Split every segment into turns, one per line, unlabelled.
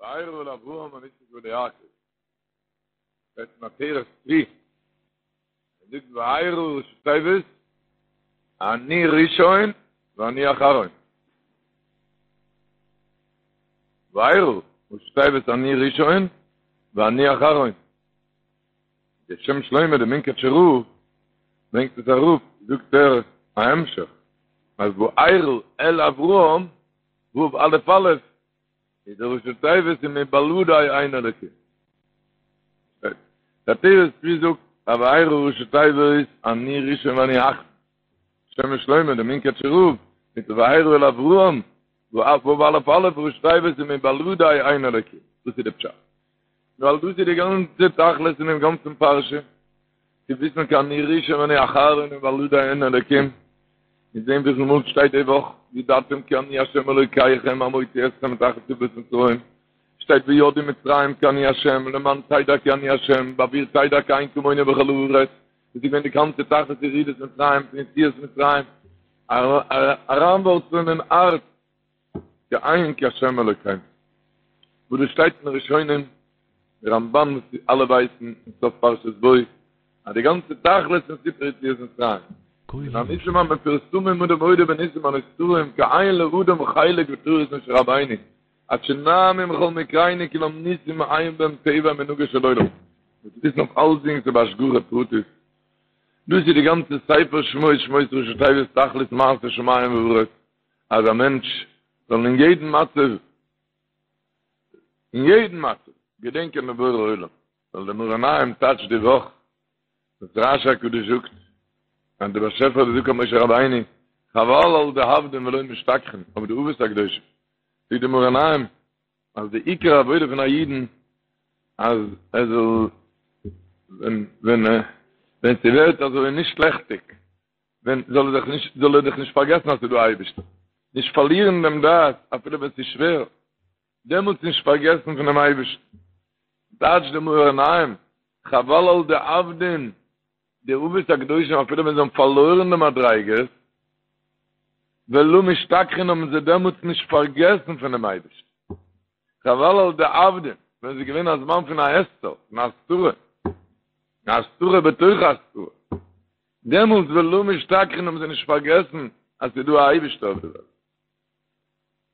וארא אל אברהם אל יצחק ואל יעקב. שטייט אין עטרת צבי. ער זאגט וארא ראשי תיבות אני ראשון ואני אחרון. וארא ראשי תיבות אני ראשון ואני אחרון. דער שם שלמה דער מונקאטשער רב ברענגט עס אראפ, זאגט ער א המשך אז וארא אל אברהם ו' א' א' איז די ראשי תיבות ומבלעדי אין אלקים. דער עטרת צבי זאגט אז וארא ראשי תיבות אני ראשון ואני אחרון. שם שלמה דער מונקאטשער רב מיט וארא אל אברהם ו' א' א' ראשי תיבות ומבלעדי אין אלקים. דאס איז די פשט. ווייל דאס איז די גאנצע תכלית פון דעם גאנצן פרשה, צו וויסן כי אני ראשון ואני אחרון ומבלעדי אין אלקים, און זען וויפיל מאל שטייט די וואך, וידעתם כי אני ה' אלוקיכם המוציא אתכם מתחת סבלות מצרים, שטייט וידעו מצרים כי אני ה', למען תדע כי אני ה', בעבור תדע כי אין כמוני בכל הארץ, דאס איז געווען די גאנצע תכלית ירידת מצרים פון יציאת מצרים, אריינווארצלען אין הארץ כי אין כהשם אלוקינו. וואס דאס שטייט אין ראשונים, די רמבן וואס אלע ווייסן אין סוף פרשת בא, אז די גאנצע תכלית פון סיפור יציאת מצרים, מן הניסים המפורסמים אדם מודה בניסים הנסתרים כי אין לאדם חלק בתורת משה רבינו, עד שנעמו מכל מקרינו כולם ניסים אין בהם טבע ומנהגו של עולם. מ'מוז וויסן אויף אלסדינג ס'איז בהשגחה פרטית. דאס איז די גאנצע ספר שמות שמות ראשי תיבות תכלית מעשה שמים וארץ. אז א מענטש זאל אין יעדן מצב, אין יעדן מצב, געדענקען דעם בורא עולם, ווייל דער מאור עיניים טייטשט די וואך, וואס רשי הקדוש זאגט, אז דער באשעפער האט געזאגט פאר משה רבינו, חבל על דאבדין ולא משתכחין, אויף די אבות הקדושים, זאגט דער מאור עיניים, אז די עיקר עבודה פון א אידן, אז ער זאל, ווען, ווען, ווען ס'ווערט אזוי נישט לעכטיג, ווען זאל ער זיך נישט זאל ער זיך נישט פארגעסן אז ס'איז דא א אייבערשטער, נישט פארלירן דעם דעת אפילו ווען ס'איז שווער, דעמאלטס נישט פארגעסן פונעם אייבערשטן. טייטשט די מאור עיניים, חבל על דאבדין, די אבות הקדושים אפילו ווען זיי האבן פארלוירן די מדריגות, ולא משתכחין האבן זיי דעמאלטס נישט פארגעסן פונעם אייבערשטן. חבל על דאבדין, ווען ס'איז געווען א זמן פון א הסתר, פון א הסתרה, א הסתרה בתוך ההסתרה, דעמאלטס ולא משתכחין האבן זיי נישט פארגעסן אז ס'איז דא א אייבישטער אויף די וועלט.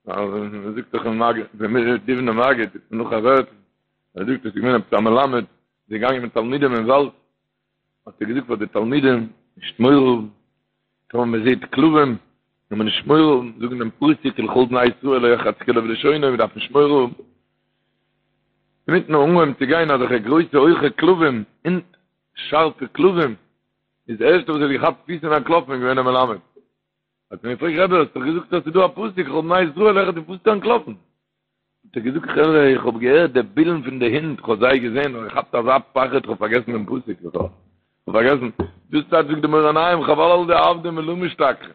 ווייל מען זאגט דאך אין מגיד, דער דובנער מגיד, נאך א ווערטל, ער זאגט עס איז געווען עפעס א מלמד, איז געגאנגען מיט תלמידים אין וואלד, האט ער געזאגט פאר די תלמידים, נישט מורא האבן, טאמער מען זעט כלבים, זאל מען נישט מורא האבן, זאגן דעם פסוק ולכל בני ישראל לא ירחץ כלב לשונו, מען דארף נישט מורא האבן. אינמיטן אנגעהויבן צו גיין אזעלכע גרויסע הויכע כלבים, הינט, שארפע כלבים, איז די ערשטע וואס האט געכאפט פיס און אנטלאפן איז געווען דער מלמד. האט מען געפרעגט רבי האסט דאך געזאגט אז ס'איז דא א פסוק ולכל בני ישראל לא ירחץ וואס ביסטו אנטלאפן? האט ער געזאגט חברה איך האב געהערט די בילן פון די הינט איך האב זיי געזען און געכאפט אזא פחד איך האב פארגעסן דעם פסוק בכלל. איך האב פארגעסן. דאס טייטש זאגט די מאור עיניים חבל על דאבדין ולא משתכחין.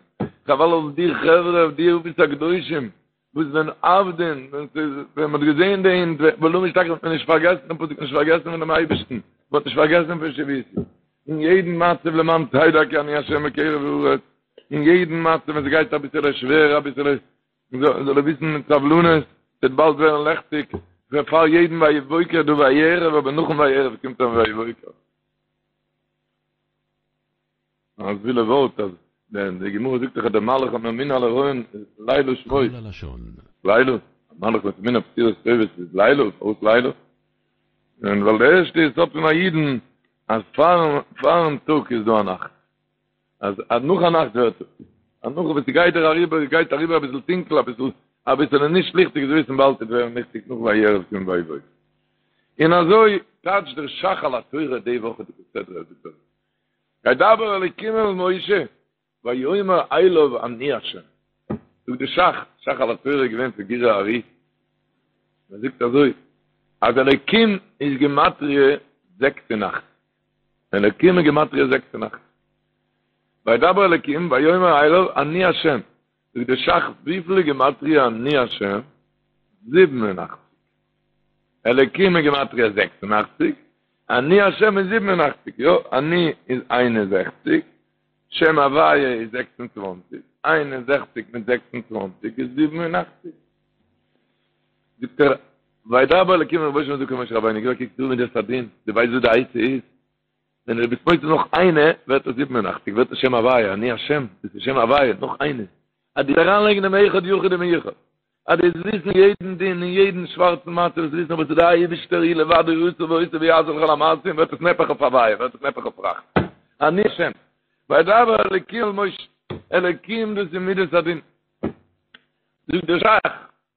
חבל על די חברה די אבות הקדושים וואס ווען אבדין, ווען ס'איז, ווען מ'האט געזען די הינט, ולא משתכחין האט מען נישט פארגעסן דעם פסוק, נישט פארגעסן פון דעם אייבערשטן, מ'האט נישט פארגעסן פון שויתי. אין יעדן מצב למען תדע כי אני השם בקרב הארץ, אין יעדן מצב ווען ס'גייט אביסעלע שווער, אביסעלע, זאל ער וויסן מיט סבלנות, ס'וועט באלד ווערן לעכטיג, פאר יעדן ויהי בוקר דא ויהי ערב, אבער נאכן ויהי ערב קומט אן ויהי בוקר. א וואוילע ווארט אז די גמרא זאגט דאך אז דער מלאך הממונה על ההריון לילה שמו.
קול הלשון.
לילה, א מלאך וואס ממונה אויף בשורות טובות איז לילה, פארוואס לילה? און ווייל די ערשטע יסוד פון א אידן אז פארן פארן טאג איז דא א נאכט, אז אז נאך א נאכט ווערט טאג, אז נאך וואס ס'גייט דיר אריבער גייט אריבער אביסל טונקל אביסל אביסעלע נישט ליכטיג זאלסט וויסן באלד וועט ווערן ליכטיג נאך ויהי ערב קומט ויהי בוקר. און אזוי טייטשט דער ש"ך על התורה די וואכעדיגע סדרה זאגט ער. וידבר אלוקים אל משה, ויאמר אליו אני ה'. זאגט די ש"ך, ש"ך על התורה איז געווען פון גורי האר"י, ער זאגט אזוי, אז אלוקים איז גימטריא 86, אלוקים איז גימטריא 86, וידבר אלוקים ויאמר אליו אני ה'. זאגט די ש"ך וויפיל איז גימטריא אני ה'? 87. אלוקים איז גימטריא 86, אני השם איז 87, יא, אני איז 61, שם הוויה איז 26, 61 מיט 26 איז 87. זאגט ער. וידבר אלקים אל משה זאגט משה רבינו גיב א קוק דא מידת הדין, דו ווייסט וואס די עצה איז? ווען דו ביסט מוסיף נאך איינע ווערט עס 87, ווערט עס שם הוויה, אני השם, דאס איז שם הוויה, נאך איינע. אז דו אריינלייגן דעם אחד יחיד ומיוחד, אז דו וועסט וויסן יעדן דין און יעדן שווארצן מצב, וועסט וויסן וואס איז דער אייבישטער הוא לבדו עשה ועושה ויעשה לכל המעשים, ווערט עס נהפך אויף הוויה, ווערט עס נהפך אויף רחמים. אני השם. וידבר אלקים אל משה, אלקים דאס איז מידת הדין. זאגט דער שך,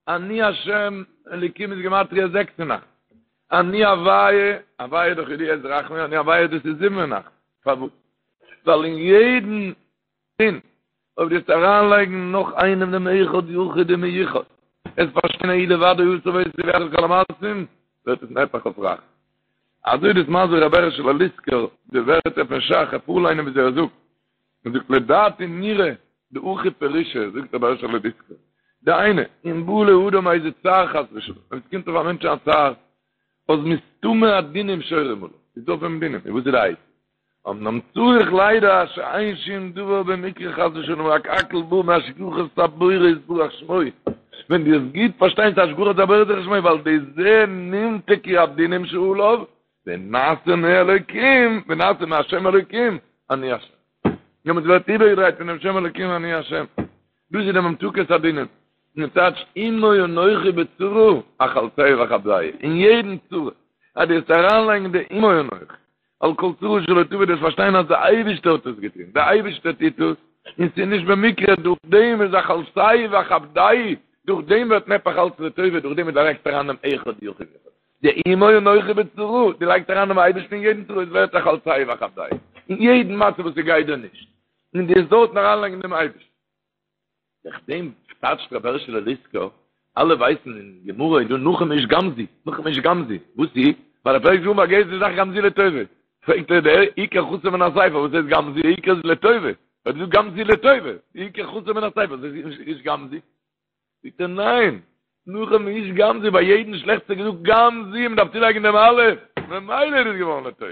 אני השם, אלקים איז גימטריא 86. אני הוויה, הוויה איז דאך ידוע איז רחמים, אני הוויה דאס איז 87. פארוואס? ווייל אין יעדן דין, אויב דו וועסט אריינלייגן נאך איינעם דעם אחד יחיד ומיוחד, וועסט פארשטיין הוא לבדו עשה ועושה ויעשה לכל המעשים, ווערט עס נהפך אויף רחמים. אזוי דאס מסביר רבי הערשעלע ליסקער די ווערטער פון שך, איך פארליינען וויאזוי ער זאגט, ער זאגט לדעתי נראה דהכי פירושא, זאגט רבי הערשעלע ליסקער, דהיינו, אם בא לאדם איזה צער חס ושלום, אויב עס קומט אויף א מענטש א צער, אז מסתמא הדינים שורים עליו, איז דא אויף אים דינים, און וואס איז די עצה? אמנם צריך לידע שאין שום דבר במקרה חס ושלום רק הכל בא מהשגחת הבורא יתברך שמו, ווען דו וועסט גוט פארשטיין ס'איז השגחת הבורא יתברך שמו ועל ידי זה נמתקו הדינים שעליו ונעשה מאלוקים ונעשה מהשם אלוקים אני השם. דעמאלטס ווערט איבערגעדרייט פונעם שם אלוקים אני השם. דאס איז די ממתקת הדינים. און טייטש עמו אנכי בצרה אחלצהו ואכבדהו. אין יעדן צרה אז דו וועסט אריינלייגן די עמו אנכי על כל צרה שלא תבוא דו וועסט פארשטיין אז דער אייבערשטער האט עס געטון, דער אייבערשטער טוט עס, און ס'איז נישט במקרה, דורך דעם איז אחלצהו ואכבדהו, דורך דעם ווערט נהפך אלץ לטובה, דורך דעם וואס דו לייגסט אריין דעם אחד יחיד ומיוחד, די עמו אנכי בצרה, דו לייגסט אריין דעם אייבערשטן אין יעדן צרה, עס ווערט אחלצהו ואכבדהו, אין יעדן מצב וואס ס'גייט דיר נישט, און דו וועסט דארטן אריינלייגן דעם אייבערשטן. דורך דעם טייטשט רבי הערשעלע ליסקא, אלע ווייסן אין גמרא איז דא נחום איש גם זו, נחום איש גם זו, וואס איז? ווייל ער פלעגט זאגן ביי יעדע זאך גם זו לטובה. פרעגט ער דער עיקר חסר מן הספר, וואס הייסט גם זו, עיקר איז לטובה. ער האט געזאגט גם זו לטובה, עיקר חסר מן הספר, וואס הייסט איש גם זו? זאגט ער ניין, נחום איש גם זו, ביי יעדן שלעכטס האט ער געזאגט גם זו, מען דארף צולייגן דעם אלף, ממילא איז עס געווארן לטובה.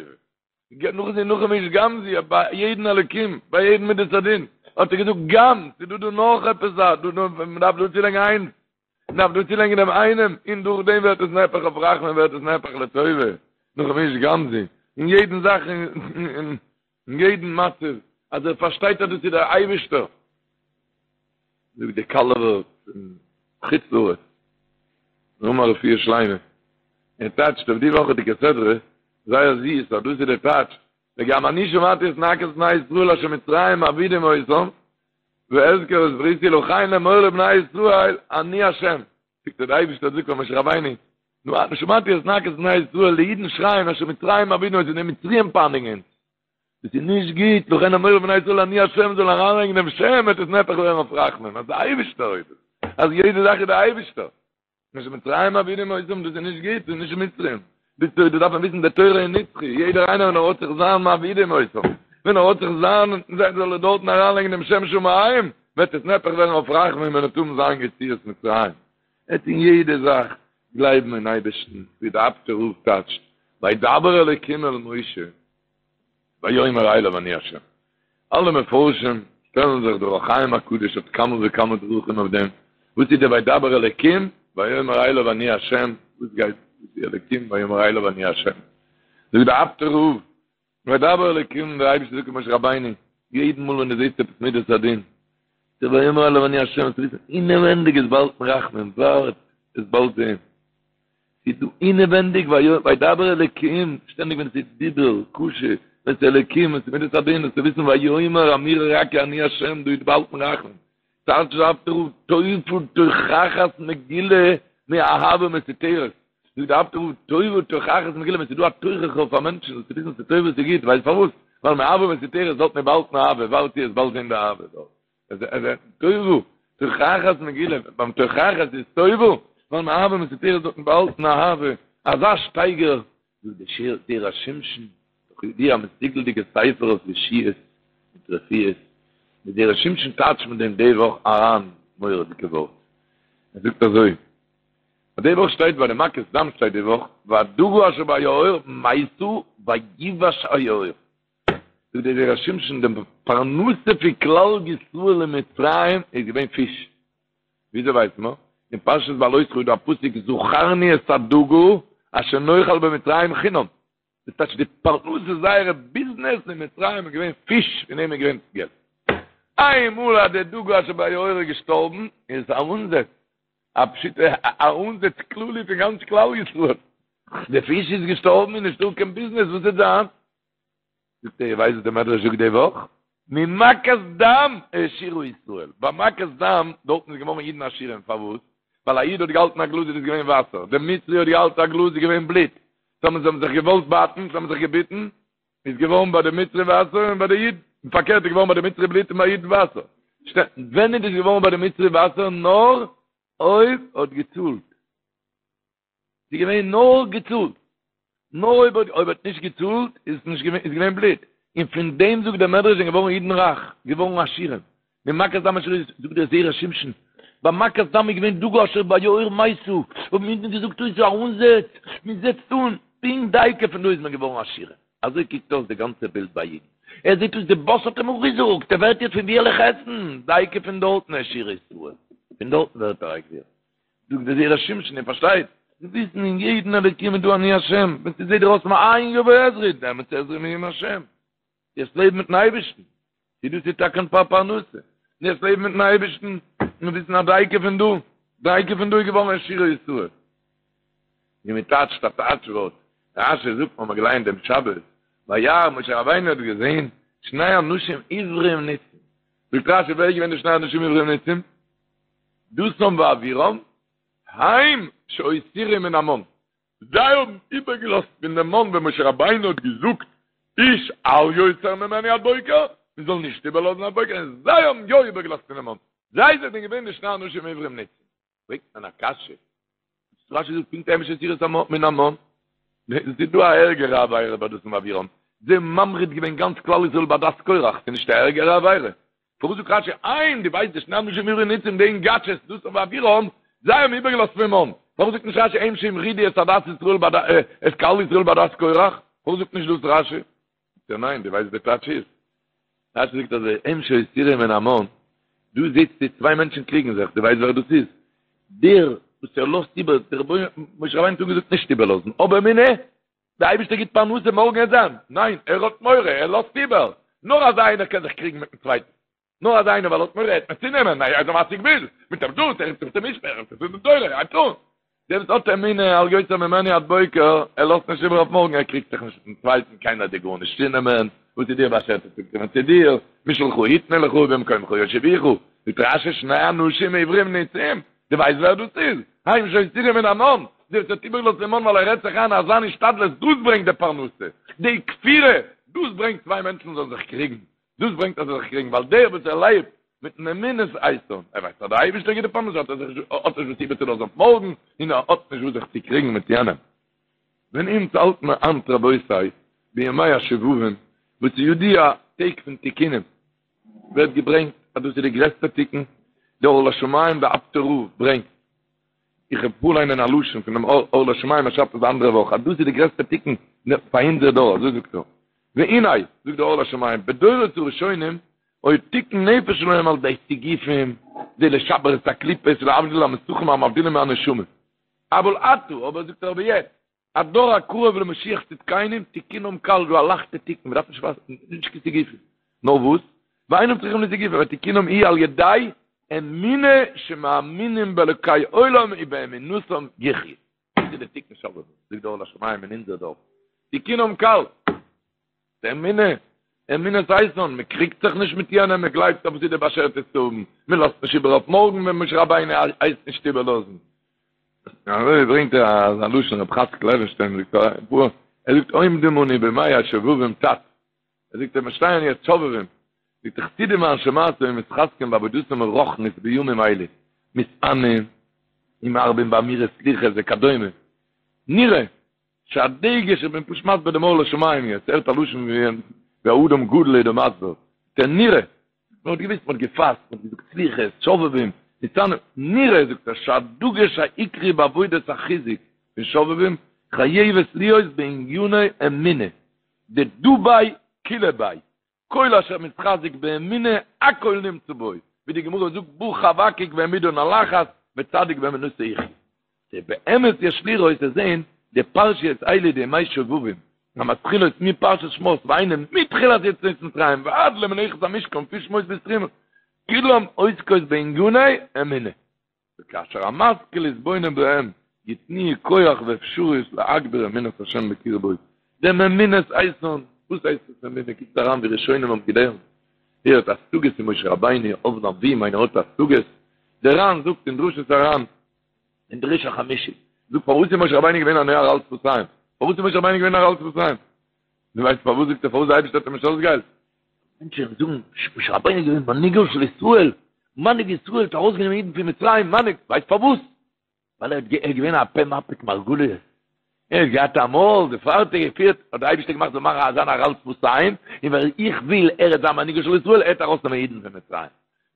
נאך זי נחום איש גם זו ביי יעדן אלוקים ביי יעדן מידת הדין האט ער געזאגט גם ס'איז דא דא נאך עפעס א דא דא מ'דארף דא צולייגן איינס מ'דארף דא צולייגן דעם איינעם און דורך דעם ווערט עס נהפך אויף רחמים ווערט עס נהפך לטובה נחום איש גם זו אין יעדן זאך אין יעדן מצב אז ער פארשטייט אז דאס איז דער אייבערשטער זאגט דער קאלובער פון חוץ לארץ נאמר רפואה שלימה ער טייטשט אויף די וואכעדיגע סדרה זייער זיס אז דאס איז דער טייטש וגם אני שמעתי את נאקת בני ישראל אשר מצרים מעבידים אותם ואזכר את בריתי לכן אמור לבני ישראל אני השם זאגט דער אייבערשטער זאגט פאר משה רבינו נו אני שמעתי את נאקת בני ישראל די אידן שרייען אשר מצרים מעבידים אותם די מצריים פייניגן אונז דאס איז נישט גוט, לכן אמור לבני ישראל אני השם זאל אריינלייגן דעם שם וועט עס נהפך ווערן אויף רחמים, אז דער אייבערשטער איז עס, אז יעדע זאך איז דער אייבערשטער. אשר מצרים מעבידים אותם, דאס איז נישט גוט, דאס איז נישט מצרים. די תורה, דארף מען וויסן, די תורה איז נצחי, יעדער איינער ווען ער האט זיך זיין מעבידים אותם, ווען ער האט זיך זיין, זאל ער דארטן אריינלייגן דעם שם שמים, וועט עס נהפך ווערן אויף רחמים ווען ער וועט האבן זיין יציאת מצרים. עט אין יעדע זאך גלייבן אין אייבערשטן, ווי דער אפטער רב טייטשט, וידבר אלוקים אל משה, ויאמר אליו אני השם. אלע מפרשים שטעלן זיך דער אור החיים הקדוש האט כמה וכמה דרכים אויף דעם, וואס איז דער וידבר אלקים ויאמר אליו אני השם, וואס גייט וואס איז אלקים ויאמר אליו אני השם, זאגט דער אפטער רב, וידבר אלקים דער אייבערשטער זאגט למשה רבינו, יעדן מאל ווען דו זעסט עפעס מידת הדין, דער ויאמר אליו אני השם, זאלסט וויסן אינעווענדיג איז באהאלטן רחמים, ווארט, וועסט באלד זען. ס'איז דא אינעווענדיג וידבר אלקים, שטענדיג ווען ס'איז דיבור, קשה, ווען ס'איז אלקים, ווען ס'איז מידת הדין, זאלסטו וויסן ויאמר אמירה רכה אני השם, דא איז באהאלטן רחמים. טייטשט דער אפטער רב טובה תוכחת מגולה מאהבה מסותרת. זאגט דער אפטער רב טובה תוכחת מגולה, ווען ס'איז דא א תוכחה אויף א מענטשן, זאלסטו וויסן ס'איז טובה ס'איז גוט, ווייסט פארוואס? ווייל מאהבה מסותרת דארט איז באהאלטן אהבה, ווארט וועסט באלד זען די אהבה דארט. טובה, תוכחת מגולה, ביים תוכחת איז טובה, ווייל מאהבה מסותרת דארטן באהאלטן אהבה, אזא שטייגער, זאגט די שיר זרע שמשון, דאך ידוע א מסוגל'דיגע ספר אויף ישועות מיט רפואות, די זרע שמשון טייטשט מיט דעם די וואך אריין מורא'דיגע ווארט, ער זאגט אזוי, אז די וואך שטייט ביי די מכת דם שטייט די וואך, והדגה אשר ביאור מתה ויבש היאור. זאגט דער זרע שמשון די פרנסה פון כלל ישראל אין מצרים איז געווען פיש. וויאזוי ווייסט מען? אין פרשת בהעלותך איז דא א פסוק זכרנו את הדגה אשר נאכל במצרים חינם, דאס טייטש די פרנסה זייערע ביזנעס אין מצרים איז געווען פיש פון דעם איז געווען געלט. איינמאל אז די דגה אשר ביאור איז געשטארבן איז עס א אנזעץ, א פשוטע א אנזעץ כללי פון גאנץ כלל ישראל, די פיש איז געשטארבן איז נישטא קיין ביזנעס וואס וועט זיין? זאגט ער איר ווייסט וואס די מדרש זאגט די וואך? ממכת דם העשירו ישראל, ביי מכת דם דארטן איז געווארן אידן עשירים, פארוואס? ווייל א איד האט געהאלטן א גלאז איז עס געווען וואסער, דער מצרי האט געהאלטן א גלאז איז געווען בלוט, טאמער זיי האבן זיך געוואלט בייטן, זיי האבן זיך געביטן, איז געווארן ביי די מצרי וואסער און ביי די איד, און פארקערט איז געווארן ביי די מצרי בלוט און ביי איד וואסער. ווען איז דאס געווארן ביי די מצרי וואסער? נאר אויב האט געצאלט. ס'איז געווען נאר געצאלט. נאר אויב האט אויב האט נישט געצאלט איז עס נישט געווען איז געווען בלוט. און פון דעם זאגט דער מדרש זענען געווארן אידן רייך, געווארן עשירים. ממכת דם העשירו זאגט דער זרע שמשון, ביי מכת דם איז געווען דגה אשר ביאור מתה, האבן אידן געזאגט אוי ס'איז א אנזעץ, מען זעצט אן, פונקט דייקא פון דא איז מען געווארן עשירים. אזוי קוקט אויס די גאנצע בילד ביי אידן. ער זעט אויס די באס האט אים אפגעזאגט, ער ווערט יעצט פון ווי על איך עסן? דייקא פון דארטן העשירו ישראל, פון דארטן ווערט ער א גביר. זאגט דער זרע שמשון, איר פארשטייט? זיי וויסן אין יעדן אלוקים איז דא אני השם, ווען ס'זעט דיר אויס מאין יבוא עזרי, דעמאלטס עזרי מעם השם. יעצט לעב מיטן אייבערשטן, צו דאס איז טאקע פאר פרנסה, יעצט לעב מיטן אייבערשטן, און וויסן אז דייקא פון דא, דייקא פון דא איז געווארן העשירו ישראל. ווי מען טייטשט א טייטש ווארט, רשי זאגט, מ'האמער געלייענט דעם שבת, וירא משה רבינו האט געזען שני אנשים עברים ניצים, זאגט רשי ווער איז געווען די שני אנשים עברים ניצים? דתן ואבירם, הם שהותירו מן המן, זיי האבן איבערגעלאזט פון דעם מן ווען משה רבינו האט געזאגט איש אל יותר ממנו עד בוקר, מען זאל נישט איבערלאזן עד בוקר, און זיי האבן יא איבערגעלאזט פון דעם מן, זיי זענען געווען די שני אנשים עברים ניצים. פרעגט מען א קשיא, רשי זאגט פונקט הם שהותירו מן המן, ס'איז דא א ערגערע עבירה ביי דתן ואבירם, זיי האבן ממריד געווען גאנץ כלל ישראל בעדת קורח, ס'איז נישט א ערגערע עבירה? פארוואס זאגט רשי הם, דו ווייסט די שני אנשים עברים ניצים די אינגאטשעס דתן ואבירם, זיי האבן איבערגעלאזט פון מן, פארוואס זאגט נישט רשי הם שהמרידו את עדת ישראל את קהל ישראל בעדת קורח, פארוואס זאגט נישט דאס רשי? זאגט ער ניין, דו ווייסט די טייטש איז? רשי זאגט אזוי, הם שהותירו מן המן, דא זעצט צוויי מענטשן קריגן זיך, דו ווייסט ווער דאס איז? דער וואס ער לאזט איבער, דער רבונו, משה רבינו האט אנגעזאגט נישט איבערלאזן, אבער אמונה, דער אייבערשטער גיט פרנסה מארגן וועט זיין, ניין, ער האט מורא, ער לאזט איבער, נאר אזא איינער קען זיך קריגן מיטן צווייטן, נאר אזא איינער ווייל ער האט מורא ער וועט מיר צונעמען, ער איז א מסיג גבול, מיט דעם דאס, ער רופט זיך צום משמר, ער רופט זיך צו דין תורה, הייבט אן. דער וואס האט אמונה אל יותר ממנו עד בוקר, ער לאזט נישט איבער אויף מארגן, ער קריגט זיך נישט מיטן צווייטן, קיינער וועט דיר גארנישט צונעמען, וואס איז דיר באשערט וועט צוקומען צו דיר, משלך יתנו לך ובמקומך יושיבוך, זאגט רשי שני אנשים עברים ניצים, דו ווייסט ווער דאס איז? הם שהותירו מן המן, דער וואס האט איבערגעלאזט דעם מן ווייל ער רעדט זיך איין אז זיין השתדלות דאס ברענגט די פרנסה, די כפירה, דאס ברענגט צוויי מענטשן זאלן זיך קריגן, דאס ברענגט אז זיי זיך קריגן, ווייל דער וואס ער לעבט מיטן אמונת איתן, ער ווייסט אז דער אייבערשטער גיט די פרנסה, האט ער זיך נישט, האט נישט וואס איבערצולאזן אויף מארגן, און ער האט נישט וואס זיך צו קריגן מיט יענעם. ווען אונז האלט מיר היינט רבותי, בימי השובבים, וואס איז ידוע טעג פון תיקונים, ווערט געברענגט אז דאס איז די גרעסטע תיקון, דער אור לשמים דער אפטער רב ברענגט, איך וועל פארליינען א לשון פונעם אור לשמים ער שרייבט עס די אנדערע וואך אז דאס איז די גרעסטע תיקון פאר אונזער דור, אזוי זאגט ער, והנה, זאגט דער אור לשמים, בדורות הראשונים היה תיקון נפש שלהם על ידי סיגופים, זה לשבר את הקליפות ולהבדיל המסכים המבדילים מהנשמה. אבל עתה, אבער זאגט ער אבער יעצט, הדור הקרוב למשיח צדקינו, תיקונם קל, דא א לייכטע תיקון, מ'דארף נישט ווארטן, נישט קיין סיגופים. נאר וואס? ואינם צריכים לסיגופים, ותיקונם היא על ידי אמונה שמאמינים באלוקי עולם ובאמונתם יחיו. דאס איז די תיקון שובבים, זאגט דער אור לשמים אין אונזער דור. תיקונם קל. די אמונה, אמונת איתן, מען קריגט זיך נישט מיט יענעם, מען גלייבט אז וואס איז דיר באשערט איז צו האבן, מען לאזט נישט איבער אויף מארגן ווען משה רבינו הייסט נישט איבערלאזן. אזוי ברענגט ער אזא לשון רב חצקל לעווינשטיין זאגט ער, ער זאגט עומדים אנו בימי השובבים תת, ער זאגט מיר שטייען יעצט שובבים, זאגט ער חסידים ואנשי מעשה מתחזקים בעבודתם הרוחנית בימים אלה, מתענים ומרבים באמירת סליחות וכדומה, נראה שהדגש, איך בין פשוט מסביר דעם אור לשמים יעצט, הערט א לשון ווי א אדם גדול איז דא מסביר, דער נראה, מען האט געוויסט, מען האט געפאסט, מען האט געזאגט סליחות, שובבים, מתענים, נראה זאגט ער שהדגש העיקרי בעבודת החיזוק פון שובבים חייבת להיות בעניני אמונה, דדא ביה כולא ביה, כל אשר מתחזק באמונה הכל נמצא בו, ווי די גמרא זאגט בא חבקוק והעמידן על אחת. וצדיק באמונתו יחיה. באמת יש לראות צו זעהן די פרשיות האלה די ימי שובבים המתחילות מפרשת שמות והיינו מתחילת יציאת מצרים ועד למלאכת המשכן פון שמות ביז תרומה כולם עוסקות בעניני אמונה וכאשר המשכיל יתבונן בהם יתנו כח ואפשריות להגביר אמונת השם בקרבו דעם אמונת איתן וואס הייסט עס אמונה קוקט אריין ווי ראשונים האבן געלערנט ווער האט השגות אין משה רבינו אב הנביאים איינער האט השגות דער ר"ן זאגט אין דרשות הר"ן אין דרוש החמישי, זאגט פארוואס איז משה רבינו געווען אן ערל שפתיים? פארוואס איז משה רבינו געווען ערל שפתיים? דו ווייסט פארוואס זאגט ער פארוואס דער אייבערשטער האט אים נישט אויסגעהיילט? מענטשן זאגן משה רבינו איז געווען מנהיגו של ישראל, מנהיג ישראל האט ארויסגענומען אידן פון מצרים, מנהיג, ווייסט פארוואס? ווייל ער איז געווען א פה מפיק מרגליות, ער האט געהאט א מויל, דערפאר האט ער געפירט, האט דער אייבערשטער געמאכט זאל מאכן זיין ערל שפתיים, און ווייל איך וויל ער וועט זיין מנהיגו של ישראל, ער וועט ארויסנעמען אידן פון מצרים.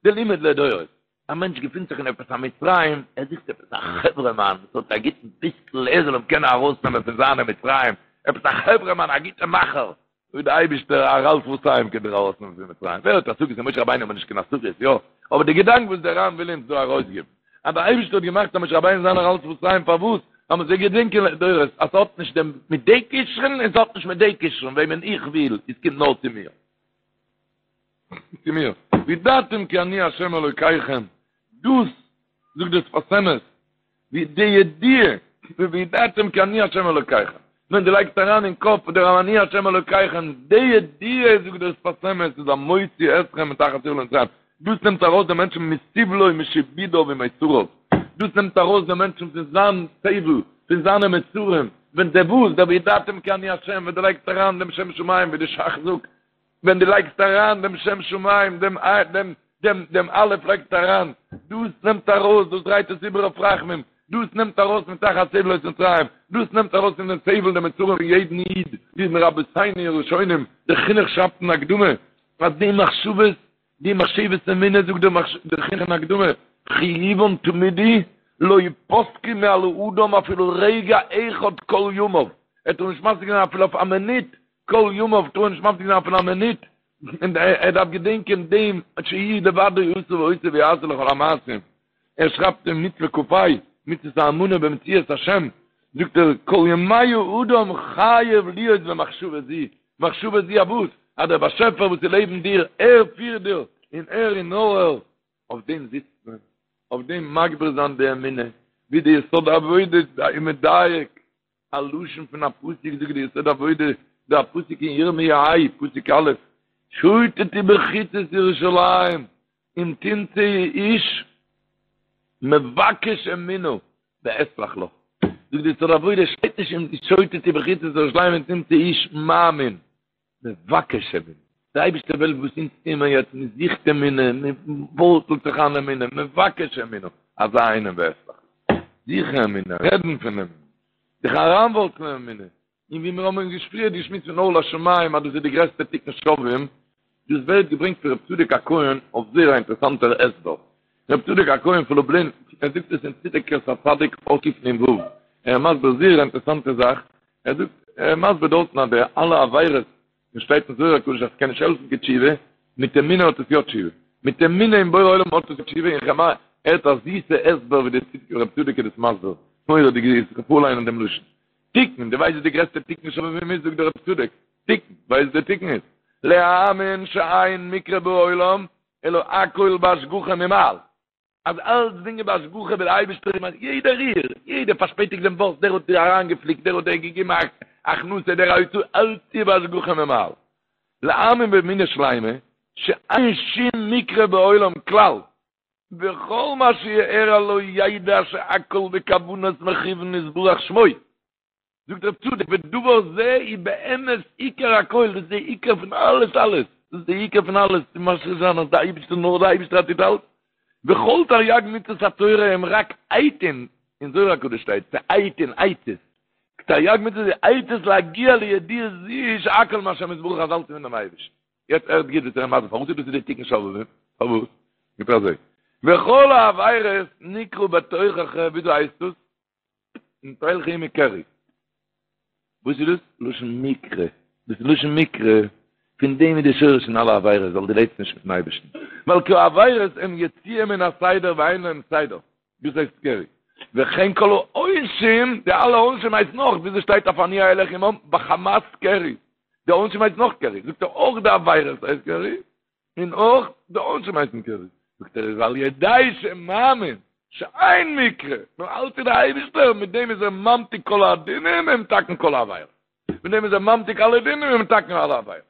די לימוד לדורות. א מענטש געפינט זיך אין עפעס א מצרים, ער זוכט עפעס א חברה מאן וואס האט א גוטן פיסקל ער זאל אים קענען ארויסנעמען פון זיינע מצרים, עפעס א חברה מאן א גוטע מאכער, זאגט די אייבישטער ערל שפתיים קען דיר ארויסנעמען פון מצרים, ווער האט השגות אין משה רבינו האט מען נישט קיין השגות, יא, אבער די געדאנק וואס דער ר"ן וויל אונז דא ארויסגעבן, אז דער אייבישטער האט געמאכט אז משה רבינו זיין ערל שפתיים פארוואס? אז מען זאל געדענקען לדורות אז ס'האט נישט דעם מיט די כשרון און ס'האט נישט מיט די כשרון, וועמען איך וויל, עס קומט נאר צו מיר. צו מיר, וידעתם כי אני ה' אלוקיכם, דאס זאגט דער שפת אמת, ווי די ידיעה, וידעתם כי אני ה' אלוקיכם, ווען דו לייגסט אריין אין קאפ דער אני ה' אלוקיכם, די ידיעה זאגט דער שפת אמת איז המוציא אתכם מתחת סבלות מצרים, דאס נעמט ארויס דעם מענטשן מסבלו ומשעבודו ומיצריו, דאס נעמט ארויס דעם מענטשן פון זיין סבל, פון זיינע מצרים, ווען דער וואס, דער וידעתם כי אני ה', ווען דו לייגסט אריין דעם שם שמים ווי די ש"ך זאגט, ווען דו לייגסט אריין דעם שם שמים, דעם דעם דעם דעם א' לייגסט אריין, דאס נעמט ארויס, דאס דרייט עס איבער אויף רחמים, דאס נעמט ארויס מתחת סבלות מצרים, דאס נעמט ארויס פון דעם סבל די מצרים פון יעדן איד, ווי מרבותינו הראשונים, דער חינוך שרייבט אין הקדמה, אז די מחשבות, די מחשבת אמונה זאגט דער חינוך אין הקדמה, חיובן תמידי, לא יפסקו מעל האדם אפילו רגע אחד כל ימיו, ער טאר נישט מפסיק זיין אפילו אויף א מינוט, כל ימיו טאר ער נישט מפסיק זיין אפילו א מינוט, און ער דארף געדענקען דעם שהוא לבדו עשה ועושה ויעשה לכל המעשים, ער שרייבט אין מצוה כ"ה, מצוות האמונה במציאות השם, זאגט ער, כל ימי האדם חייב להיות במחשבה זו, מחשבה זו אויף וואס? אז דער באשעפער וואס איז לעבן דיר, ער פירט דיר, און ער און נאר ער, אויף דעם זיצט מען, אויף דעם מגביר זיין די אמונה, ווי די יסוד העבודה איז מדייק, א לשון פון א פסוק זאגט די יסוד העבודה, דא א פסוק אין ירמיה ה, פסוק א', שוטטו בחוצות ירושלים, אם תמצאו איש מבקש אמונה ואסלח לו. זאגט די יסוד העבודה, שטייט נישט אם שוטטו בחוצות ירושלים אם תמצאו איש מאמין. מבקש אמונה, דער אייבערשטער וויל וואס אונז טוען מיר יעצט, מען זוכט אמונה, מען ווארצלט זיך איין אמונה, מבקש אמונה, אזא איינעם ואסלח לו, זוכן אמונה, רעדן פון אמונה, זיך אריינווארצלען אמונה, און ווי מיר האבן פריער געשמועסט פון אור לשמים אז דאס איז די גרעסטע תיקון שובבים, דאס ווערט געברענגט פון רב צדוק הכהן אויף זייער א אינטערעסאנטער הסבר, רב צדוק הכהן פון לובלין, ער זאגט עס אין צדקת הצדיק אות קנ"ו, ער איז מסביר זייער א אינטערעסאנטע זאך, ער זאגט, ער איז מסביר דארטן אז די אלע עבירות וואס שטייט אין זוהר הקדוש אז ס'קען נישט העלפן קיין תשובה, מיט אמונה האט עס יא תשובה, מיט אמונה אין בורא עולם האט עס תשובה, און כ'מיין, ער האט א זיסע הסבר ווי דער רב צדוק איז דאס מסביר, מורא'דיג זיס, איך וועל פארליינען דעם לשון. תיקון, דו ווייסט וואס די גרעסטע תיקון שובבים איז, זאגט דער רב צדוק, תיקון, ווייסט וואס דער תיקון איז? להאמין שאין מקרה בעולם אלא הכל בהשגחה ממעל. אז אלצדינג איז בהשגחה ווי דער אייבערשטער איז ממש יעדע ריר, יעדער פארשפעטיגט דעם באס, דער האט דיר אריינגעפליקט, דער האט דיר געגעבן א הכנסה, דער א הוצאה, אלץ איז בהשגחה ממעל. להאמין באמונה שלימה, שאין שום מקרה בעולם כלל, וכל מה שיארע לו ידע שהכל בכוונת מכוון יתברך שמו. זאגט רב צדוק ודבר זה הוא באמת עיקר הכל, דאס איז די עיקר פון אלעס אלעס, דאס איז די עיקר פון אלעס, צו משריש זיין אז די אייבערשטער נאר די אייבערשטער טוט אלץ, וכל תריג מצוות התורה הם רק עיתין, אין זוהר הקדוש שטייט, ס'עיתין, עצות, תריג מצוות איז עצות להגיע לידיעה זו שהכל מהשם יתברך אז אלץ איז פונעם אייבערשטן. יעצט הערט גוט וואס ער איז מסביר פארוואס איז דאס די תיקון שובבים, פארוואס? זאגט ער אזוי, וכל העבירות נקרא בתוכחה, וויאזוי הייסט דאס? אם תלכו עמי קרי. וואס איז דאס? לשון מקרה. דאס איז לשון מקרה. פון דעם איז די שורש פון אלע עבירות, ווייל דו לעבסט נישט מיטן אייבערשטן. ווייל כי העבירות הם יציאה מן הסדר ואין להם סדר. דאס הייסט קרי. וכן כל העונשים, די אלע עונשים הייסט נאך, וויאזוי שטייט אויף אני אלך עמם, בחמת קרי. די עונשים הייסט נאך קרי. זאגט ער אויך די עבירות הייסט קרי, און אויך די עונשים הייסן קרי. זאגט ער איז על ידי שמאמין שאין מקרה, נאר אלץ איז די אייבישטער, מיט דעם איז ער ממתיק כל הדינים ומתקן כל העבירות. מיט דעם איז ער ממתיק אלע דינים און מתקן אלע עבירות.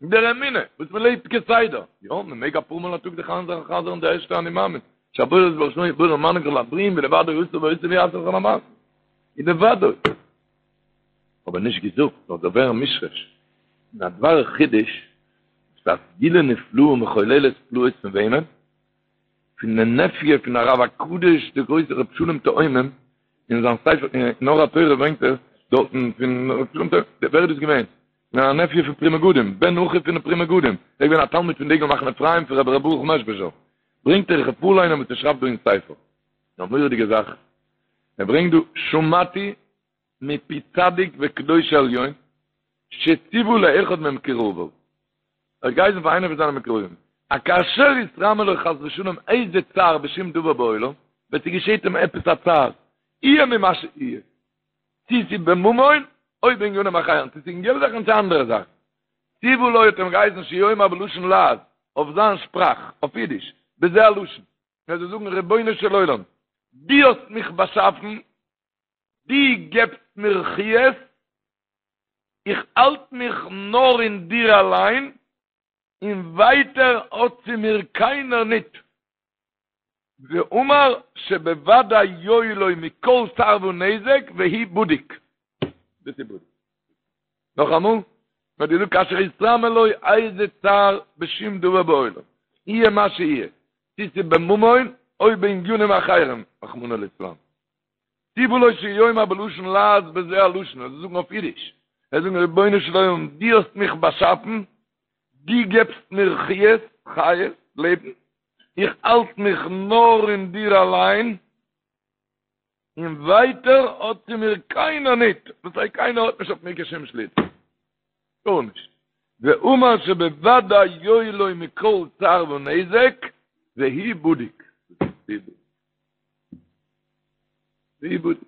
דער אמונה וואס מען לעבט כסדר, יא, מען מעג אפאר מאל א טאג זיך איינ'חזר'ן די ערשטע אני מאמין, שהבורא יתברך שמו בורא ומנהיג כל הברואים ולבדו עשה ועושה ויעשה לכל המעשים, ולבדו. אבער נישט געזאגט, נאר זאל ווערן מושרש. און א דבר חידוש, ס'איז א סגולה נפלאה ומחוללת פלאות פון וועמען? פון די נעפיו פון הרב הקדוש דער גרויסער רבי שלום תאומים, אין זיין ספר אין אור התורה ברענגט ער דארטן פון רבי שלום תאומים, ווער איז דאס געווען? א נעפיו פון פרי מגדים, בן אחיו פון די פרי מגדים, ער איז געווען א תלמיד פון דגל מחנה אפרים פון רבי ר' ברוך מעזשביזשער, ברענגט ער איך וועל פארליינען וואס ער שרייבט דא אין ספר, א מורא'דיגע זאך, ער ברענגט דא שמעתי מפי צדיק וקדוש עליון שציוה לאחד ממקורביו, ער האט געהייסן פאר איינער פון זיינע מקורבים, אז כאשר יתרמי לו חס ושלום איזה צער בשום דבר בעולם, ווען ס'געשעט אים עפעס א צער, יהיה ממה שיהיה, צי ס'איז בממון או בענינים אחרים, צי ס'איז אין געלט זאכן צי אנדערע זאכן. ציוה לו האט אים געהייסן שיאמר בלשון לעז, אויף זיין שפראך, אויף אידיש, בזה הלשון, ער זאל זאגן רבונו של עולם, דו האסט מיך באשאפן, דו געבסט מיר חיות, איך האלט מיך נאר אין דיר אליין, און ווייטער האט צו מיר קיינער ניט. ואמר שבוודאי יועיל לו מכל צער ונזק והוא בדוק. דאס איז בדוק. נאכאמאל, מען האט געזאגט כאשר יתרמי לו איזה צער בשום דבר בעולם, יהיה מה שיהיה, צי ס'איז בממון או בענינים אחרים, רחמנא ליצלן. ציוה לו שיאמר בלשון לעז בזה הלשון, ער זאל זאגן אויף אידיש, ער זאל זאגן רבונו של עולם דו האסט מיך באשאפן, דו געבסט מיר חיות, חיות, לעבן, איך האלט מיך נאר אין דיר אליין, און ווייטער האט צו מיר קיינער ניט, דאס הייסט קיינער האט נישט אויף מיר קיין שום שליטה, גארנישט, ואמר שבוודאי יועיל לו מכל צער ונזק, והוא בדוק. והוא בדוק.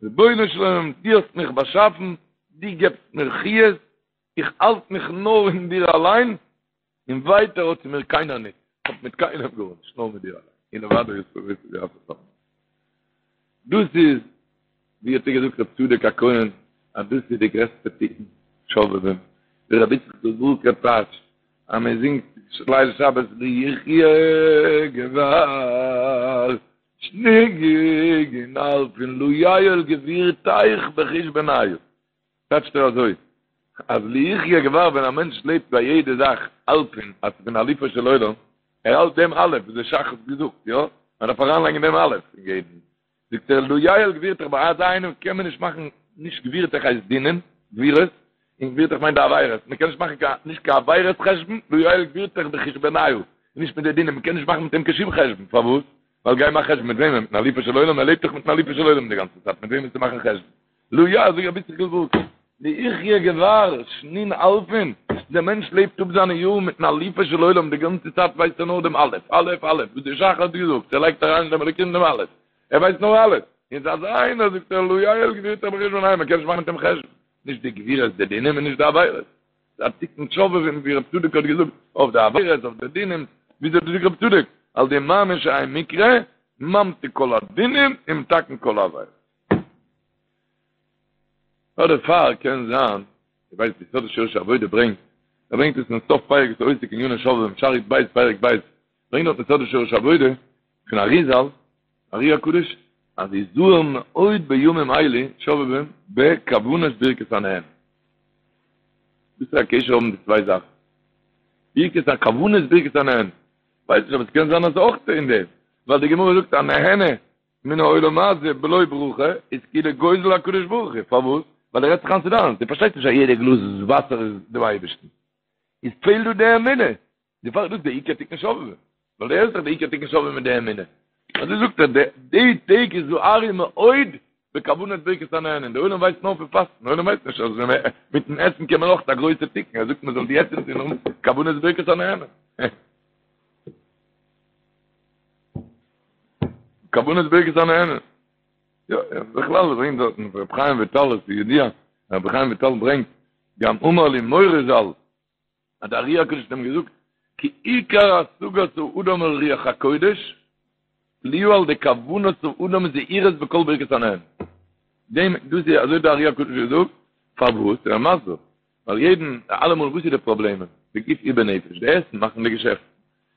רבונו של עולם, דו האסט מיך באשאפן, דו געבסט מיר חיות, איך האלט מיך נאר אין דיר אליין, און ווייטער האט צו מיר קיינער ניט, איך האב מיט קיינעם גארנישט, נאר מיט דיר אליין, און לבדו יעשה ויעשה. דאס איז, ווי האט ער געזאגט רב צדוק הכהן, אז דאס איז די גרעסטע תיקון שובבים, ווי רבי יצחק ווארקער טייטשט, אז מען זינגט ליל שבת לו יחיה גבר שנין אלפין לא יעול גבורתך בחושבניא, טייטשט ער אזוי, אז לו יחיה גבר ווען א מענטש לעבט ביי יעדע זאך אלפין אז ס'פון אלופו של עולם, ער האלט דעם אלף וואס דער ש"ך האט געזאגט, יא? מען דארף אריינלייגן דעם אלף אין יעדן, זאגט ער לא יעול גבורתך ביי אזא איינעם קען מען נישט מאכן נישט גבורתך הייסט דינים, גבורות, און גבורתך מיינט די עבירות, מען קען נישט מאכן קיין נישט קיין עבירות חשבון, לא יעול גבורתך בחושבניא, נישט מיט די דינים, מען קען נישט מאכן מיט אים קיין שום חשבון, פארוואס? ווייל גיי מאך חשבון מיט וועמען? מיטן אלופו של עולם? ער לעבט דאך מיטן אלופו של עולם די גאנצע צייט, מיט וועם וועסטו מאכן חשבון? לו יא, זאג רבי יצחק'ל ווארקער, לו יחיה גבר, שנין אלפין, דער מענטש לעבט אפ זיינע יארן מיטן אלופו של עולם, די גאנצע צייט ווייסט ער נאר דעם א', א', א', וואס דער ש"ך האט געזאגט, ער לייגט אריין אין דעם אלוקים דעם א', ער ווייסט נאר א', און ס'איז אזא איינער, זאגט ער, לא יעול גבורתך בחושבניא, מען קען נישט מאכן מיט דעם חשבון, נישט די גבורות די דינים און נישט די עבירות. ס'איז א תיקון שובבים ווי רב צדוק האט געזאגט, אויף די עבירות, אויף די דינים, וויאזוי האט געזאגט רב צדוק, על ידי מאמין שאין מקרה, ממתיק כל הדינים ומתקן כל העבירות. נאר דערפאר קען זיין, איך ווייס די יסוד ושורש העבודה ברענגט, ער ברענגט עס אין סוף פרק וואס עוסק אין עניני שובבים, שער י"ב פרק ב', ברענגט דארט יסוד ושורש העבודה פון אריזל, ארי הקדוש, אז יזהר מאוד בימים אלה שובבים בכוונת ברכת הנהנין. וואס פאר א קשר האבן די צוויי זאכן? ברכת ה כוונת ברכת הנהנין. ווייס נישט אבער עס קען זיין אז אויך אין דעם, ווייל די גמרא זאגט הנהנה מן העולם הזה בלא ברכה איז כאילו גוזל הקדוש ברוך הוא, פארוואס? ווייל ער רעדט זיך איין ס'איז דיינס, דו פארשטייסט נישט אז יעדע גלאז וואסער איז דעם אייבערשטן, איז פעלט דא די אמונה, דערפאר איז דאס די עיקר תיקון שובבים, ווייל דער איז דאך די עיקר תיקון שובבים מיט די אמונה, אזוי זאגט ער, די טעג הזהרו מאוד בכוונת ברכת הנהנין, די עולם ווייסט נאר פון פאסטן, די עולם ווייסט נישט אז מיטן עסן קען מען אויך א גרויסע תיקון, ער זאגט מען זאל יעצט אינזין האבן כוונת ברכת הנהנין. כוונת ברכת הנהנין. יא, בכלל ברענגט דארטן רבי חיים וויטאל, עס איז ידוע, רבי חיים וויטאל ברענגט, גם אמר לי מורי ז"ל, אז דער ארי הקדוש האט אים געזאגט, כי עיקר השגת האדם אל רוח הקודש, תלויה על ידי כוונת האדם זהירות בכל ברכת הנהנין. דעם, דאס איז אזוי דער ארי הקדוש האט געזאגט, פארוואס? ער איז מסביר, ווייל יעדן, אלעמאל וואס איז די פראבלעמען? בגוף ובנפש, די עסן מאכן די געשעפטן,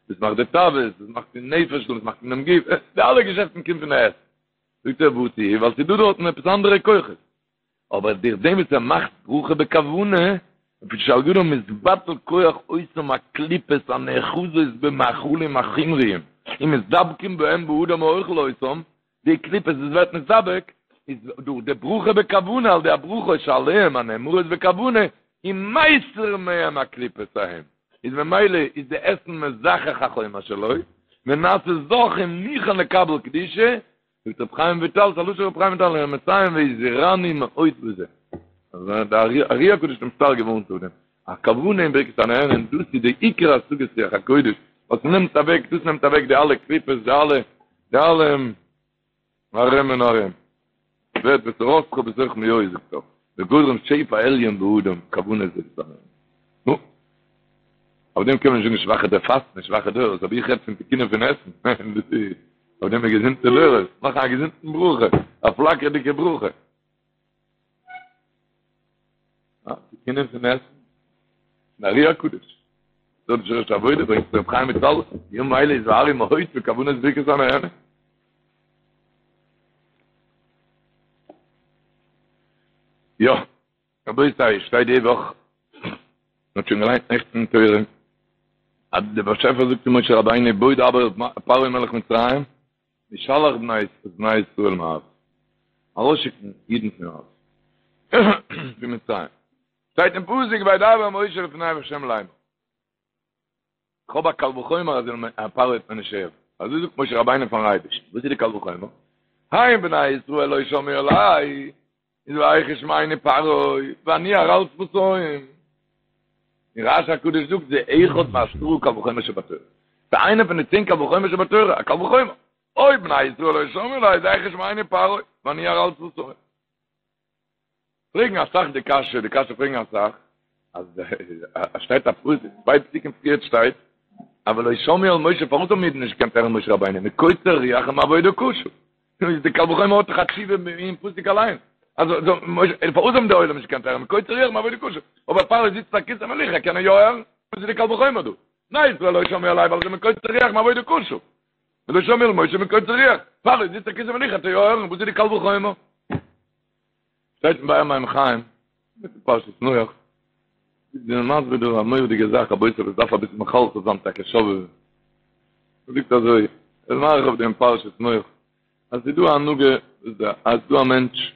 דאס מאכט די תאוות, דאס מאכט די נפש, דאס מאכט דעם גוף, די אלע געשעפטן קומט פון די עסן. זאגט ער וואס איז? ווייל ס'איז דא דארטן עפעס אנדערע כוחות. אבער דורך דעם וואס ער מאכט ברכה בכוונה, לפי שעל ידו מתבטל כח אותם הקליפות הנאחזות במאכלים החומריים ומתדבקים בהם באדם האוכל אותם, די קליפות וואס ווערט נתדבק, איז דורך די ברכה בכוונה, על ידי הברכות שעליהם הנאמרות בכוונה, איז מסיר מהם הקליפות ההם, איז ממילא איז די עסן מזכך החומר שלו, ונעשה זך ומוכן לקבל קדושה, זאגט רבי חיים וויטאל, ס'איז א לשון רבי חיים וויטאל, און ער מסיים והזהירני מאוד בזה. אז דער ארי הקדוש האט אים שטארק געווארנט אויף דעם. א כוונה אין ברכת הנהנין, דאס איז די עיקר השגת רוח הקודש, וואס נעמט אוועק, דאס נעמט אוועק די אלע קליפות, די אלע, די אלע ארום און ארום. ווערט ותורתך בתוך מעי זאגט ער, וגורם שפע עליון באדם, כוונת ברכת הנהנין. נו. אויף דעם קען מען נישט זאגן שוואכע דער פאסט נישט שוואכע דורות, אבער איך רעד פון תיקונים פון עסן, דאס איז אויף דעם איז געזונטע דורות, מאכן א געזונטן ברכה, א פלאקערדיגע ברכה. אה, תיקונים פון עסן. פון ארי הקדוש. דארט איז שורש העבודה ברענגט רב חיים וויטאל, בימים האלה הזהרו מאוד בכוונת ברכת הנהנין. יא. רבותי, שטייט די וואך, מען האט שוין געליינט נעכטן אין תורה, אז דער באשעפער זאגט צו משה רבינו בוא דבר אל פרעה מלך מצרים, וישלח בני ישראל מארצו, ארויסשיקן אידן פון ארץ, פון מצרים. שטייט אין פסוק וידבר משה לפני ה' לאמר. כ'האב א קל וחומר אז פרעה וועט מיר נישט הערן. אזוי זאגט משה רבינו פארן אייבערשטן. וואס איז די קל וחומר? הן בני ישראל לא שמעו אלי, איז ואיך ישמעני פרעה, ואני ערל שפתים. און רש"י הקדוש זאגט זה אחד מעשרה קל וחומר שבתורה. ס'איז איינער פון די צען קל וחומר שבתורה, א קל וחומר. אויב בני ישראל לא שמעו אלי, איז איך ישמעני פרעה, ואני ערל שפתים. פרעגן אסאך די קשיא, די קשיא פרעגן אסאך, אז עס שטייט א פסוק, צוויי פסוקים פריערט שטייט, אבל לא שמעו אל משה, פארוואס האבן אידן נישט געקענט הערן משה רבינו? מקוצר רוח ומעבודה קשה. נו, איז די קל וחומר האט דאך א תשובה אין פסוק אליין. אז פארוואס האבן די עולם נישט געקענט הערן? מקוצר רוח ומעבודה קשה. אבער פרעה זיצט א כסא מלוכה, קען ער יא הערן? וואס איז די קל וחומר דא? בני ישראל לא שמעו אלי ווייל זיי מקוצר רוח ומעבודה קשה. ולא שמעו אל משה מקוצר רוח. פרעה זיצט א כסא מלוכה, האט ער יא הערן, וואס איז די קל וחומר? שטייט אין באר מים חיים, פרשת נח, איז דער מסביר דא א מורא'דיגע זאך, רבותי, וואס דארף אביסל מחלחל זיין טאקע שובבים. ער זאגט אזוי, ער איז מאריך אויף דעם פרשת נח, אז ס'איז דא א הנהגה, אז ס'איז דא א מענטש,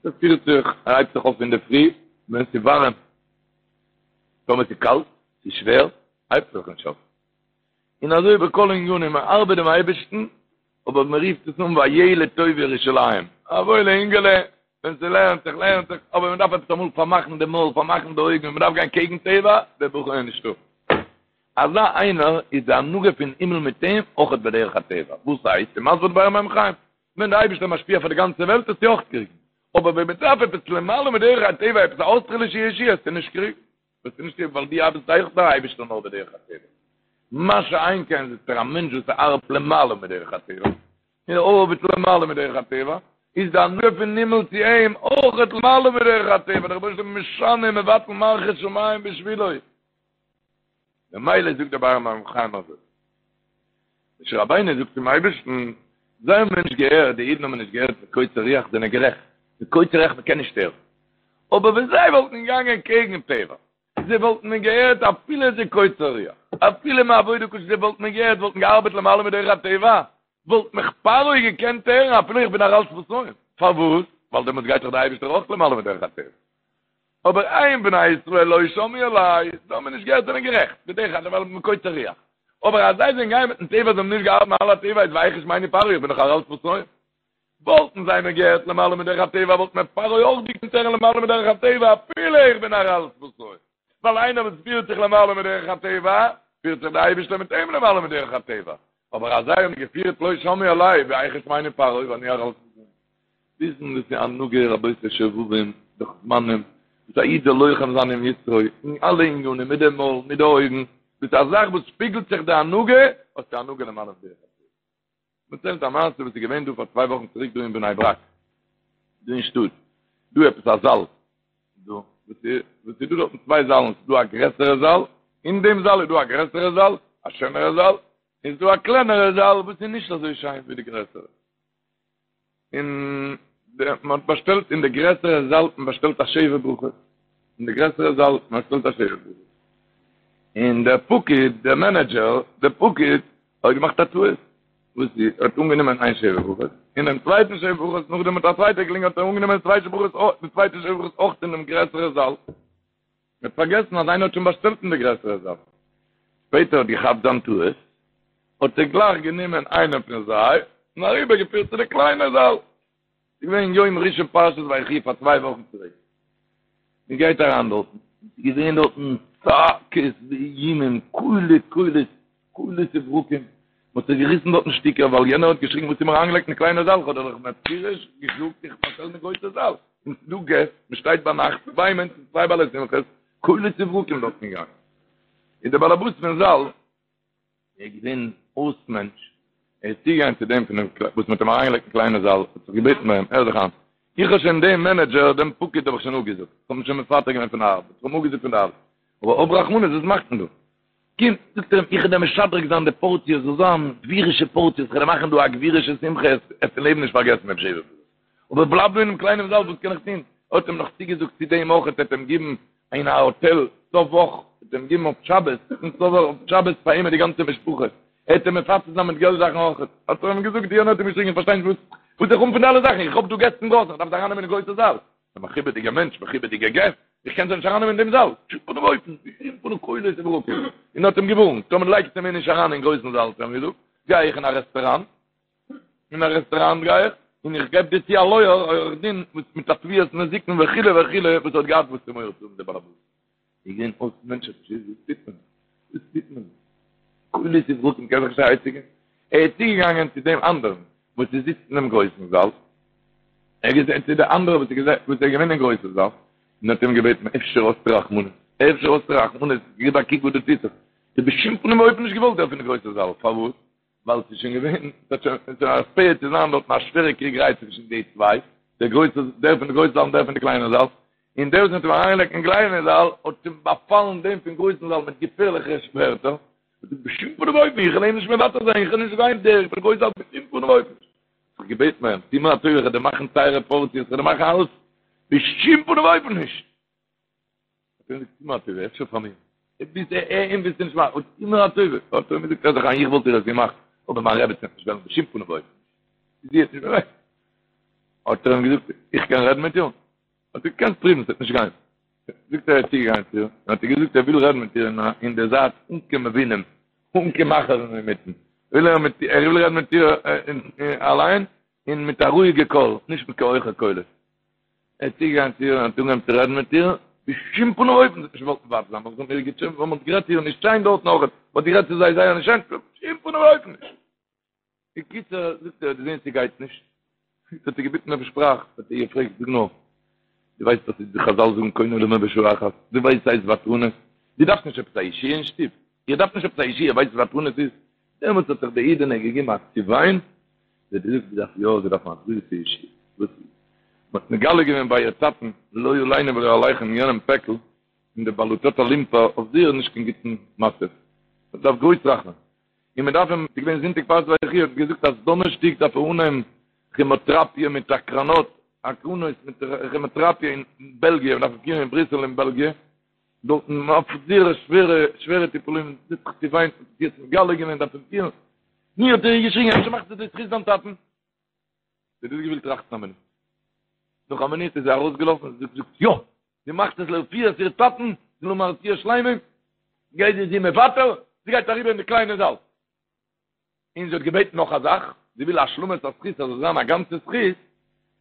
ער פירט זיך, ער הייבט זיך אויף אינדערפרי, ווען ס'איז ווארעם, טאמער ס'איז קאלט, ס'איז שווער, הייבט ער זיך נישט אויף. און אזוי בכל ענינים, מען ארבעט דעם אייבערשטן, אבער מען רופט עס אן וילד טוב ירושלים, א וואוילע אינגעלע, ווען ס'לערנט זיך לערנט זיך, אבער מען דארף עפעס אמאל פארמאכן די מויל, פארמאכן די אויגן, מען דארף גיין קעגן טבע, דער בחור איז נישטא. אזא איינער איז די הנהגה פון הימל מיט אים אויכעט בדרך הטבע, וואס הייסט? און מסביר באר מים חיים, ווען דער אייבערשטער משפיע פאר די גאנצע וועלט וועסטו אויך קריגן, אבער ווען מען דארף עפעס למעלה מדרך הטבע, עפעס א אויסטערלישע ישועה, וועסטו נישט קריגן. וועסטו נישט קריגן ווייל דו ארבעסט אויך דער אייבערשטער נאר בדרך הטבע. מה שאין כן זאגט ער א מענטש וואס ארבעט למעלה מדרך הטבע, און ארבעט למעלה מדרך הטבע, איז די הנהגה פון הימל צו אים אויכעט למעלה מדרך הטבע, דער רבונו של עולם איז משנה מבטל מערכות שמים בשבילו. ממילא זאגט דער באר מים חיים אזוי. משה רבינו זאגט צום אייבערשטן, זיי האבן מיר נישט געהערט, די אידן האבן נישט געהערט מקוצר רוח, זענען גערעכט, מקוצר רוח מען קען נישט הערן, אבער ווען זיי וואלטן געגאנגען קעגן טבע, זיי וואלטן מיר געהערט אפילו עס איז קוצר רוח, אפילו מעבודה קשה, זיי וואלטן מיר געהערט, וואלטן געארבעט למעלה מדרך הטבע, וואלט מיך פרעה געקענט הערן אפילו איך בין ערל שפתים, פארוואס? ווייל דעמאלטס גייט דאך דער אייבערשטער אויך למעלה מדרך הטבע. אבער הן בני ישראל לא שמעו אלי, זיי האבן נישט געהערט זענען גערעכט, בדרך הטבע ווייל מקוצר רוח. אבער אז זיי זענען געגאנגען מיטן טבע זיי האבן נישט געארבעט מעל הטבע איז ואיך ישמעני פרעה איך בין דאך ערל שפתים. וואלטן זיי מיר געהערט למעלה מדרך הטבע וואלט מיר פרעה אויך געקענט הערן למעלה מדרך הטבע אפילו איך בין ערל שפתים. ווייל איינער וואס פירט זיך למעלה מדרך הטבע, פירט זיך דער אייבערשטער מיט אים למעלה מדרך הטבע. אבער אז זיי האבן געפירט לא שמעו אלי ואיך ישמעני פרעה ואני ערל. וויסן דאס איז הנהגה רבותי שובבים דאך זמנים וואס א איד זאל לוחם זיין עם יצרו אין אלע עניינים מיט די מויל מיט די אויגן דאס איז א זאך וואס שפיגלט זיך די הנהגה האסטו הנהגה למעלה מדרך הטבע. מ'דערציילט א מעשה וואס איז געווען דא פאר צוויי וואכן צוריק דא אין בני ברק דא אין שטאט דא עפעס א זאל דא וואס איז וואס איז דא דארטן צוויי זאלן ס'איז דא א גרעסערע זאל אין דעם זאל איז דא א גרעסערע זאל א שענערע זאל איז דא א קלענערע זאל וואס איז נישט אזוי שיין ווי די גרעסערע און מען האט באשטעלט אין די גרעסערע זאל האט מען באשטעלט א שבע ברכות אין די גרעסערע זאל האט מען באשטעלט א שבע ברכות און דער פקיד דער מענעדזשער דער פקיד האט געמאכט א טעות וואס איז ער האט אנגענומען איין שבע ברכות און דעם צווייטן שבע ברכות נאכדעם האט א צווייטער געקלינגען האט ער אנגענומען די צווייטע ברכות די צווייטע שבע ברכות אויך אין דעם גרעסערע זאל מען האט פארגעסן אז איינער האט שוין באשטעלט אין די גרעסערע זאל. שפעטער האט געכאפט זיין טעות, האט ער גלייך גענומען איינעם פון זיי און אריבער געפירט צו די קליינע זאל. ס'איז געווען יום ראשון פרשת ויחי פאר צוויי וואכן צוריק. מען גייט אריין דארטן, ס'איז געווען דארטן צעקות ואיומים, קולי קולות, קולות וברקים, מען האט זיך געריסן דארטן שטיקער ווייל יענער האט געשריגן וואס האסטו מיר אריינגעלייגט אין די קליינע זאל, כ'האב דיר דאך מפורש געזאגט איך באשטעל אין די גרויסע זאל, און ס'איז דא געסט, מען שטייט ביינאכט, צוויי מענטשן, צוויי בעלי שמחות, קולות וברקים דארטן געגאנגען. און דער באלעבאס פון זאל איז געווען אויס מענטש, ער איז צוגעגאנגען צו דעם פון דעם וואס מען האט אים אריינגעלייגט אין קליינע זאל, האט זיך געבעטן ביי אים, הער זיך איין, איך האב שוין דעם מענעדזשער, דעם פקיד האב איך שוין אפגעזאגט, איך האב אים שוין מפטר געווען פון די ארבעט, איך האב אים אפגעזאגט פון די ארבעט, אבער האב רחמנות, וואס מאכט מען דא? קום, זאגט ער אים, איך וועל דיר משדרג זיין די פארציע, זאל זיין גבירישע פארציעס, איך וועל דיר מאכן דא א גבירישע שמחה, עסט אין לעבן נישט פארגעסן דעם שבע ברכות. אבער בלייב דא אינעם קליינעם זאל, וואס קען איך טון? האט אים נאך צוגעזאגט צו דעם אויך, ער וועט אים גיבן אין א האטעל סוף וואך, וועט אים גיבן אויף שבת, און סוף וואך אויף שבת פאר אים מיט די גאנצע משפחה, ער וועט אים מפצה זיין מיט געלט זאכן אויך. האט ער אים געזאגט, יענער האט אים געשריגן, איך פארשטיי נישט וואס וואס איך האב פון די אלע זאכן, איך האב דא געסט אינדרויסן, איך דארף זיי ארייננעמען אין גרויסע זאל. א מכובד'יגער מענטש, מכובד'יגע געסט, איך קען זיי נישט ארייננעמען אין דעם זאל, בשום פנים ואופן, בשום פנים קולות וברקים, און האט אים געווארנט, טאמער לייגסטו מיר נישט אריין אין גרויסן זאל, האט ער אים געזאגט, גיי איך אין א רעסטוראנט, אין א רעסטוראנט גיי איך, און איך געב דיר צו א לויער, עורך דין, וואס מיט א תביעת נזיקין וכו' וכו', וואס האט געהאט וואס צו מורא צו האבן דער באלעבאס. איז געווען אויס מענטש האט נישט געוואוסט וואס טוט מען, וואס טוט מען, קולות וברקים קען זיך נישט א עצה געבן, ער איז צוגעגאנגען צו דעם אנדערן וואס איז זיצט אינעם גרויסן זאל, ער איז צו די אנדערע וואס איז וואס איז געווען אין גרויסן זאל, און האט אים געבעטן אפשר האסטו רחמנות, אפשר האסטו רחמנות, גיב א קוק וואס דא טוט זיך, האט בשום פנים ואופן נישט געוואלט דער פון די גרויסע זאל, פארוואס? ווייל ס'איז שוין געווען, ס'האט שוין, ס'איז שוין עספיעט צו זיין דארטן א שווערע קריגעריי צווישן די צוויי, דער גרויסע, דער פון די גרויסע זאל און דער פון די קליינע זאל, און דער וואס מ'האט אים אריינגעלייגט אין קליינע זאל, האט אים באפאלן דעם פון גרויסן זאל מיט געפערליכע ווערטער, האט געזאגט בשום פנים ואופן, איך וועל אים נישט מוותר זיין, איך וועל נישט גיין דער פון גרויסן זאל בשום פנים ואופן נישט. זיך געבעטן ביי אים, טו מיר א טובה, איך וועל דיר מאכן טייערע פארציעס, איך וועל דיר מאכן אלעס, בשום פנים ואופן נישט. האט ער געזאגט, טו מיר א טובה, אפשר פאר מיר. ביז אים ווילסטו נישט מאכן, טו מיר א טובה. האט ער אים געזאגט, הער זיך איין, איך וואלט דיר עס געמאכט, אבער מיין רעבעצין וועט נישט וועלן בשום פנים ואופן נישט. זי וועט נישט וועלן. האט ער אים געזאגט, איך קען רעדן מיט איר? האט ער געקענט פרואוון, ס'וועט נישט גיין. זאגט ער, ער איז צוגעגאנגען צו איר, און האט איר געזאגט, ער וויל רעדן מיט איר אין די זייט, אן קיין מבינים, אן קיין מאכערן אינמיטן. וויל ער מיט ער וויל רעדן מיט איר אליין, און מיט א רואיגע קול, נישט מיט קיין הויכע קולות. ער איז צוגעגאנגען צו איר און האט אנגעהויבן צו רעדן מיט איר, בשום פנים ואופן זי האט נישט געוואלט מוותר זיין, ווייל זיי האבן איר געטשעפעט, ווייל מען האט גערעדט צו איר נישט שיין דארטן אויך, מען האט גערעדט צו זיי זייער נישט שיין, בשום פנים ואופן נישט. בקיצור, זאגט ער, האט געזען ס'גייט נישט, האט ער געביטן אויף שפראך, האט ער איר געפרעגט, זאג נאר, דו ווייסט וואס די חזל זאגן קונה עולמו בשעה אחת, דו ווייסט ס'הייסט ותרנות, דו דארפסט נישט עפעס א ישועה אין שטוב, איר דארפט נישט עפעס א ישועה, ווייסט וואס ותרנות איז? דעמאלטס האט זיך די אידענע געגעבן א צעוויין, זי האט געזאגט זי דארף יא, זי דארף א גרויסע ישועה, וואס איז? מען האט מגלה געווען ביי איר טאטן, לא עלינו ולא עליכם יענעם פעקל, און די בלוטת הלימפה אויף זייער נישט קיין גוטן מצב, מען דארף גרויס רחמים, און מען דארף אים, ס'איז געווען זונטאג פרשת ויחי, האט געזאגט אז דאנערשטאג דארף ער אנהייבן כעמאטראפיע מיט הקרנות, הקרנות מיט כעמאטראפיע אין בעלגיע, מען דארף אים פירן אין בריסל אין בעלגיע, דארטן אויף זייער שווערע שווערע טיפולים, זי האט זיך צעוויינט, מען האט יעצט מגלה געווען דארף אים פירן, נו האט ער איר געשריגן אפשר מאכט עס לזכות דיין טאטן? זי האט דאס געווילט טראכטן א מינוט, נאך א מינוט איז זי ארויסגעלאפן, זי האט געזאגט יא! זי מאכט עס לרפואת איר טאטן, זאל האבן א רפואה שלימה, גייט זי זי מוותר, זי גייט אריבער אין די קליינע זאל. און זי האט געבעטן נאך א זאך, זי וויל השלמת הזכות אז עס זאל זיין א גאנצע זכות,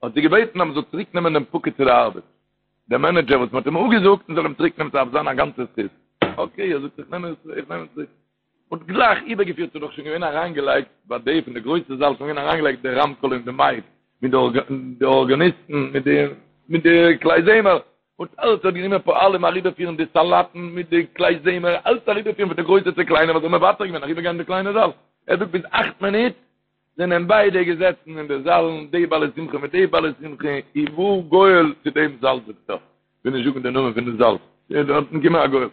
האט זי געבעטן אז מען זאל צוריק נעמען דעם פקיד צו די ארבעט, דער מענעדזשער וואס מען האט אים אפגעזאגט, מען זאל אים צוריק נעמען ס'דארף זיין א גאנצע זכות. אקעי, ער זאגט איך נעם אים צוריק. מ'האט גלייך איבערגעפירט, ס'איז דאך שוין געווען אריינגעלייגט ביי די פון די גרויסע זאל, שוין געווען אריינגעלייגט די רמקול און די מייק, מיט די ארגאניסטן, מיט די מיט די כלי זמר, און אלץ האט גענומען פועלים אריבערפירן די סאלאטן מיט די כלי זמר, אלץ אריבערפירן פון די גרויסע צו קליינע, ווייל זיי האבן מוותר געווען אריבערגיין אין די קליינע זאל. ער זאגט ביז אכט מינוט זענען ביידע געזעצן אין די זאלן, די בעלי שמחה מיט די בעלי שמחה, ובא גואל צו דעם זאל זאגט ער, כ'וויל נישט זאגן די נאמען פון די זאל, איז דארטן געקומען א גואל.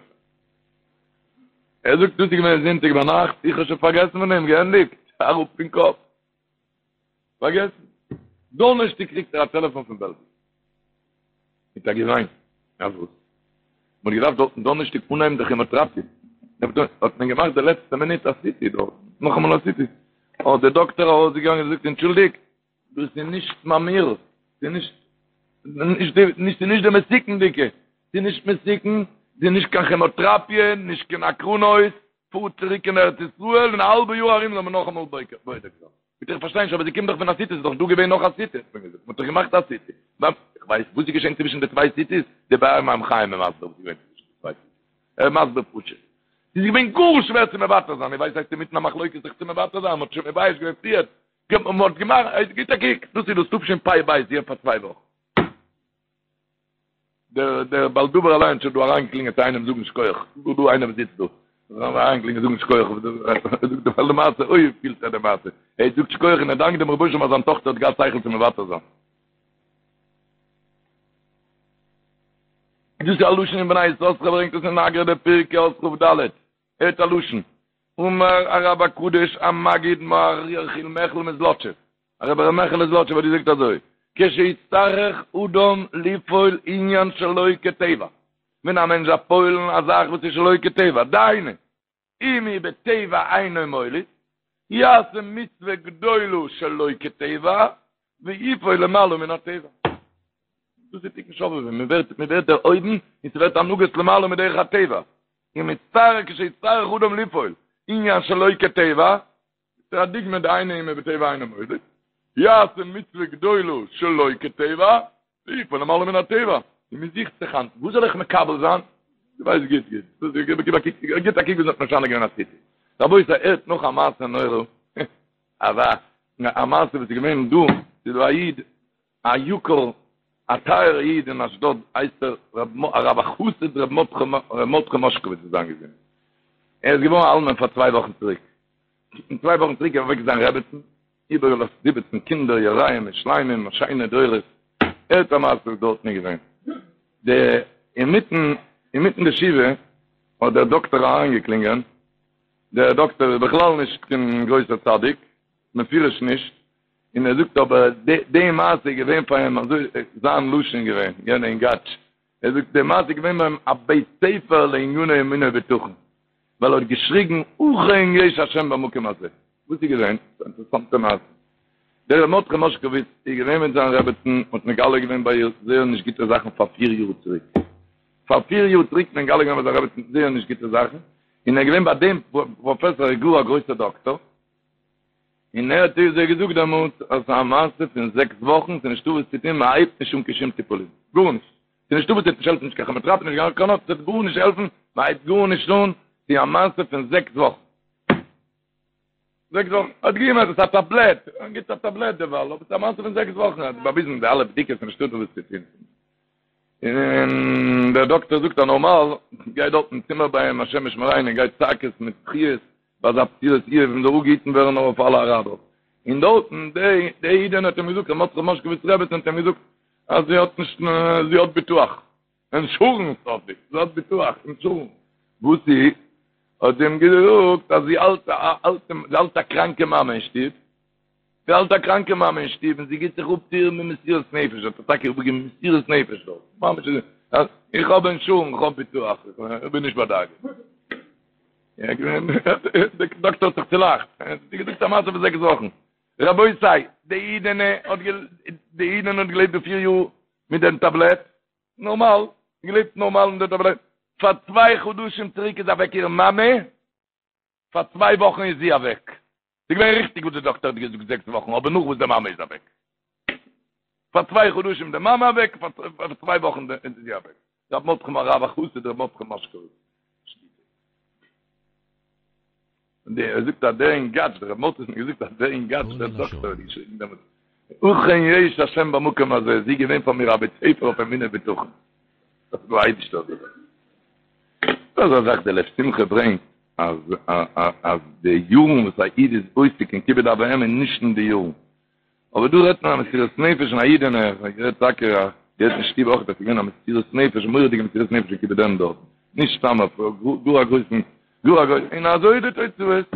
ער זאגט דאס איז געווען זונטאג ביינאכט, איך האב שוין פארגעסן פון דעם, געענדיגט, אראפ פון קאפ. פארגעסן. דאנערשטאג קריגט ער א טעלעפאן פון בעלגיע. מיט א געוויין. אז וואס? מ'האט געדארפט דארטן דאנערשטאג אנהייבן די כעמאטעראפיע. האט מען געמאכט די לעצטע מינוט א סיטי דארט. נאכאמאל א סיטי. האט דער דאקטער ארויסגעגאנגען און געזאגט, אנטשולדיגט, דאס איז נישט ממאיר. ס'איז נישט, נישט די, נישט, ס'איז נישט די מסוכנ'דיגע. ס'איז נישט מסוכן, ס'איז נישט קיין כעמאטעראפיע, נישט קיין הקרנות. פארט צוריק אין ארץ ישראל, אין א האלבע יאר ארום זאל מען נאכאמאל בודק זיין. ביטע איך פארשטיי נישט אבער זי קומט דאך פון א סיטי, ס'איז דאך דא געווען נאך א סיטי, האט מען געזאגט, מ'האט דאך געמאכט א סיטי. איך ווייס וואס איז געשען צווישן די צוויי סיטיס, די באר מים חיים איז מסביר וואס איז געווען צווישן די צוויי סיטיס, ער איז מסביר פשוט. ס'איז געווען גאר שווער צו מוותר זיין, איר ווייסט הייסט אינמיטן א מחלוקת זיך צו מוותר זיין, מ'האט שוין מבייש געווען פריער, מ'האט געמאכט, גיט א קוק, דאס איז דאס תשפ"ב, זי פאר צוויי וואכן. דער דער בעל דבר אליין האט שוין דא אריינגעקלינגען צו איינעם זאגן שכוח, דא דא איינער וואס זיצט דא, אריינגעקלינגען זאגן שכוח, זאגט דער בעל מעשה, אוי פילט ער די מעשה, ער זאגט שכוח און ער דאנקט דעם רבוש"ע אז זיין טאכטער האט געהאט שכל צו מוותר זיין. דאס איז א לשון אין בני יששכר ברענגט עס אין אגרא דפרקא אות כ"ד, הערט א לשון, אמר הרב הקדוש המגיד מוהר יחיאל מיכל מזלאטשוב, הרב ר' מעכעלע זלאטשובער האט געזאגט אזוי, כשיצטרך אדם לפעול עניין שלא כטבע, ווען א מענטש דארף פועל'ן א זאך וואס איז שלא כטבע, דהיינו, אם הוא בטבע אינו מוליד, יעשה מצוה גדולה שלא כטבע, ויפעול למעלה מן הטבע. דאס איז תיקון שובבים, מען ווערט מען ווערט דערהויבן און ס'ווערט הנהגות למעלה מדרך הטבע. אם יצטרך כשיצטרך אדם לפעול עניין שלא כטבע, ס'איז א דוגמא דהיינו אם הוא בטבע אינו מוליד, יעשה מצוה גדולה שלא כטבע, ויפעל למעלה מן הטבע, און מען זוכט זיך היינט, וואס זאל איך מקבל זיין? דו ווייסט גוט גוט, גיב א קוק, גיט א קוק ווי מ'האט משנה געווען א סיטי. רבותי, הערט נאך א מעשה נורא, אזא א מעשה וואס איז געווען דא, ס'איז דא א איד, א יקר, א טייערע איד אין אשדוד הייסט ער הרב החסיד ר' מרדכי מאשקאוויץ זאל זיין געזונט. ער איז געווארן א אלמן פאר צוויי וואכן צוריק. און צוויי וואכן צוריק איז אוועק זיין רעבעצן, איבערגעלאזט זיבעצן קינדער יראים ושלימים, שיינע דורות. הערט א מעשה וואס דארטן איז געווען. די אינמיטן אינמיטן די שבעה האט דער דאקטער אריינגעקלינגען, דער דאקטער איז בכלל נישט קיין גרויסער צדיק, מפירוש נישט, און ער זאגט אבער די מעשה איז געווען פאר אים אזוי זיין לשון געווען יענע אינגאטש ער זאגט די מעשה איז געווען ביי אים א בית ספר לעניני אמונה ובטחון ווייל ער האט געשריגן אכן יש השם במקום הזה וואס איז געווען? ס'איז א אינטערעסאנטע מעשה דער ר' מרדכי מאשקאוויץ איז געווען מיט זיין רעבעצן האט מגלה געווען ביי איר זייער נישט גוטע זאכן פאר פיר יאר צוריק פאר פיר יאר צוריק מגלה געווען ביי זיין רעבעצן זייער נישט גוטע זאכן און ער איז געווען ביי דעם פראפעסאר גאר א גרויסער דאקטאר און ער האט איר זיי געזאגט דעמאלטס אז ס'איז א מעשה פון זעקס וואכן, ס'איז נישטא וואס צו טון, מען הייבט נישט אן קיין שום טיפולים, גארנישט, ס'איז נישטא וואס, ס'וועט נישט העלפן נישט קיין כעמאטעראפי נישט קיין הקרנות, ס'וועט גארנישט העלפן, מען הייבט גארנישט אן, ס'איז א מעשה פון זעקס וואכן. זעקס וואכן, האט געגעבן עפעס א טאבלעט, גיבט א טאבלעט דערווייל, אבער ס'איז א מעשה פון זעקס וואכן, האט באוויזן די אלע בדיקות, ס'איז נישטא וואס צו טון. און דער דאקטער זאגט אז נארמאל גייט דארט אין צימער ביי אים השם ישמרינו גייט צעקות מיט בכיות ביי אזא בשורת איוב און זאל אפגעהיטן ווערן נאר אויף אלע אראבער און דארטן די די אידענע האט אים געזאגט ר' מרדכי מאשקאוויץ רעבעצין האט אים געזאגט אז זי האט נישט זי האט ביטוח אינשורענס האט זי זי האט ביטוח אינשורענס וואס איז האט זי אים געזאגט אז זי האלט א אלטע זי האלט א קראנקע מאמע אין שטוב זי האלט א קראנקע מאמע אין שטוב און זי גיט זיך אפ צו איר מיט מסירות נפש, האט ער טאקע אפגעגעבן מסירות נפש דארט, ממש איז, איך האב אינשורענס, איך האב ביטוח, איך בין נישט בדאגה. דער דאקטער האט זיך צולאכט, ער האט געזאגט א מעשה פון זעקס וואכן. רבותי, די אידענע האט די אידענע האט געלעבט די פיר יאר מיט דעם טאבלעט, נארמאל, געלעבט נארמאל מיט דעם טאבלעט, פאר צוויי חדשים צוריק איז אוועק איר מאמע, פאר צוויי וואכן איז זי אוועק. ס'איז געווען ריכטיג וואס די דאקטער האט געזאגט זעקס וואכן, אבער נאך וואס די מאמע איז אוועק. פאר צוויי חדשים די מאמע אוועק, פאר צוויי וואכן איז זי אוועק. ר' מרדכי הרב החסיד ר' מרדכי מאשקאוויץ שליט"א. ער זאגט אז דער אינגאטש, דער רב מרדכי האט מיר געזאגט אז דער אינגאטש, דער דאקטער האט געשריגן דעמאלטס, אכן יש השם במקום הזה, זי איז געווען פאר מיר א בית ספר אויף אמונה ובטחון. דאס איז דער אייבישטער האט געזאגט. דאס איז א זאך דער לב שמחה ברענגט אז אז די יארן וואס א איד איז עוסק אין כיבוד אב ואם איז נישט אין די יארן. אבער דא רעדט מען א מסירות נפש פון א אידענע, איך האב געהערט טאקע א געהערט אין שטוב אויך אז ס'איז געווען א מסירות נפש, א מורא'דיגע מסירות נפש אין כיבוד אם דארט, נישט סתם אויף גאר א גרויסן, גאר א גרויסן, און אזוי איז די תוצאות,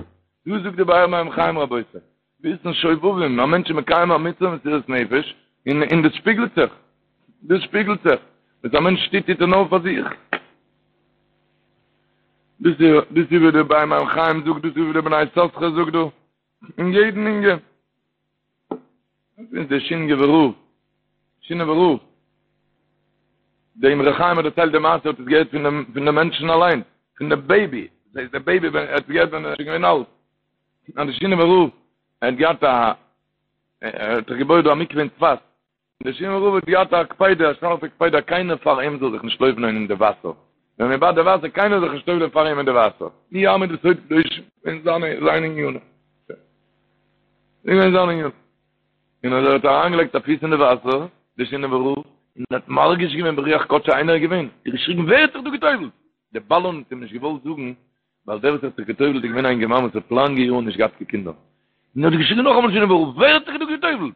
דא זאגט די באר מים חיים רבותי, וויסן שובבים, א מענטש איז מקיים א מצוה מסירות נפש, און און דאס שפיגלט זיך, דאס שפיגלט זיך, וואס א מענטש טוט טוט ער נאר פאר זיך. דאס איז דאס איז ווי די באר מים חיים זאגט, דאס איז ווי די בני יששכר זאגט דא, אין יעדן ענין. דאס איז דער שינאווער רב, שינאווער רב. דער אמרי חיים האט דערציילט די מעשה, האט עס געהערט פון דעם פון דעם מענטשן אליין, פון דעם בעיבי, דאס הייסט דער בעיבי ווען ער האט עס געהערט ווען ער איז שוין געווען אלט. אז דער שינאווער רב, ער האט געהאט א, ער האט זיך געבויעט דא א מקווה אין צפת, דער שינאווער רב האט געהאט א קפידה, א שארפע קפידה, קיינער פאר אים זאל זיך נישט טובל'ען אין די וואסער. ווען מען באדט די וואסער, קיינער זאל זיך נישט טובל'ען פאר אים אין די וואסער. מי יעמוד בסוד קדושים אין זיינע זיינע ענינים. אין זיינע ענינים. און אז ער האט אריינגעלייגט א פיס אין די וואסער, דער שינאווער רב, און האט מרגיש געווען ברוח קדשו איינער איז געווען, האט געשריגן ווער האט זיך דא געטובל'ט? דער בלן האט אים נישט געוואלט זאגן, ווייל דער וואס האט זיך געטובל'ט איז געווען א אינגערמאן וואס האט לאנגע יארן נישט געהאט קיין קינדער. און האט געשריגן נאכאמאל שינאווער רב, ווער האט זיך דא געטובל'ט?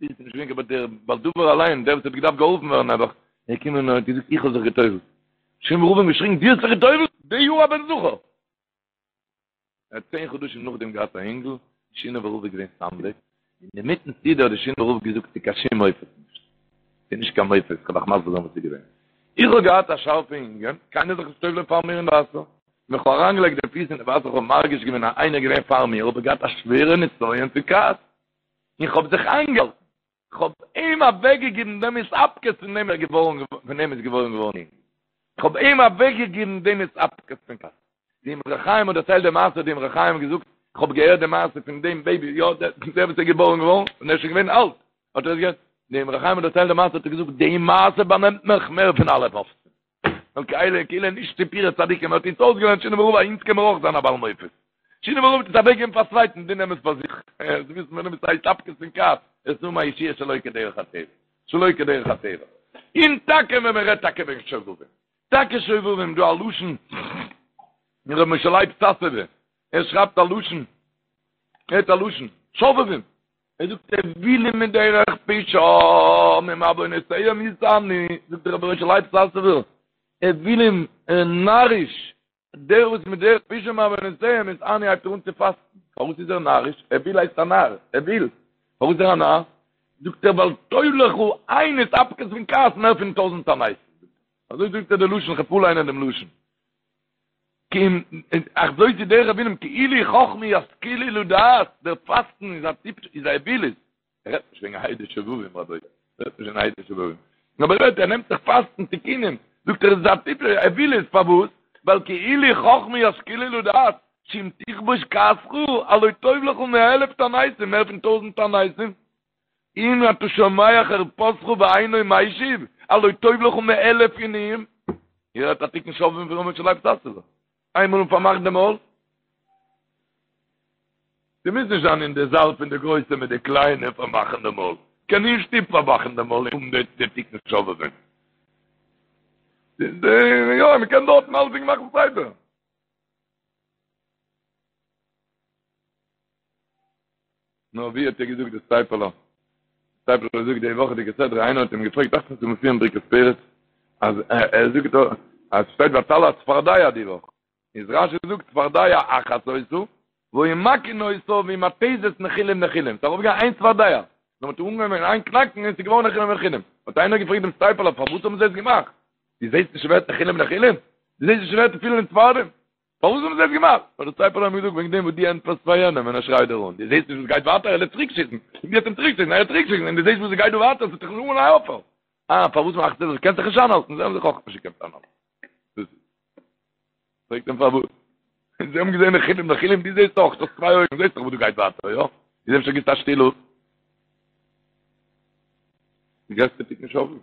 איז נישט געווען קיין דער בעל דבר אליין, דער וואס האט געדארפט געהאלפן ווערן נעבעך, ער איז געקומען און האט געזאגט איך האב זיך געטובל'ט. שינאווער רב האט געשריגן דו האסט זיך געטובל'ט? די יאר א בן זכר! ער האט צען חדשים נאכדעם געהאט א אינגל, שינאווער רב איז געווען סנדק, און אינמיטן סעודה האט דער שינאווער רב געזאגט ס'איז קיין שום מופת נישט, ס'איז נישט קיין מופת, כ'וועל אייך מסביר זיין וואס איז געווען. איך האב געהאט א שארפע ענין, קיינער זאל זיך נישט טובל'ען פאר מיר אין וואסער, ווען כ'האב אריינגעלייגט די פיס אין די וואסער כ'האב מרגיש געווען אז איינער איז געווען פאר מיר, האב איך געהאט א שווערע נסיון פון כעס, און כ'האב זיך איינגעהאלטן, כ'האב אים אוועקגעגעבן דעם התאפקות פון דעם איז געווארן, פון דעם איז געבוירן געווארן אינגל. כ'האב אים אוועקגעגעבן דעם התאפקות פון כעס. די אמרי חיים האט דערציילט די מעשה, האט די אמרי חיים געזאגט, כ'האב געהערט די מעשה פון דעם בעיבי, יא, דער וואס איז געבוירן געווארן, און ער איז שוין געווען אלט, האט ער עס געהערט. די אמרי חיים האט דערציילט די מעשה, האט ער געזאגט, די מעשה באנעמט מיך מער פון אלע מופתים. ווייל כאילו כאילו נישט סיפורי צדיקים האט אונז אויסגעלערנט שינאווער רב אז אונז קען מיר אויך זיין א בעל מופת. שינאווער רב האט עס אוועקגעגעבן פאר צווייטן דו נעם עס פאר זיך. זיי וויסן ווען עס הייסט התאפקות פון כעס עס איז א ישועה שלא כדרך הטבע. שלא כדרך הטבע. און טאקע ווען מען רעדט טאקע וועגן שובבים. טאקע שובבים דא א לשון ר' משה לייב סאסובער ער שרייבט א לשון ער האט א לשון שובבים. ער זאגט אוילים מדרך פשעם ומעונותיהם יתענו, זאגט דער רבי משה לייב סאסובער, אוילים, נאריש, דער וואס מדרך פשעם ומעונותיהם יתענו הייבט ער אן צו פאסטן, פארוואס איז ער נאריש? אויל הייסט א נאר, אויל, פארוואס איז ער א נאר? זאגט ער ווייל טוב לך איין התאפקות פון כעס מער פון טויזענט תעניתים, אזוי זאגט ער די לשון, כ'וועל פארליינען דעם לשון. כי אם, אך זאת היא דרך אוילים, כי אילו חכמו ישכילו לדעת, דער פאסטן איז א טיפש, איז א אווילות. ער רעדט נישט וועגן היידי שובבים רבותי, ער רעדט נישט וועגן היידי שובבים. אבער ער רעדט, ער נעמט זיך פאסטן תיקונים, זאגט ער עס איז א טיפש, אווילות, פארוואס? ווייל כי אילו חכמו ישכילו לדעת, שאם תכבוש כעסך, הלא טוב לך מאלף תעניתים, מער פון טויזנט תעניתים. אם אתה שומע חרפתך ואינו משיב, הלא טוב לך מאלף עינויים. איר הערט א תיקון שובבים פון ר' משה לייב סאסובער. איינמאל און פארמאכט די מויל. ס'מוז נישט זיין אין די זאל פון די גרויסע מיט די קליינע פארמאכן די מויל. קען אין שטוב פארמאכן די מויל און האבן די תיקון שובבים. יא, מ'קען דארטן אלסדינג מאכן סדר. נאר ווי האט ער געזאגט די סטייפלער? סטייפלער זאגט די וואכעדיגע סדרה, איינער האט אים געפרעגט דאכט זיך מופיע אין ברכת פרץ, אז ער זאגט דא אז שטייט ותעל הצפרדע די וואך, איז רשי זאגט צפרדע אחת היתה, והיו מכין אותה והיא מתזת נחילים נחילים, ס'איז ארויפגעגאנגען איין צפרדע, נאר מ'האט אנגעהויבן אין איין קנאקן און ס'איז געווארן נחילים נחילים, האט איינער געפרעגט דעם סטייפלער פארוואס האבן זיי עס געמאכט? דו זעסט נישט ס'ווערט נחילים נחילים? דו זעסט נישט ס'ווערט פיל אין צפרדעים? פארוואס האבן זיי עס געמאכט? האט דער סטייפלער אים געזאגט, וועגן דעם וואס דו ענטפערסט פאר יענעם ווען ער שרייט דיר אן, דו זעסט נישט וואס גייט ווייטער, ער וועט צוריק שיסן, און דו וועסט אים צוריק שיסן, ער וועט צוריק שיסן, און דו זעסט וואס גייט דא ווייטער, ס'וועט זיך נישט אנהייבן אויפהערן. אה, פארוואס מאכסטו דאס? קענסט זיך נישט איינהאלטן, זיי האבן זיך אויך נישט געקענט איינהאלטן. דאס איז. פרעגט אים פארוואס? זיי האבן געזען נחילים נחילים, דו זעסט אויך, דו האסט צוויי אויגן, זעסט דאך וואס דא גייט ווייטער, יא? איז אפשר גיבסטו א שטיל אפ? די גרעסטע תיקון שובבים.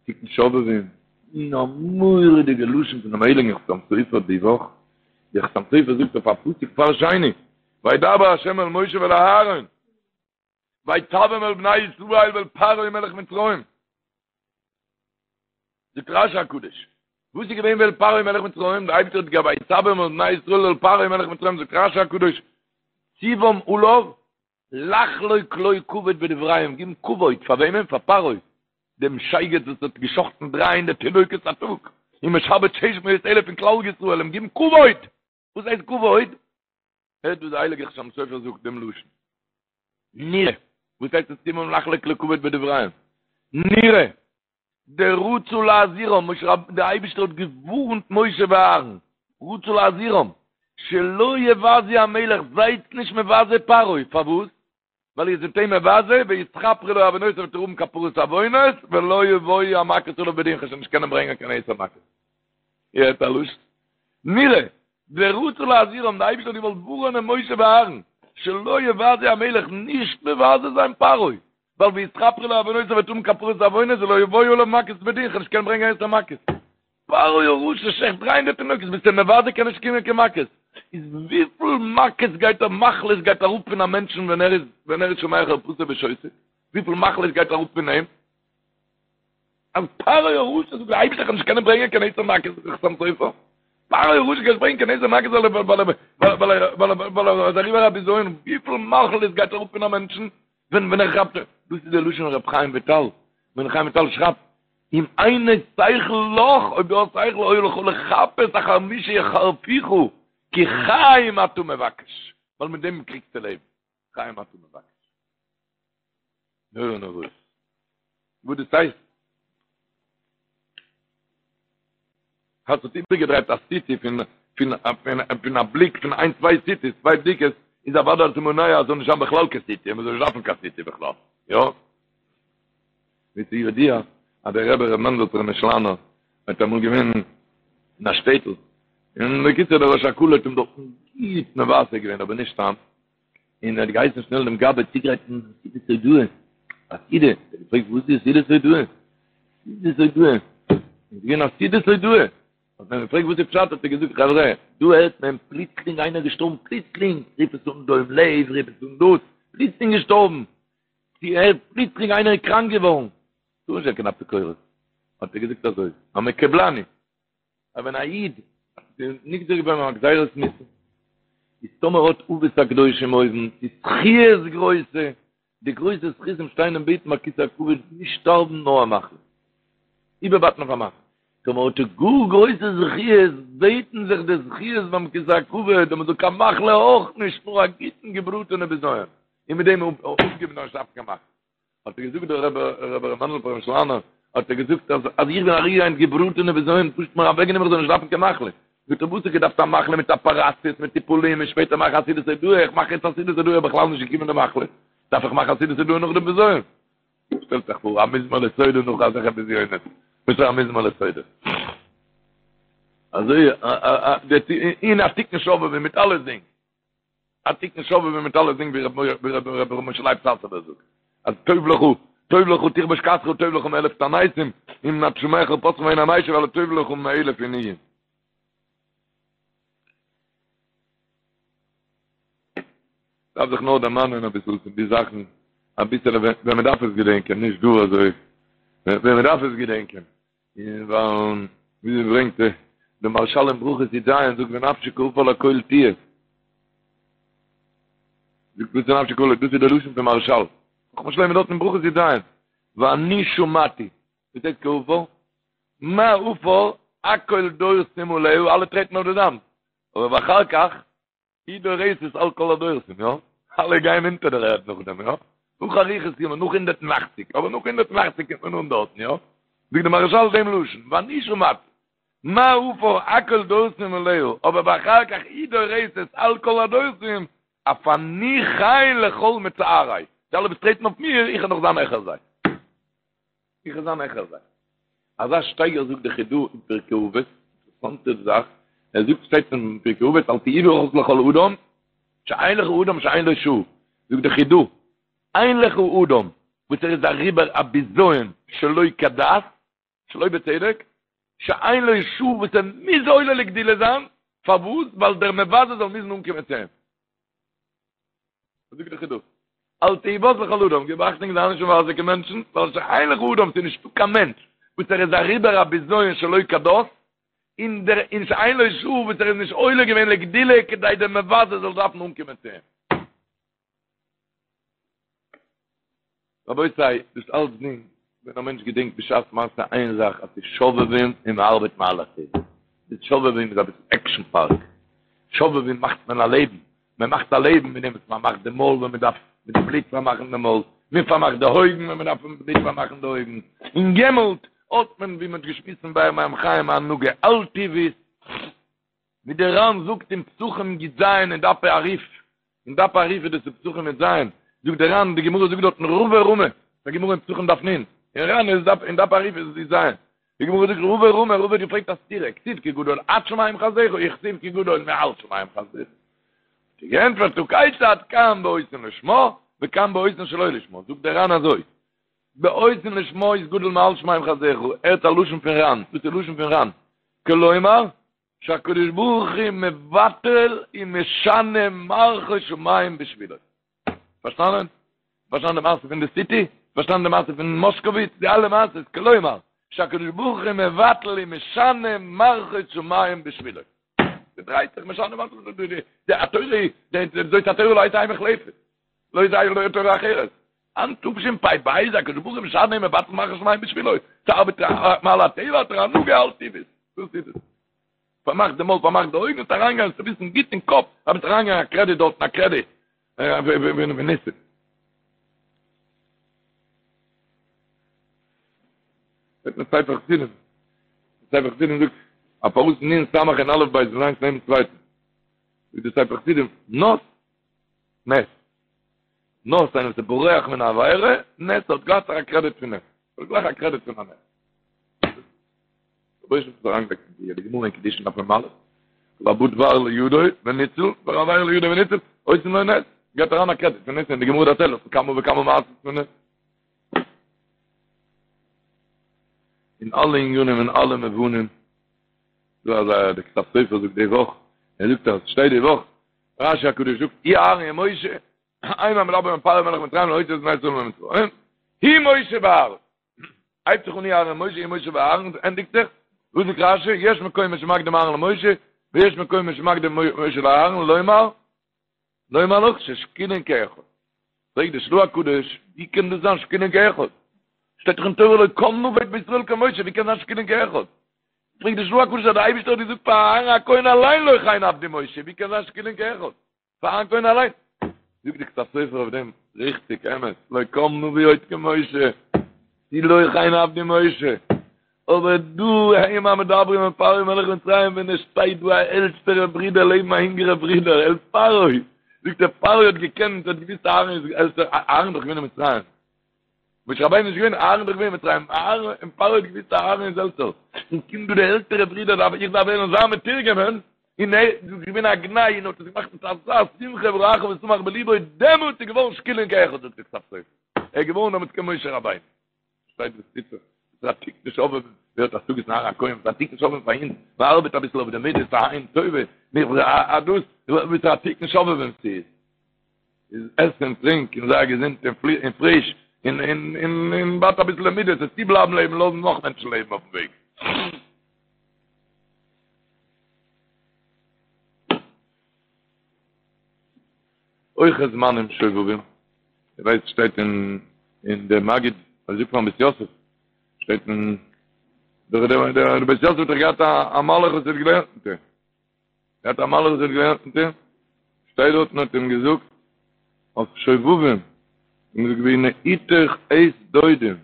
תיקון שובבים. און א מורא'דיגע לשון פונעם הייליגן חתם סופר די וואך. דער חתם סופר זאגט אויף א פסוק פאר שני, וידבר ה' אל משה ואל אהרן, ויצוום אל בני ישראל ואל פרעה מלך מצרים. זאגט רשי הקדוש, וואס איז געווען ואל פרעה מלך מצרים? דער אייבערשטער האט געהאט ויצוום אל בני ישראל ואל פרעה מלך מצרים, זאגט רשי הקדוש, ציוום עליו לחלוק לו כבוד בדבריהם, גיבן כבוד פאר וועמען? פאר פרעה, דעם שייגעץ וואס האט גע'שחט'ן דריי הונדערט תינוקות א טאג, און משעבד שש מאות אלף פון כלל ישראל, אים גיבן כבוד! וואס הייסט כבוד? הערט וואס דער הייליגער חתם סופר זאגט דעם לשון. נראה, וואס הייסט עס ציוום לחלוק לו כבוד בדבריהם? נראה, דרצה להזהירם, משה רב, דער אייבערשטער האט געווארנט משה ואהרן, רצה להזהירם, שלא יבזו המלך, זייטס נישט מבזה פרעה, פארוואס? ווייל איר זענט אים מבזה, ויתכפרו לו עוונותיו וועט ער האבן כפרת עוונות, ולא יבואו המכות עליו בדין, כ'וועל שוין נישט קענען ברענגען קיין עשר מכות. איר הערט א לשון? נראה, דרצה להזהירם, דער אייבערשטער האט געוואלט ווארענען משה ואהרן, שלא יבזו המלך, נישט מבזה זיין פרעה, ווייל ויתכפרו לו עוונותיו וועט האבן כפרת עוונות ולא יבואו עליו מכות בדין, כ'וועל נישט קענען ברענגען עשר מכות. פרעה הרשע שעכט דריי הונדערט תינוקות, ביסט אים מבזה קען נישט קומען קיין מכות. איז וויפיל מכות גייט א מחלות גייט אראפ פון א מענטשן ווען ער איז ווען ער איז שומע חרפתו ושותק? וויפיל מחלות גייט אראפ פון אים? אז פרעה הרשע זאגט דער אייבערשטער כ'וועל נישט קענען ברענגען קיין עשר מכות זאגט דער חתם סופר. פרעה הרשע קען נישט ברענגען קיין עשר מכות ווייל ער ווייל ער ווייל ער איז אריבער א בזיון, וויפיל מחלות גייט אראפ פון א מענטשן ווען ווען ער כאפט דאס איז דער לשון רב חיים וויטאל, ווען חיים וויטאל שרייבט אם אינו שכל לך, אויב דו האסט שכל היה לך לחפש אחר מי שיחרפוך, כי חיים אתה מבקש, ווייל מיט דעם קריגסטו לעבן, חיים אתה מבקש. נורא נוראות. וואס דאס הייסט? האט זיך איבערגעדרייט א סיטי פון פון פון א בליק פון איין צוויי סיטיס, צוויי בדיקות, איז אוודאי אז מונע אז זאל נישט זיין בכלל קיין סיטי, מען זאל נישט דארפן קיין סיטי בכלל, יא? ווי ס'איז ידוע אז דער רבי ר' מענדל פרעמישלאנער האט אמאל געווען אין א שטעטל, און בקיצור דער ראש הקהל האט אים דארטן גוט מבזה געווען, אבער נישט סתם, און ער האט געהייסן שנעל דעם גבאי צוגרייטן סעודת הודאה, א סעודה, ער האט געפרעגט וואס איז סעודת הודאה? סעודת הודאה, איז געווען א סעודת הודאה, האט מען געפרעגט וואס איז פשט, האט ער געזאגט חברה, דא הערט מען פלוצלינג איינער געשטארבן, פלוצלינג, רוף עס אן דום לב, רוף עס אן דאס, פלוצלינג געשטארבן, צו הערט פלוצלינג איינער איז קראנק געווארן, טאר נישט זיין קיין אפיקורס, האט ער געזאגט אזוי, המקובלני, אז ווען א איד איז נגזר געווארן א גזירת מיתה, איז טאמער האט אבות הקדושים אויבן, צו זכיות גרויסע, די גרויסע זכותים שטיין און בעטן ביי כסא הכבוד נישט שטארבן נאר א מחלה, איבערבייטן אויף א מחלה, טאמער האט ער גאר גרויסע זכיות, בעטן זיך די זכיות ביים כסא הכבוד אז מען זאל קיין מחלה אויך נישט, נאר א גוטן געבראטענע בזיון, און מיט דעם אפגעבן נאר נישט דארפן קיין מחלה. האט ער געזאגט דער רבי רבי ר' מענדל פרעמישלאנער האט ער געזאגט אז אז איך בין אריבער געבראטענע בזיון פשוט מיר אוועקגענומען איך זאל נישט דארפן קיין מחלה זאגט ער וואס איך געדארפט א מחלה מיט אפעראציעס מיט טיפולים און שפעטער מאכן א סעודת הודאה איך מאך יעצט א סעודת הודאה בכלל נישט געקומען די מחלה דארף איך מאכן א סעודת הודאה נאך דעם בזיון שטעלט זיך פאר א מזמור לתודה נאך אזעלכע בזיונות וואס איז א מזמור לתודה אזוי אין א תיקון שובבים מיט אלעס דינג א תיקון שובבים מיט אלעס דינג ווי ר' משה לייב סאסובער זאגט אז טוב לך טוב לך תכבוש כעסך טוב לך מאלף תעניתים אם אתה שומע חרפתך ואינו משיב אלא טוב לך מאלף עינויים דארף זיך נאר דערמאנען אביסל פון די זאכן אביסל ווען מען דארף עס געדענקען נישט דא אזוי ווען מען דארף עס געדענקען און ווייל ווי זי ברענגט די מהרש"ל אין ברכות י"ז זאגט ונפשי כעפר לכל תהיה זאגט וואס איז נפשי כעפר דאס איז דער לשון פון מהרש"ל חכמת שלמה דארט אין ברכות י"ז ואני שמעתי וואס הייסט כעפר מה עפר הכל דורסים עליה אלע טרעטן אויף די זאמד אבער ואחר כך היא דורסת על כל הדורסים, יא? אלע גייען אונטער דער ערד נאכדעם, יא? נאך אריכות ימים, נאך 180, אבער נאך 180 קומט מען אן דארטן, יא? זאגט די מהרש"ל דעם לשון, ואני שמעתי, מה עפר הכל דורסים עליה, אבער ואחר כך היא דורסת על כל הדורסים, אף אני כן לכל מצערי, די אלע וואס טרעטן אויף מיר, איך וועל נאך זיין העכער זיי. איך וועל זיין העכער זיי. אזא שטייגער זאגט די חידא אין פרקי אבות, אינטערעסאנטע זאך, ער זאגט שטייט אין פרקי אבות אל תהי בך לכל אדם, שאין לך אדם שאין לו שעה, זאגט די חידא, אין לך אדם וואס ער איז אריבער א בזיון שלא כדת, שלא בצדק, שאין לו שעה וואס ער מוז עולה לגדולה זיין. פארוואס? ווייל דער מבזה זאל מוזן אנקומען צו אים. וואס זאגט דער חידא? אל תהי בז לכל אדם, גיב אכטונג זיי נישט מבזה קיין מענטשן, ווייל שאין לך אדם, ס'איז נישטא קיין מענטש וואס ער איז אריבער א בזיון שלא כדת, און דער און שאין לו שעה וואס ער איז נישט עולה געווען לגדולה כדי דער מבזה זאל דארפן אנקומען צו אים. רבותי, דאס אלץ דינט ווען א מענטש געדענקט בשעת מעשה איין זאך אז ס'איז שובבים און מ'ארבעט מעל הטבע. די שובבים איז אביסל עקשן פארק. שובבים מאכט מען א לעבן. מען מאכט א לעבן מיט דעם וואס מען מאכט די מויל ווען מען דארף מיט די בלוט פארמאכן די מויל, מען פארמאכט די אויגן ווען מען דארף מיט בלוט פארמאכן די אויגן, און יעמאלט האט מען ווי מען האט געשמועסט אין באר מים חיים א הנהגה על טבעית, ווי דער ר"ן זאגט אין פסחים י"ז אין דפי הרי"ף, אין דף הרי"ף איז דאס אין פסחים י"ז, זאגט דער ר"ן, די גמרא זאגט דארטן רבא רמי, די גמרא אין פסחים דף נ', אין ר"ן איז דף אין דף הרי"ף איז עס י"ז, די גמרא זאגט רבא רמי, רבא האט געפרעגט א סתירה, כתיב כי גדול עד שמים חסדך, וכתיב כי גדול מעל שמים חסדך. האט ער געענטפערט הא כיצד כאן בעושין לשמה וכאן בעושין שלא לשמה, זאגט דער ר"ן אזוי, בעושין לשמה איז גדול מעל שמים חסדך, הערט א לשון פון ר"ן, דאס איז לשון פון ר"ן, כלומר, שהקדוש ברוך הוא מבטל ומשנה מערכות שמים בשבילו. פארשטאנען? פארשטאנען די מעשה פון די סיטי? פארשטאנען די מעשה פון מושקוביץ? די אלע מעשות, כלומר, שהקדוש ברוך הוא מבטל ומשנה מערכות שמים בשבילו. ס'דרייט זיך משנה מערכות, די התורה, זאת התורה לא תהא מוחלפת. לא תהא לא תורה אחרת. אין תשפ"ב איז הקדוש ברוך הוא משנה ומבטל מערכות שמים בשבילו. ס'ארבעט מעל הטבע, האט ער הנהגה על טבעית. דאס איז עס. פארמאכט די מויל, פארמאכט די אויגן, און אריינגיין צו וויסן גוט אין קאפ, אז מ'וועט אריינגיין א קרעדיט דארטן, א קרעדיט. וניסים. זאגט מען ספר חסידים. ספר חסידים זאגט, א פארוואס נון סמך און אלף בית זענען איינס נעבן צווייטן. זאגט די ספר חסידים, נס, נס. נס איינער וואס איז בורח מן העבירה, נס האט גלייך א קרעדיט פון נס. האט גלייך א קרעדיט פון א נס. רבונו של עולם האט אריינגעלייגט אין די גמרא אין קידושין דף מ"א, כל הבא דבר לידו וניצול, וכל עבירה לידו וניצול, עושים לו נס, געבט אריין א קרעדיט פון נס אין די גמרא דערציילט אויף כמה וכמה מעשות פון נס. אין אלע ענינים אין אלע מובנים, דא אזא די כתב סופר זאגט די וואך, ער זאגט אז שטייט די וואך, רשי הקדוש זאגט, הוא אהרן ומשה, הם המדברים אל פרעה מלך מצרים להוציא את בני ישראל ממצרים, הוא משה ואהרן. הייבט זיך אן הוא אהרן ומשה, הוא משה ואהרן, ענדיגט זיך, וואס זאגט רשי, יש מקומות שמקדים אהרן למשה, ויש מקומות שמקדים משה לאהרן, לומר, לומר לך ששקולין כאחד. פרעגט די של"ה הקדוש, ווי קען דאס זיין שקולין כאחד? שטייט דאך אין תורה לא קם נביא בישראל כמשה, ווי קען זיין שקולין כאחד? פרעגט די של"ה הקדוש אז דער אייבערשטער האט געזאגט פאר אהרן הכהן אליין לא כן עבדי משה, ווי קען זיין שקולין כאחד? פאר אהרן הכהן אליין. זאגט די כתב סופר אויף דעם, ריכטיג, אמת, לא קם נביא עוד כמשה, כי לא כן עבדי משה, אבער דא הם המדברים אל פרעה מלך מצרים ווען עס שטייט דא א עלטערע ברודער לעבן א אינגערע ברודער אל פרעה, זאגט ער פרעה האט געקענט האט געוויסט אהרן איז עלטער, אהרן איז דאך געווען אין מצרים, משה רבינו איז נישט געווען, אהרן איז דאך געווען אין מצרים, אהרן און פרעה האט געוויסט אהרן איז עלטער, און קומט דא די עלטערע ברודער דארף איך דארף ווערן זיין מתורגמן, און ער איז געווען א גנאי און האט עס געמאכט מיט אזא שמחה וראך ושמח בלבו, דעמאלטס איז געווארן שקולין כאחד זאגט די כתב סופר, ער איז געווארן דעמאלטס כמשה רבינו. שטייט וואס טוט זיך, ס'איז א תיקון שובבים, ווער האט השגות אין אהרן הכהן, ס'איז א תיקון שובבים פאר אונז, מען ארבעט אביסל אויף די מידות, א עין טובה, א דאס, וואס א תיקון שובבים ס'איז. איז עס און טרינק און זיי געזונט און פריש און און און און בייט אביסל די מידות עס צו בלייבן לעבן לאזן נאך מענטשן לעבן אויפן וועג. אויך איז זמנים שובבים, איר ווייסט שטייט אין אין דער מגיד, אזוי זאגט פארן בית יוסף, שטייט אין דער דער בית יוסף האט דאך געהאט א מלאך וואס האט געלערנט מיט אים. געהאט א מלאך וואס האט געלערנט מיט אים, שטייט דארט און האט אים געזאגט אויף שובבים, און געזאגט והנה עתך עת דודים,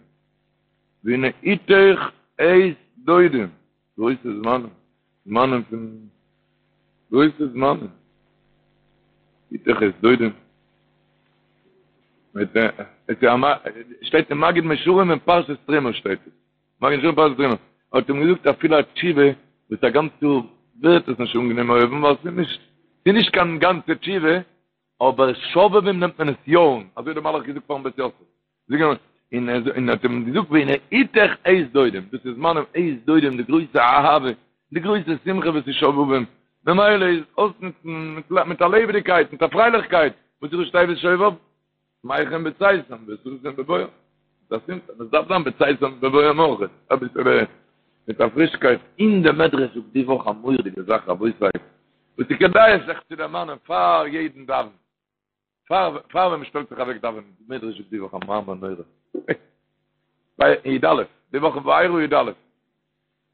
והנה עתך עת דודים, גרויסע זמנים, זמנים פון גרויסע זמנים, עתך עת דודים, מיט שטייט אין מגיד מישרים אין פרשת תרומה שטייט עס. מגיד מישרים פרשת תרומה, האט אים געזאגט אפילו א תשובה וואס א גאנץ יאר ווערט עס נישט אנגענומען אויבן ווייל ס'איז נישט ס'איז נישט קיין גאנצע תשובה, אבער שובבים נעמט מען עס יא אן, אזוי האט דער מלאך געזאגט פארן בית יוסף, און ער האט אים געזאגט והנה עתך עת דודים, דאס איז זמנים עת דודים די גרויסע אהבה, די גרויסע שמחה וואס איז שובבים. ממילא איז אויסנוצן מיט א לעבעדיגקייט, מיט א פרייליכקייט, וואס איז ראשי תיבות שובב? שמחים בצאתם וששים בבואם. דאס איז עס דארף זיין בצאתם ובבואם אויך, אביסעלע מיט א פרישקייט. אין די מדרש זאגט די וואך א מורא'דיגע זאך רבותי, וואס איז כדאי זיך צו דערמאנען פאר יעדן דאווענען. פאר פאר ווען מ'שטעלט זיך אוועק דאווענען, די מדרש זאגט די וואך א מאמר נורא. ביי י"א, די וואך אין וארא י"א.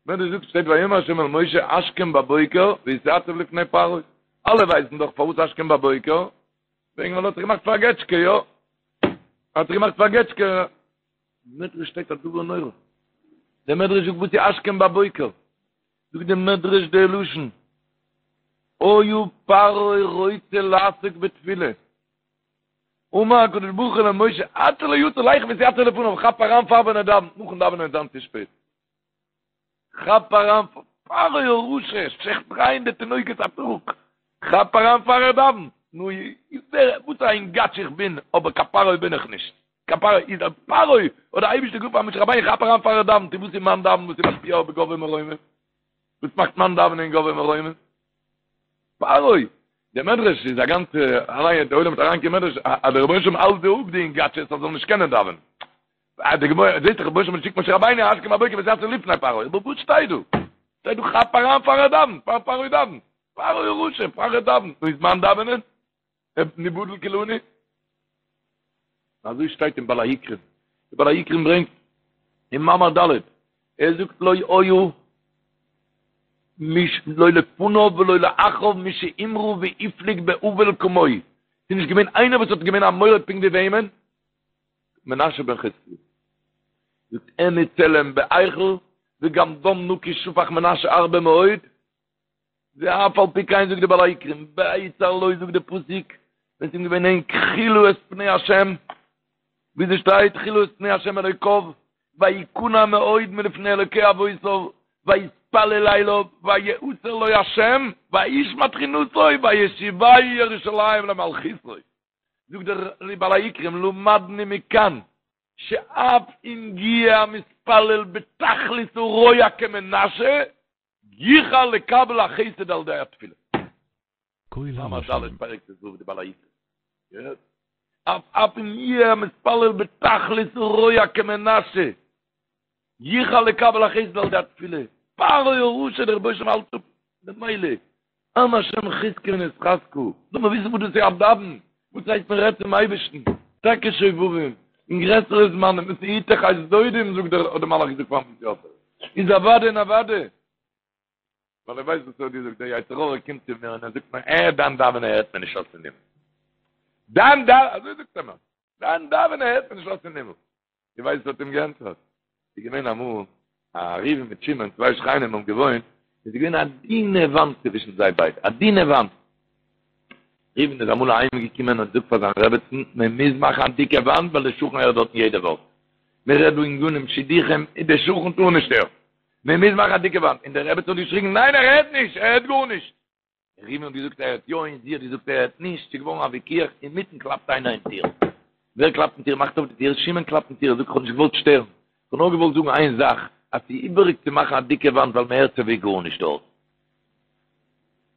מדרש זאגט שטייט ויאמר השם אל משה השכם בבוקר והתיצב לפני פרעה. אלע ווייסן דאך פארוואס השכם בבוקר, וועגן ווייל ער האט זיך געמאכט פאר א געטשקע, יא? ער האט זיך געמאכט פאר א געטשקע. מדרש שטייט א דבר נורא. דער מדרש זאגט וואס איז השכם בבוקר? זאגט דער מדרש די לשון היה פרעה רוצה לעסוק בתפילה אמר הקדוש ברוך הוא למשה עד שלא יצא לך והתיצב לפניו כאפ אריין פאר ווען ער דאווענט נאכן דאווענען וועט זיין צו שפעט כאפ אריין פרעה הרשע שעכט 300 תינוקות א טאג כאפ אריין פאר ער דאווענט נו וואס א אינגאטש איך בין אבער קיין פרעה בין איך נישט קיין פרעה איז א פרעה האט דער אייבערשטער געזאגט פאר משה רבינו כאפ אריין פאר ער דאווענט וואס איז מיין דאווענען וואס איז משפיע אויף גבוה מרומים וואס מאכט מיין דאווענען גבוה מרומים פרעה דער מדרש איז א גאנצע אליין דער עולם האט אריין קיין מדרש אז דער רבונו של עולם האלט זיי אפ די אינגאטשעס אז זאל נישט קענען דאווענען די גמרא זעט דער רבונו של עולם שיקט משה רבינו השכם בבוקר והתיצב לפני פרעה אבער וואס שטייט דא שטייט דא כאפ אריין פאר ער דאווענט פאר פרעה דאווענט פרעה הרשע פאר ער דאווענט נו איז מיין דאווענען נבטל כולנו. אזוי שטייט אין בעל העיקרים. די בעל העיקרים ברענגט אין מאמר ד', ער זאגט לא היה מי ש לא לפניו ולא לאחריו מי שהמרה והפליג באבל כמוהו. ס'איז נישט געווען איינער וואס האט געווען א מורד פונקט ווי וועמען? מנשה בן חזקיה. זאגט העמיד צלם בהיכל וגם דם נקי שפך מנשה הרבה מאוד. ואף על פי כן זאגט די בעל העיקרים, בהצר לו זאגט די פסוק, ווען ס'איז אים געווען ענג תחילה את פני השם, ווי ס'שטייט תחילה את פני השם אלוקיו, ויכנע מאוד מלפני אלוקי אבותיו, ויתפלל אליו, ויעתר לו השם, וישמע תחינתו, וישיבהו ירושלים למלכותו. זאגט דער בעל העיקרים, למדנו מכאן, שאף אם יהיה המתפלל בתכלית הרוע כמנשה, יוכל לקבל החסד על ידי התפילה. מאמר ד' פרק ט"ו די בעל העיקרים. געהערט? אף אף אם יהיה המתפלל בתכלית הרוע כמנשה, יוכל לקבל החסד על ידי התפילה. פרעה הרשע דער רבונו של עולם האלט אפ ממילא. עם השם חזקו ונתחזקה. לאמיר וויסן וואס דאס איז א דאווען. וואס הייסט מען רעדט צום אייבערשטן. טאקע שובבים. אין גרעסערע זמנים וואס איז יתך עת דודים זאגט דער האט דער מלאך געזאגט פארן בית יוסף. איז אוודאי און אוודאי. ווייל ער ווייסט וואס ער האט געזאגט, דער יצר הרע קומט צו מיר און ער זאגט מיר, אה, דיין דאווענען הערט מען נישט אויס אין הימל. דיין דאווענען, אזוי זאגט ער מיר, דיין דאווענען הערט מען נישט אויס אין הימל. דו ווייסט וואס האט אים געענטפערט? ס'איז געווען אמאל א ראובן מיט שמעון, צוויי שכנים האבן געוואוינט, און ס'איז געווען א דינע וואנט צווישן זיי ביידע, א דינע וואנט. ראובן איז אמאל אהיים געקומען און זאגט פאר זיין רעבעצן, מען מוז מאכן א דיקע וואנט ווייל דער שכן הערט דארטן יעדע ווארט. מען רעדט דא ענינים שידוכים, און דער שכן טאר נישט הערן. מען מוז מאכן א דיקע וואנט. און די רעבעצן האט געשריגן, ניין ער הערט נישט, ער הערט גארנישט. ראובן האט געזאגט ער הערט יא און זי האט געזאגט ער הערט נישט, ס'איז געווארן א וויכוח, אינמיטן קלאפט איינער אין טיר, ווער קלאפט אין טיר? מאכט אויף די טיר, שמעון קלאפט אין טיר, ער זאגט איך האב נישט געוואלט שטערן, איך האב נאר געוואלט זאגן איין זאך, אז ס'איז איבעריג צו מאכן א דיקע וואנט ווייל מען הערט סייווי גארנישט דארט.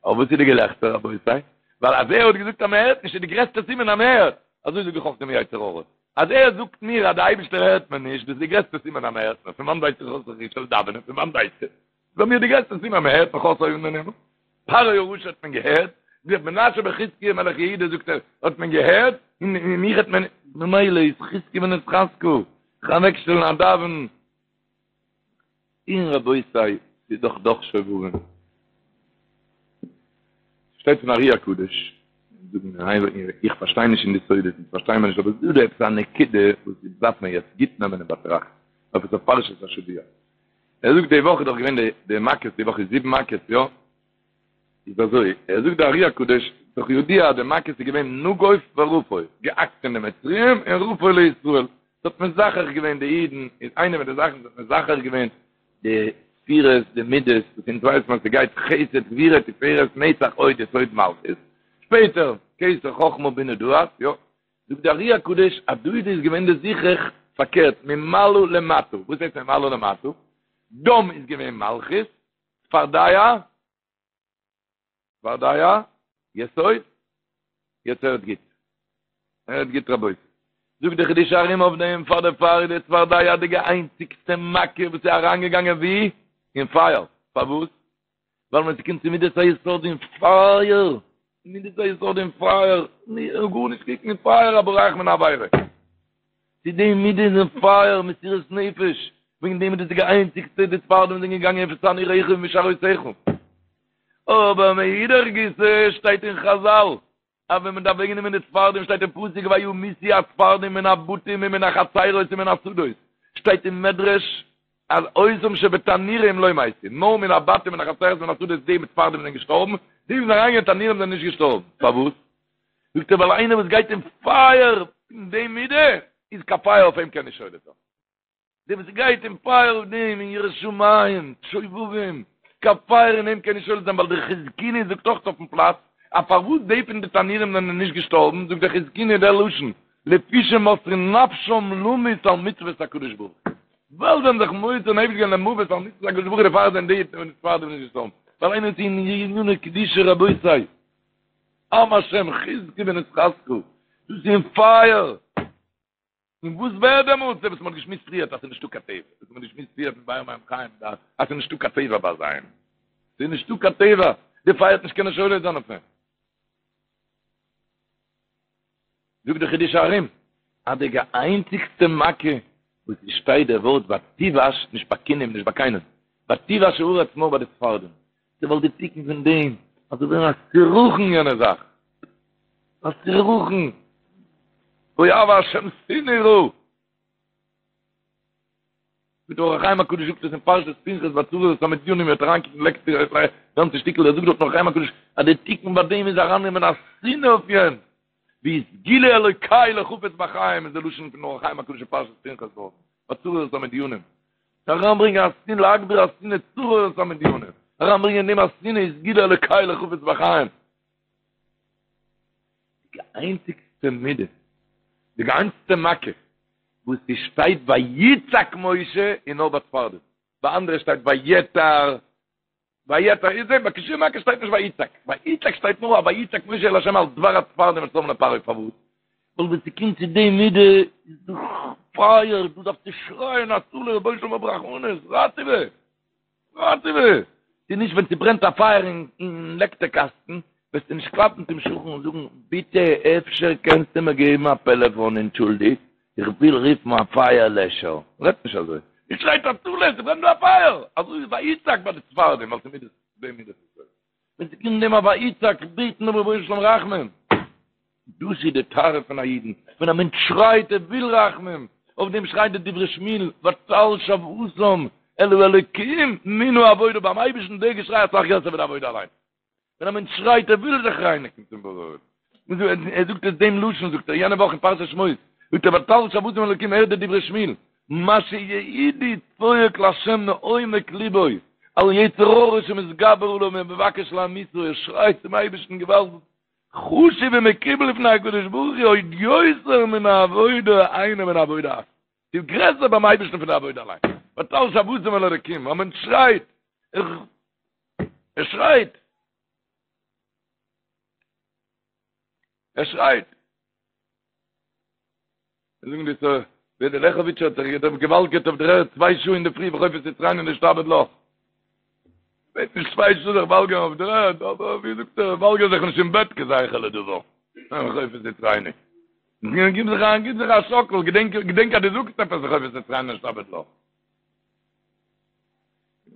אבער וואס איז די געלעכטער רבותי? ווייל אז ער האט געזאגט אז מען הערט נישט איז די גרעסטע סימן אז מען הערט, אזוי זאג איך אויך דעם יצר הרע, אז ער זאגט מיר אז די אייבישטער הערט מיר נישט, דאס איז די גרעסטע סימן אז מען הערט מיר, פון וואנט ווייס איך אז איך זאל דאווענען, פון וואנט ווייסטו? ביי מיר די גרעסטע סימן מען הערט מיך אויס אויבן אין הימל, פרעה הרשע האט מען געהערט, ווי האט מנשה בן חזקיה מלך יהודה זאגט ער האט מען געהערט, און מיך האט מען, ממילא איז חזקו ונתחזקה, זיך אוועקשטעלן א דאווען, און רבותי ס'איז דאך דאך שובבים. שטייט פון ארי הקדוש, איך פארשטיי נישט אין די סודות, איך פארשטיי מיר נישט, אבער ס'איז דא עפעס א נקודה וואס דארף מען יעצט גוט נעמען אין באטראכט, עפעס אויף פרשת השבוע. ער זאגט די וואך איז דאך געווען די די מכות, די וואך איז זיבן מכות, יא? איז אזוי, ער זאגט די ארי הקדוש, דאך ידוע אז די מכות איז געווען נגוף ורפוא, געהאקט אין די מצריים און רפוא לישראל, ס'האט מזכך געווען די אידן, איז איינע פון די זאכן וואס האט מזכך געווען די ספירות, די מידות, וואס אונז ווייסט מען אז ס'גייט חסד גבורה תפארת נצח הוד יסוד מלכות, שפעטער כתר חכמה בינה דעת, יא? זאגט די ארי הקדוש אז דא איז געווען די זיכוך פארקערט ממעלה למטה, וואס הייסט ממעלה למטה? דם איז געווען מלכות, צפרדע. צפרדע, יסוד, יעצט הערט גוט. הערט גוט רבותי. זאגט די חידושי הרי"ם אויף דעם, פאר דערפאר איז די צפרדע די איינציגסטע מכה וואס איז אריינגעגאנגען ווי? אין פייער. פארוואס? ווייל ווען ס'קומט צו מידת היסוד אין פייער, מידת היסוד אין פייער, גארנישט קוקן אין פייער א בורח מן העבירה. צו די מידה איז אין פייער, מסירות נפש, וועגן דעם איז דאס די איינציגסטע די צפרדעים זענען געגאנגען איפה תנור משארותיך. אבער מאידך גיסא שטייט אין חזל אז ווען מען דארף אוועקנעמען די צפרדעים שטייט אין פסוק וימותו הצפרדעים מן הבתים ומן החצרות ומן השדות, שטייט אין מדרש אז אותם שבתנורים לא מתו, נאר מן הבתים מן החצרות ומן השדות די מיט צפרדעים זענען געשטארבן, די וואס זענען אריינגעגאנגען אין תנורים זענען נישט געשטארבן, פארוואס? זאגט ער ווייל איינער וואס גייט אין פייער פון די מידה איז קיין פייער אויף אים קען נישט שולט זיין. דער וואס גייט אין פייער אויף דעם אין יראת שמים, שובבים, קיין פייער אין אים קען נישט שולט זיין ווייל דער חזקוני זאגט אויך אויפן פלאץ אז פארוואס די פון די תנורים זענען נישט געשטארבן זאגט דער חזקוני דער לשון לפי שמוסרין נפשם למות על מצוות הקדוש ברוך הוא ווייל זיי האבן זיך מוסר נפש געווען למוות על מצוות הקדוש ברוך הוא דערפאר זענען די פון די צפרדעים נישט געשטארבן ווייל איינער איז אין עניני קדושה רבותי עם השם חזקו ונתחזקה דאס איז אין פייער. און וואס ווערט דעמאלטס? דער וואס מ'האט געשמועסט פריערט אז ס'איז נישטא קיין טבע, וואס מ'האט געשמועסט פריערט מיט באר מים חיים דא, אז ס'איז נישטא קיין טבע ביי זיי. ס'איז נישטא קיין טבע, די פייער וועט נישט קענען שולט זיין אויף אים. זאגט דער חידושי הרי"ם, אז די איינציגסטע מכה וואס עס שטייט דער ווארט ותבאש, נישט ביי כינים, נישט ביי קיינעם, ותבאש הארץ נאר ביי די צפרדעים, ווייל די תיקון פון דעם אז ס'זאל ווערן א סירחון יענע זאך, א סירחון, אוהבי השם שנאו רע. ווי דער אור החיים הקדוש זאגט עס אין פרשת פנחס ביי צרור את המדינים מ'וועט אריינקוקן לעקט די גאנצע שטיקל ער זאגט דארט אור החיים הקדוש אז די תיקון ביי דעם איז ארייננעמען א שנאה אויף יענץ והיא סגולה אלוקי לחפץ בחיים איז די לשון פון אור החיים הקדוש אין פרשת פנחס דארט ביי צרור את המדינים אריינברענגען א שנאה להגביר השנאה צרור את המדינים אריינברענגען אין דעם א שנאה איז סגולה אלוקי לחפץ בחיים די איינציגסטע מידה די איינציגסטע מכה וואס ס'שטייט ויצעק משה איז נאר ביי צפרדע ביי אנדערע שטייט ויעתר ויעתר איז דעם ביי קיין שום מכה שטייט נישט ויצעק ויצעק שטייט נאר א ויצעק משה אל השם על דבר הצפרדעים אשר שם לפרעה פארוואס ווייל ווען ס'קומט צו די מידה איז דאך פייער דו דארפסט שרייען הצלה רבונו של עולם האב רחמנות ראטעווע ראטעווע ס'איז נישט ווען ס'ברענט א פייער אין לעקטער קאסטן וועסטו נישט קלאפן צום שכן און זאגן ביטע אפשר קענסטו מיר געבן א פעלעפאן אנטשולדיגט איך וויל רופן א פייער לעשער, מ'רעדט נישט אזוי, מ'שרייט הצלה, ס'ברענט דא א פייער, אזוי איז ויצעק ביי די צפרדעים, ווייל ס'מידות, די מידות איז אזוי, ווען ס'קומט דעם א ויצעק בעטן דעם רבונו של עולם רחמים, דאס איז די טהרה פון א אידן, ווען א מענטש שרייט ער וויל רחמים, אויף דעם שרייט די דברי שמואל, ותעל שועתם אל האלוקים מן העבודה, ביים אייבערשטן דער געשריי אסאך גרעסער ווי די עבודה אליין. ווען א מענטש שרייט ער וויל זיך רייניגן צום בורא, ער זאגט עס דעם לשון זאגט ער יענע וואך אין פרשת שמות, זאגט ער ותעל שועתם אל האלקים הערט די דברי שמואל, מה שיהודי צועק לה' מעומק ליבו, על יצר הרע שמתגבר עליו ומבקש להמיתו, ער שרייט צום אייבערשטן געוואלד, חשוב ומקובל לפני הקדוש ברוך הוא עוד יותר מן העבודה היינו מן העבודה עצמה. ס'איז גרעסער ביים אייבערשטן פון די עבודה אליין. ותעל שועתם אל האלקים, א מענטש שרייט, ער שרייט, ער שרייט. זאגן די סא, ווער דער לעכעוויטשער האט זיך געוואלגערט אויף דער ערד צוויי שעה אין די פרי וחופת יצרנו נשתעבד לך. וועט נישט צוויי שעה זיך וואלגערן אויף דער ערד, אבער ווי זאגט ער, וואלגער זיך נישט אין בעט כזכר לדבר. וחופת יצרנו. גיב זיך א, גיב זיך א שאקל, געדענק, געדענק אז דו זאגסט עפעס וחופת יצרנו נשתעבד לך.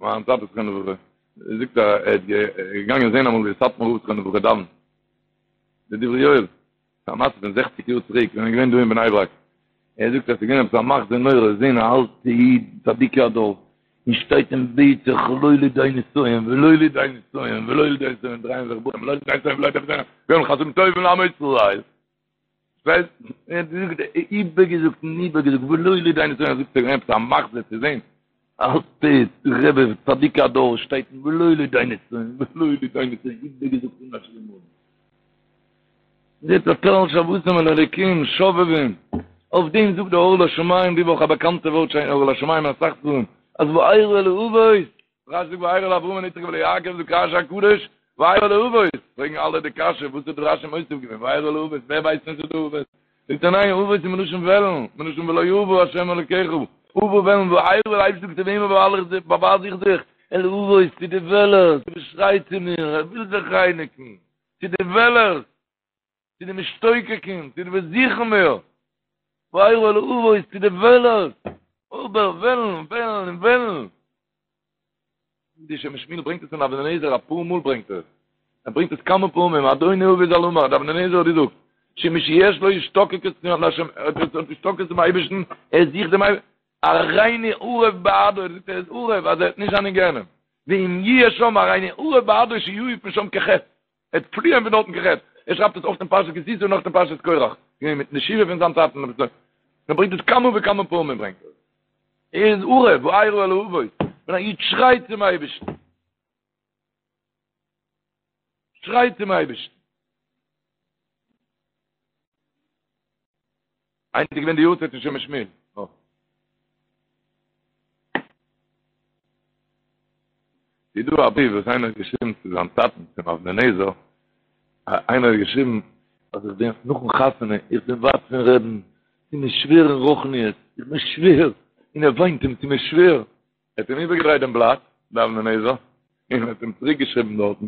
מיין טאטע זכרונו לברכה, זאגט ער ער איז געגאנגען זען אמאל ווי סאטמאר רב זכרונו לברכה דאווענט, די דברי יואל, א מעשה פון זעכציק יאר צוריק ווען ער איז געווען דא אין בני ברק, ער זאגט אז ס'איז געווען עפעס א מחזה נורא זען א אלטע איד צדיקי הדור, און שטייט און בעט זיך לא לידי נסיון ולא לידי נסיון ולא לידי נסיון דרייען זיך בחורים לא לידי נסיון ולא לידי נסיון, גומל חסדים טובים לעמו ישראל. ווייסט, ער האט געזאגט, איבערגעזאגט און איבערגעזאגט, ולא לידי נסיון, ער זאגט ס'איז געווען עפעס א מחזה צו זען, אלטע רבי צדיק הדור שטייט ולא לידי נסיון, ולא לידי נסיון, איבערגעזאגט אן א שיעור מאל. זעט ותעל שועתם אל האלוקים, שובבים, אויף דעם זאגט דער אור לשמים די וואך א באקאנטע ווארט שוין אור לשמים אין אסאך ספרים, אז וארא אל האבות, רש"י זאגט וארא אל אברהם אל יצחק ואל יעקב זאגט רש"י הקדוש. וארא אל האבות, פרעגן אלע די קשיא, וואס האט דא רשי מוסיף געווען, וארא אל האבות, ווער ווייסט נישט די אבות? זאגט ער ניין, אבות איז מלשון וועלן, מלשון ולא אבה השם אלוקיך, אבה וועלן, וארא דער אייבערשטער זאגט צו וועמען באווייל איך זיך, באווייז איך זיך, אל האבות, צו די וועלערס, וואס שרייט צו מיר, ער וויל זיך רייניגן, צו די וועלערס, צו די משתוקקים, צו די וואס זוכן מיר, וארא אל האבות, צו די וועלערס, אבער וועלן, וועלן און וועלן. די שם משמואל ברענגט עס אין אבני נזר אפאר מאל ברענגט ער עס. ער ברענגט עס כמה פעמים, אדוני אבי ז"ל אמר, די אבני נזר האט געזאגט, שמי שיש לו השתוקקות להשם, ער האט השתוקקות צום אייבערשטן, ער זוכט דעם אייבערשטן, הריני ערב בעדו, ער זאגט ער איז ערב אז ער וועט נישט זיין אין גיהנום, ואם יהיה שם הריני ערב בעדו שיעוף משם כחץ. ער וועט פליען פון דארטן כחץ, ער שרייבט עס אויך אין פרשת כי תשא און אויך אין פרשת קורח, געווען מיט די שבעה פון זיין טאטן, ער ברענגט עס כמה וכמה פעמים ברענגט ער עס, ער איז ערב, וארא אל האבות, ווען א איד שרייט צום אייבערשטן, שרייט צום אייבערשטן. היינט איז געווען די יארצייט פון שם משמואל. ס'איז דא א בריוו וואס איינער האט געשריבן צו זיין טאטן צום אבני נזר, איינער האט געשריבן אז איך בין נאכן חתונה, איך בין ווייט פון רבי'ן, ס'איז מיר שווער אין רוחניות, איך בין שווער, און ער וויינט אים, ס'איז מיר שווער. ער האט אים איבערגעדרייט דעם בלאט, דער אבני נזר, און האט אים צוריק געשריבן דארטן,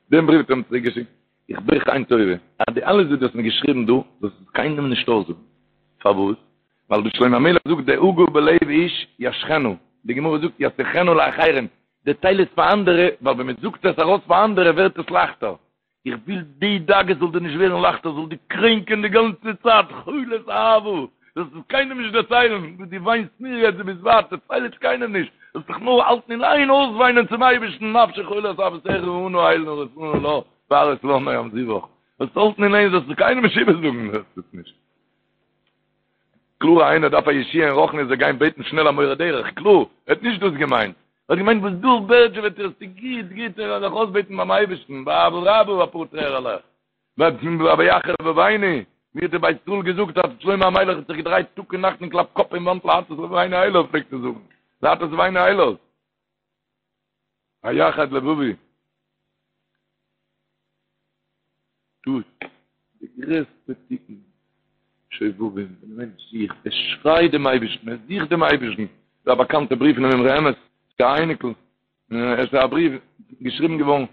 דעם בריוו האט ער אים צוריק געשיקט, איך בעט דיך איין טובה, אז די אלעס וואס דו האסט מיר געשריבן דא, זאלסט עס קיינעם נישט אויסזאגן. פארוואס? ווייל דער שלמה המלך זאגט דאגה בלב איש ישחנה, די גמרא זאגט ישיחנה לאחרים, דערצייל עס פאר אנדערע, ווייל ווען מען זאגט עס ארויס פאר אנדערע ווערט עס לייכטער. איך וויל די דאגה זאל דיר נישט ווערן לייכטער, זאל דיר קרענקען די גאנצע צייט, חולת אהבה, זאלסט עס קיינעם נישט דערציילן, וואס דו וויינסט מיר יעצט, דו ביסט ווייט, דערצייל עס קיינעם נישט, זאלסט דיך נאר האלטן אין איין אויסוויינען צום אייבערשטן, נפשי חולת אהבתך אנא אל נא רפא נא לה, והראות לה נועם זיוך, זאלסט האלטן אין איין, זאלסט עס קיינעם נישט איבערזאגן, זאלסט עס נישט. קלאר איינער דארף א ישועה אין רוחניות זאל גיין בעטן שנעל א מורה דרך, קלאר, ער האט נישט דאס געמיינט, ער האט געמיינט וואס דא בערדזשעוועט איר ס'איז גוט גוט ער זאל זיך אויסבעטן ביים אייבערשטן באהבה רבה אפאר טרערעלעך, ויחר לבבנו, ווי האט דער בית ישראל געזאגט אז שלמה המלך האט זיך געדרייט טאג און נאכט און קלאפט קאפ אין וואנט להטות לבבנו אליו פלעגט ער זאגן, להטות לבבנו אליו. ויחד לבבי. דאס די גרעסטע תיקון שובבים, ווען א מענטש זוכט, ער שרייט דעם אייבערשטן, ער זוכט דעם אייבערשטן, ס'איז א באקאנטע בריוו פונעם אמרי אמת, צו א אייניקל, עס איז א בריוו געשריבן געווארן,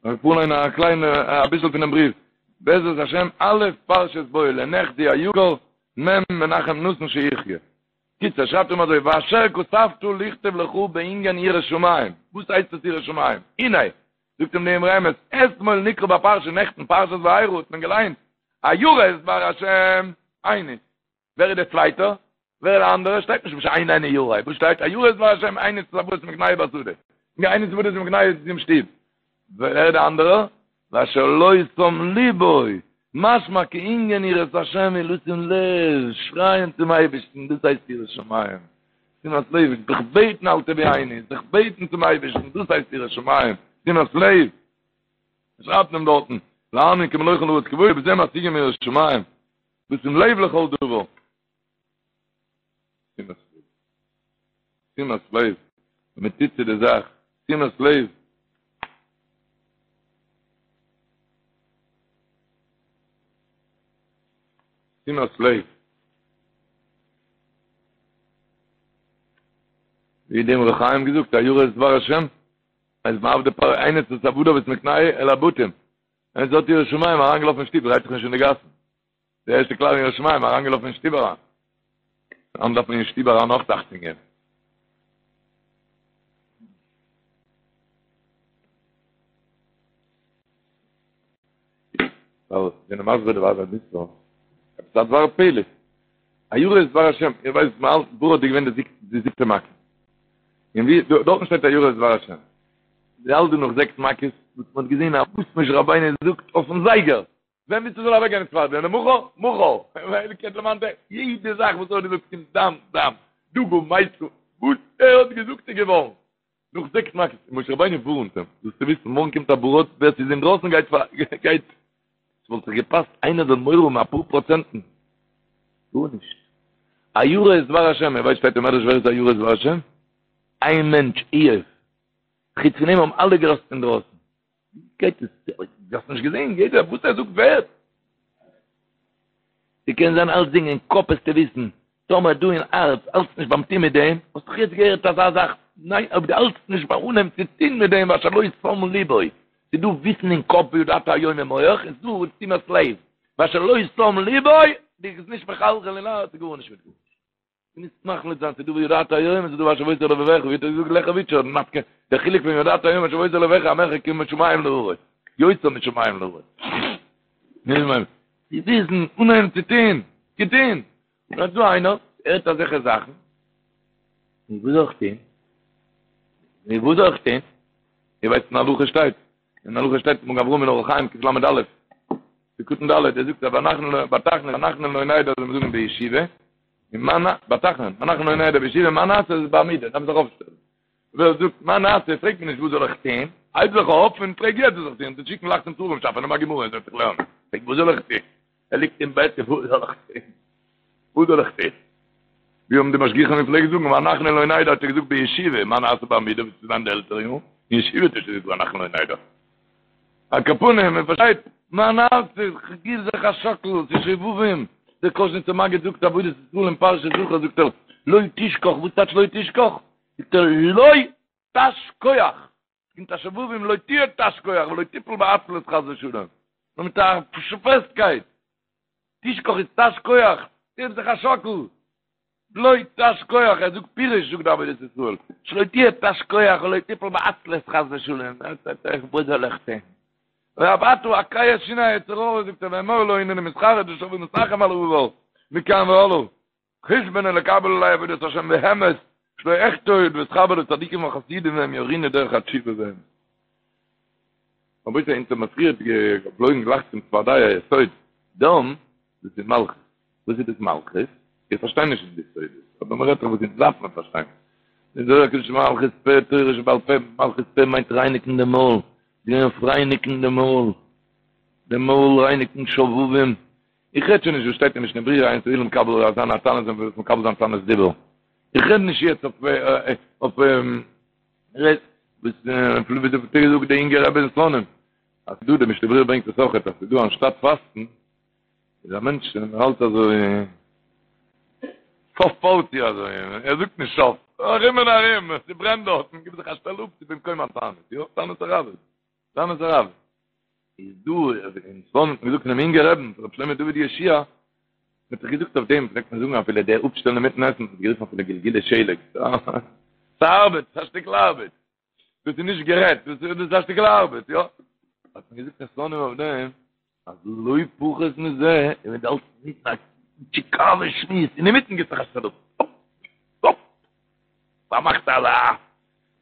איך פארליין א קליינע אביסל פונעם בריוו, בעזרת השם א' פרשת בא לנכדי היקר מ' מנחם נתן שיחיה. קיצור, שרייבט אים אזוי, ואשר כתבת לכתוב לך בענין יראת שמים, וואס הייסט עס יראת שמים? הנה, זאגט אים די אמרי אמת, אתמול נקרא בפרשה, נעכטן פרשת וארא האט מען געליינט, הירא את דבר השם, איינס, ווער איז דער צווייטער? ווער איז דער אנדערער? שטייט נישט ושאיננו ירא, וואס שטייט? הירא את דבר השם, איינס איז עבודת מקנהו בשדה, איינס עבודת מקנהו אין שטוב, ווער איז דער אנדערער? ואשר לא שם לבו, משמע כי ענין יראת השם הוא לשים לב, שרייען צום אייבערשטן, דאס הייסט יראת שמים, שימת לב, זיך בעטן אל תביאני, זיך בעטן צום אייבערשטן, דאס הייסט יראת שמים, שימת לב, שרייבט מען דארטן, להאמין כי מלא כל הארץ כבודו, בזה משיגים יראת שמים, לשים לב לכל דבר. שימת לב. שימת לב. ווען מען טוט צו די זאך, שימת לב. שימת לב. ווי דער אמרי חיים געזאגט, הירא את דבר השם, אז מעבדי פרעה הניס את עבדיו ואת מקנהו אל הבתים. ווער ס'האט יראת שמים אריינגעלאפן אין שטוב, דרייט זיך נישט אין די גאסן. די ערשטע כלל אין יראת שמים, אריינגעלאפן אין שטוב אריין. היינט דארף מען אין שטוב אריין אויך אכטונג געבן. ווייל זענען מסביר די ווייבער ביסט דא. עפעס א דבר פלא. הירא את דבר השם, איר ווייסט מען האלט ברד איז געווען די זיבטע מכה. און ווי דארטן שטייט הירא את דבר השם. מ'האלט דא נאך זעקס מכות, וואס מען האט געזען אז וואס משה רבינו זאגט אויפן זייגער. ווען ווילסטו זאל אוועקגיין די צפרדע? למחר? מחר! יעדע זאך וואס ער האט געזאגט קומט דם, דם, דגה מתה, וואס ער האט געזאגט איז געווארן. נאך זעקס מכות, משה רבינו ווארנט אים, זאלסטו וויסן, מארגן קומט א ברד, ווער ס'איז אינדרויסן גייט פאר, גייט. ס'וואלט זיך געפאסט איינער זאל מורא האבן אפאר פראצענטן. גארנישט. הירא את דבר השם, איר ווייסט שטייט אין מדרש ווער איז הירא את דבר השם? איין מענטש, איוב. חוץ פון אים האבן אלע געלאזט אינדרויסן. גייט עס? דו האסט נישט געזען? יעדער וואס ער זאגט ווערט. ס'קען זיין אלצדינג אין קאפ וועסטו וויסן, טאמער דא אין הארץ האלטסט נישט ביים טון מיט דעם, האסט דאך יעצט געהערט אזא זאך, ניין אויב דו האלטסט נישט ביים אנהייבן צו טון מיט דעם ואשר לא שם ליבו, ס'איז דא וויסן אין קאפ וידעת היום אין מח, און ס'איז דא תשומת לב, ואשר לא שם ליבו, דו ביסט נישט מחלחל אין הארץ, גארנישט מיט גארנישט. דו מוזט מחליט זיין ס'איז דא וידעת היום און ס'איז דא והשבות אל לבבך, ווי האט ער געזאגט לעכעוויטשער נפקא, דער חילוק פון וידעת היום והשבות אל לבבך המרחק משמים לארץ, יותר משמים לארץ. צו וויסן, אנהייבן צו טון, צו טון. און אט דא איינער, הערט אזעלכע זאכן, נו וואס זאל איך טון? נו וואס זאל איך טון? איר ווייסט אין הלכה שטייט, אין הלכה שטייט מגן אברהם אין אורח חיים קל"א, סעיף קטן ד', ער זאגט אז ואנחנו ביי תחנון ואנחנו לא נדע זאל מען זאגן בישיבה, און מה נ, ביי תחנון, ואנחנו לא נדע בישיבה, מה נעשה איז בעמידה, דארף מען זיך אויפשטעלן. ווער זאגט מה נעשה, פרעגט מען נישט וואס זאל איך טון, הייב זיך אויף און פרעג יעצט וואס זאל איך טון, זיי שיקן לייכט צום ספרים שאפע, נעם א גמרא און זעץ זיך לערנען, פרעג וואס זאל איך טון, ער ליגט אין בעט און וואס זאל איך טון, וואס זאל איך טון, ווי האבן די משגיחים געפלעגט זאגן, ואנחנו לא נדע האט ער געזאגט בישיבה, מה נעשה בעמידה, וואס איז זיין די עלטערע יארן, אין ישיבה האט ער שוין געזאגט ואנחנו לא נדע. על כל פנים, מען פארשטייט, מה נעשה, כ'גיב זיך א שאקל, ס'איז שובבים, דער קאזשניצער מגיד זאגט עבודת ישראל אין פרשת זכור זאגט ער, לא תשכח, וואס טייטש לא תשכח? זאגט ער לא תש כח, קומט א שובבים לא תהיה תש כח ולא תיפול בעצלות חס ושלום, נאר מיט א פעסטקייט, תשכח איז תש כח, געב זיך א שאקל, לא תש כח, ער זאגט פירוש זאגט די עבודת ישראל, שלא תהיה תש כח ולא תיפול בעצלות חס ושלום, וואס זאל איך טון? ואף אתה הקהה שיני היצר הרע זאגט ער ואמור לו הנני מתחרט ושב ומתנחם על העבר מכאן והלאה. חשבון ולקבל עלי עבודת השם באמת, שלא אחטא עוד ואתחבר לצדיקים וחסידים והם יורוני דרך התשובה באמת. רבותי אונז האבן פריער געפלויגן גלייך צום צפרדע יסוד, דם, דאס איז מלכות. וואס איז דאס מלכות? איך פארשטיי נישט אין די סודות, אבער מען רעדט דאך וואס אונז דארף מען פארשטיין. די זוהר הקדוש מלכות פה תורה שבעל פה, מלכות פה מיינט רייניגן די מויל, גיין אויף רייניגן די מויל, די מויל רייניגן שובבים, איך רעד שוין נישט וואס שטייט אין משנה ברורה אין ס'וויל מקבל זיין א תענית און מקבל זיין תענית דיבור. איך רעד נישט יעצט אויף אויף רעד וואס ווי האט געזאגט די אינגע רבי אין סלאנים אז דא די משנה ברורה ברענגט עס אויכעט אז ס'דא אנשטאט פאסטן איז א מענטש און ער האלט אזוי סוף פארטי אזוי ער זאגט נישט סוף ארום און ארום ס'ברענט דארטן גיב זיך א שטעל אפ ס'איז במקום התענית יא תענית הראב"ד תענית הראב"ד איז דא אין סלאנים האט מען געזאגט פונעם אינגע רעבן רבי שלמה דוד יהושע מ'האט זיך געזאגט אויף דעם פלעגט מען זאגן אפילו דער אפשטעלן אינמיטן עסן האט מען גערופן אפילו גלגולי שלג ס'ארבעט ס'איז א שטיקל ארבעט דאס איז נישט גערעדט דאס איז א שטיקל ארבעט יא האט מען געזאגט אין סלאנים אויף דעם אז לא פחות מזה און ווען דו האלטסט אינמיטן א טשיקאווע שמועס אינמיטן גיבט זיך א שטעל אפ אפ פארמאכט אלע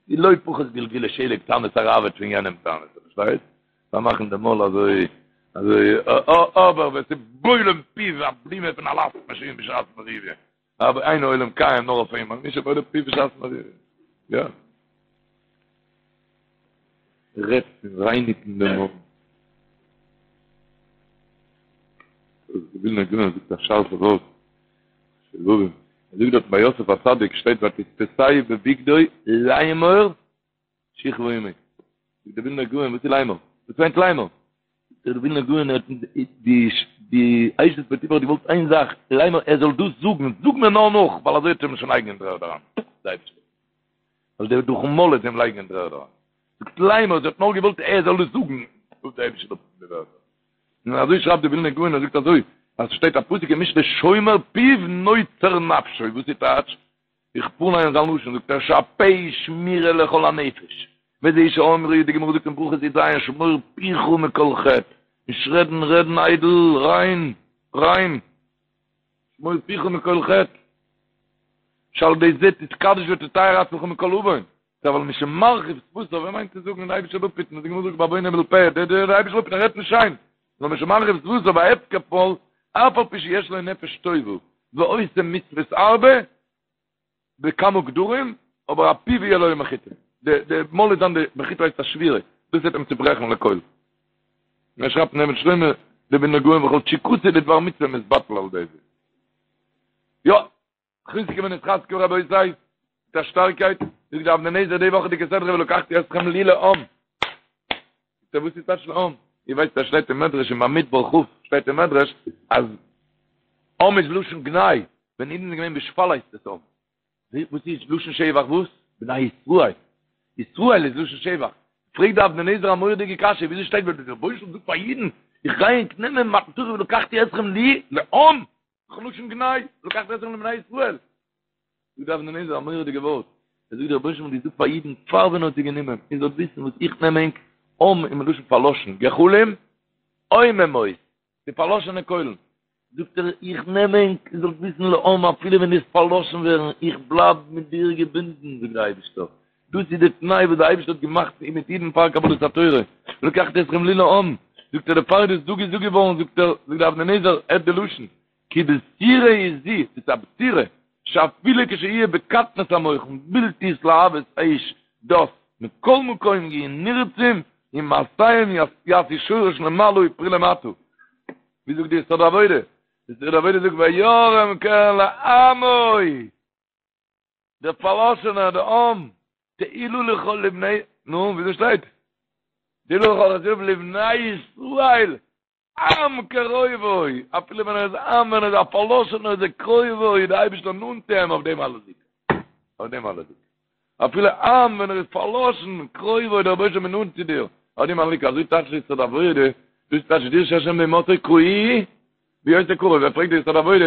די לא פחות גלגולי שלג תענית הראב"ד פון יענעם תענית, פארשטייסט? פארמאכן די מויל אזוי אזוי אבער ווער ס'בולם פיו א בלימה פון א לאסט מאשין בשעת מריבה, אבער אין העולם קיים נאר אויף אים, מי שבולם פיו בשעת מריבה. יא. רעדט פון רייניגן די מויל. דער ווילנער גאון זאגט א שארפע ווארט. ער זאגט דארט ביי יוסף הצדיק שטייט ותתפשהו בבגדו לאמור שכבה עמי. זאגט דער ווילנער גאון וואס איז לאמור? וואס מיינט לאמור? זאגט דער ווילנער גאון האט די די אשת פוטיפר האט געוואלט איין זאך לאמור ער זאל דאס זאגן זאג מיר נאר נאך ווייל אזוי וועט ער אים שוין לייגן אין דר'ערד אריין. ווייל דער דורכן מויל וועט אים לייגן אין דר'ערד אריין. זאגט לאמור זי האט נאר געוואלט ער זאל עס זאגן, זאגט דער אייבישטער אפ די ווערטער. און אזוי שרייבט די ווילנער גאון, ער זאגט אזוי, אז ס'שטייט א פסוק אין משלי שומר פיו נוצר נפשו, וואס איז טייטש? איך פארליין זיין לשון, זאגט ער שהפה שמירה לכל הנפש, וזה שאמרו, די גמרא זאגט אין ברכות י"ז שמור פיך מכל חטא, נישט רעדן, רעדן איידל, ריין, ריין. שמור פיך מכל חטא, שעל ידי זה תתקדש ותטהר עצמך מכל עוון, אבל מי שמרחיב שפתיו, ער מיינט צו זאגן די אייבישטער זאל אפהיטן, די גמרא זאגט בעוון הבל פה, די די אייבישטער זאל אפהיטן, ער רעדט נישט שיין, נאר מי שמרחיב שפתיו וההפקר פועל, אף על פי שיש לו נפש טובה, ועושה מצוות הרבה, בכמה גדרים, אבער הפיו יהיה לו מחיצה. די די מויל איז דאן די מחיצה הייסט א שבירה, דאס וועט אים צוברעכן לכל. און ער שרייבט אין אבן שלמה, דער ווילנער גאון וכל תשוקתו לדבר מצוה מתבטל על ידי זה. יא, חזקו ונתחזקה רבותי, מיט א שטארקייט, זאגט די אבני נזר די וואכעדיגע סדרה ולקחתי אתכם לי לעם. זאגט ער וואס איז טייטש לעם? איר ווייסט אז שטייט אין מדרש אין במדבר כ' שטייט אין מדרש אז עם איז לשון גנאי, ווען אידן זענען געווען בשפל הייסט עס עם. וואס איז לשון שבח וואס? בני ישראל. ישראל איז לשון שבח. פרעגט די אבני נזר א מורא'דיגע קשיא, וויאזוי שטייט ווען דער רבונו של עולם זאגט פאר אידן, איך גיי ענק נעמען מתן תורה ולקחתי אתכם לי לעם, דאך לשון גנאי, ולקחתי אתכם לבני ישראל. זאגט די אבני נזר א מורא'דיגע ווארט, ער זאגט דער רבונו של עולם האט געזאגט פאר אידן פאר ווען ער האט זיי גענומען, איר זאלט וויסן וואס איך נעם ענק, עם איז מלשון פארלאשן, גחלים, עוממות, די פארלאשענע קוילן, זאגט ער, איך נעם ענק, איר זאלט וויסן לעם, אפילו ווען דו וועסט פארלאשן ווערן, איך בלייב מיט דיר געבינדן, זאגט דער אייבערשטער, דאס איז די תנאי וואס דער אייבערשטער האט געמאכט מיט אידן פאר קבלת התורה, ולקחתי אתכם לי לעם, זאגט ער, דערפאר איז דאס דא געזאגט געווארן, זאגט ער, זאגט דער אבני נזר, הערט די לשון, כי בשורה היא זו, דאס איז א בשורה, שאפילו כשיהיה בקטנות המוחין, בלתי התלהבות אש דת, מכל מקום יהיו נרצים ומעשיהם יעשו שורש למעלה ופרי למטה. ווי זאגט די יסוד העבודה? די יסוד העבודה זאגט וירם קרן לעמו, דער פארלאשענער, דער עם, תהילה לכל לבני, נו, וויאזוי שטייט? תהילה לכל חסידיו לבני ישראל, עם קרובו, אפילו ווען ער איז עם, ווען ער איז א פארלאשענער איז ער קרובו, איז דער אייבערשטער נאנט צו אים אויף דעם הללוקה. אויף דעם הללוקה. אפילו עם ווען ער איז פארלאשן, קרובו, דער רבונו של עולם איז נאנט צו דיר, אויף דעם הללוקה. אזוי טייטשט די יסוד העבודה, דאס טייטשט דרשו השם בהמצאו קראוהו בהיותו קרוב, ווער פרעגט די יסוד העבודה,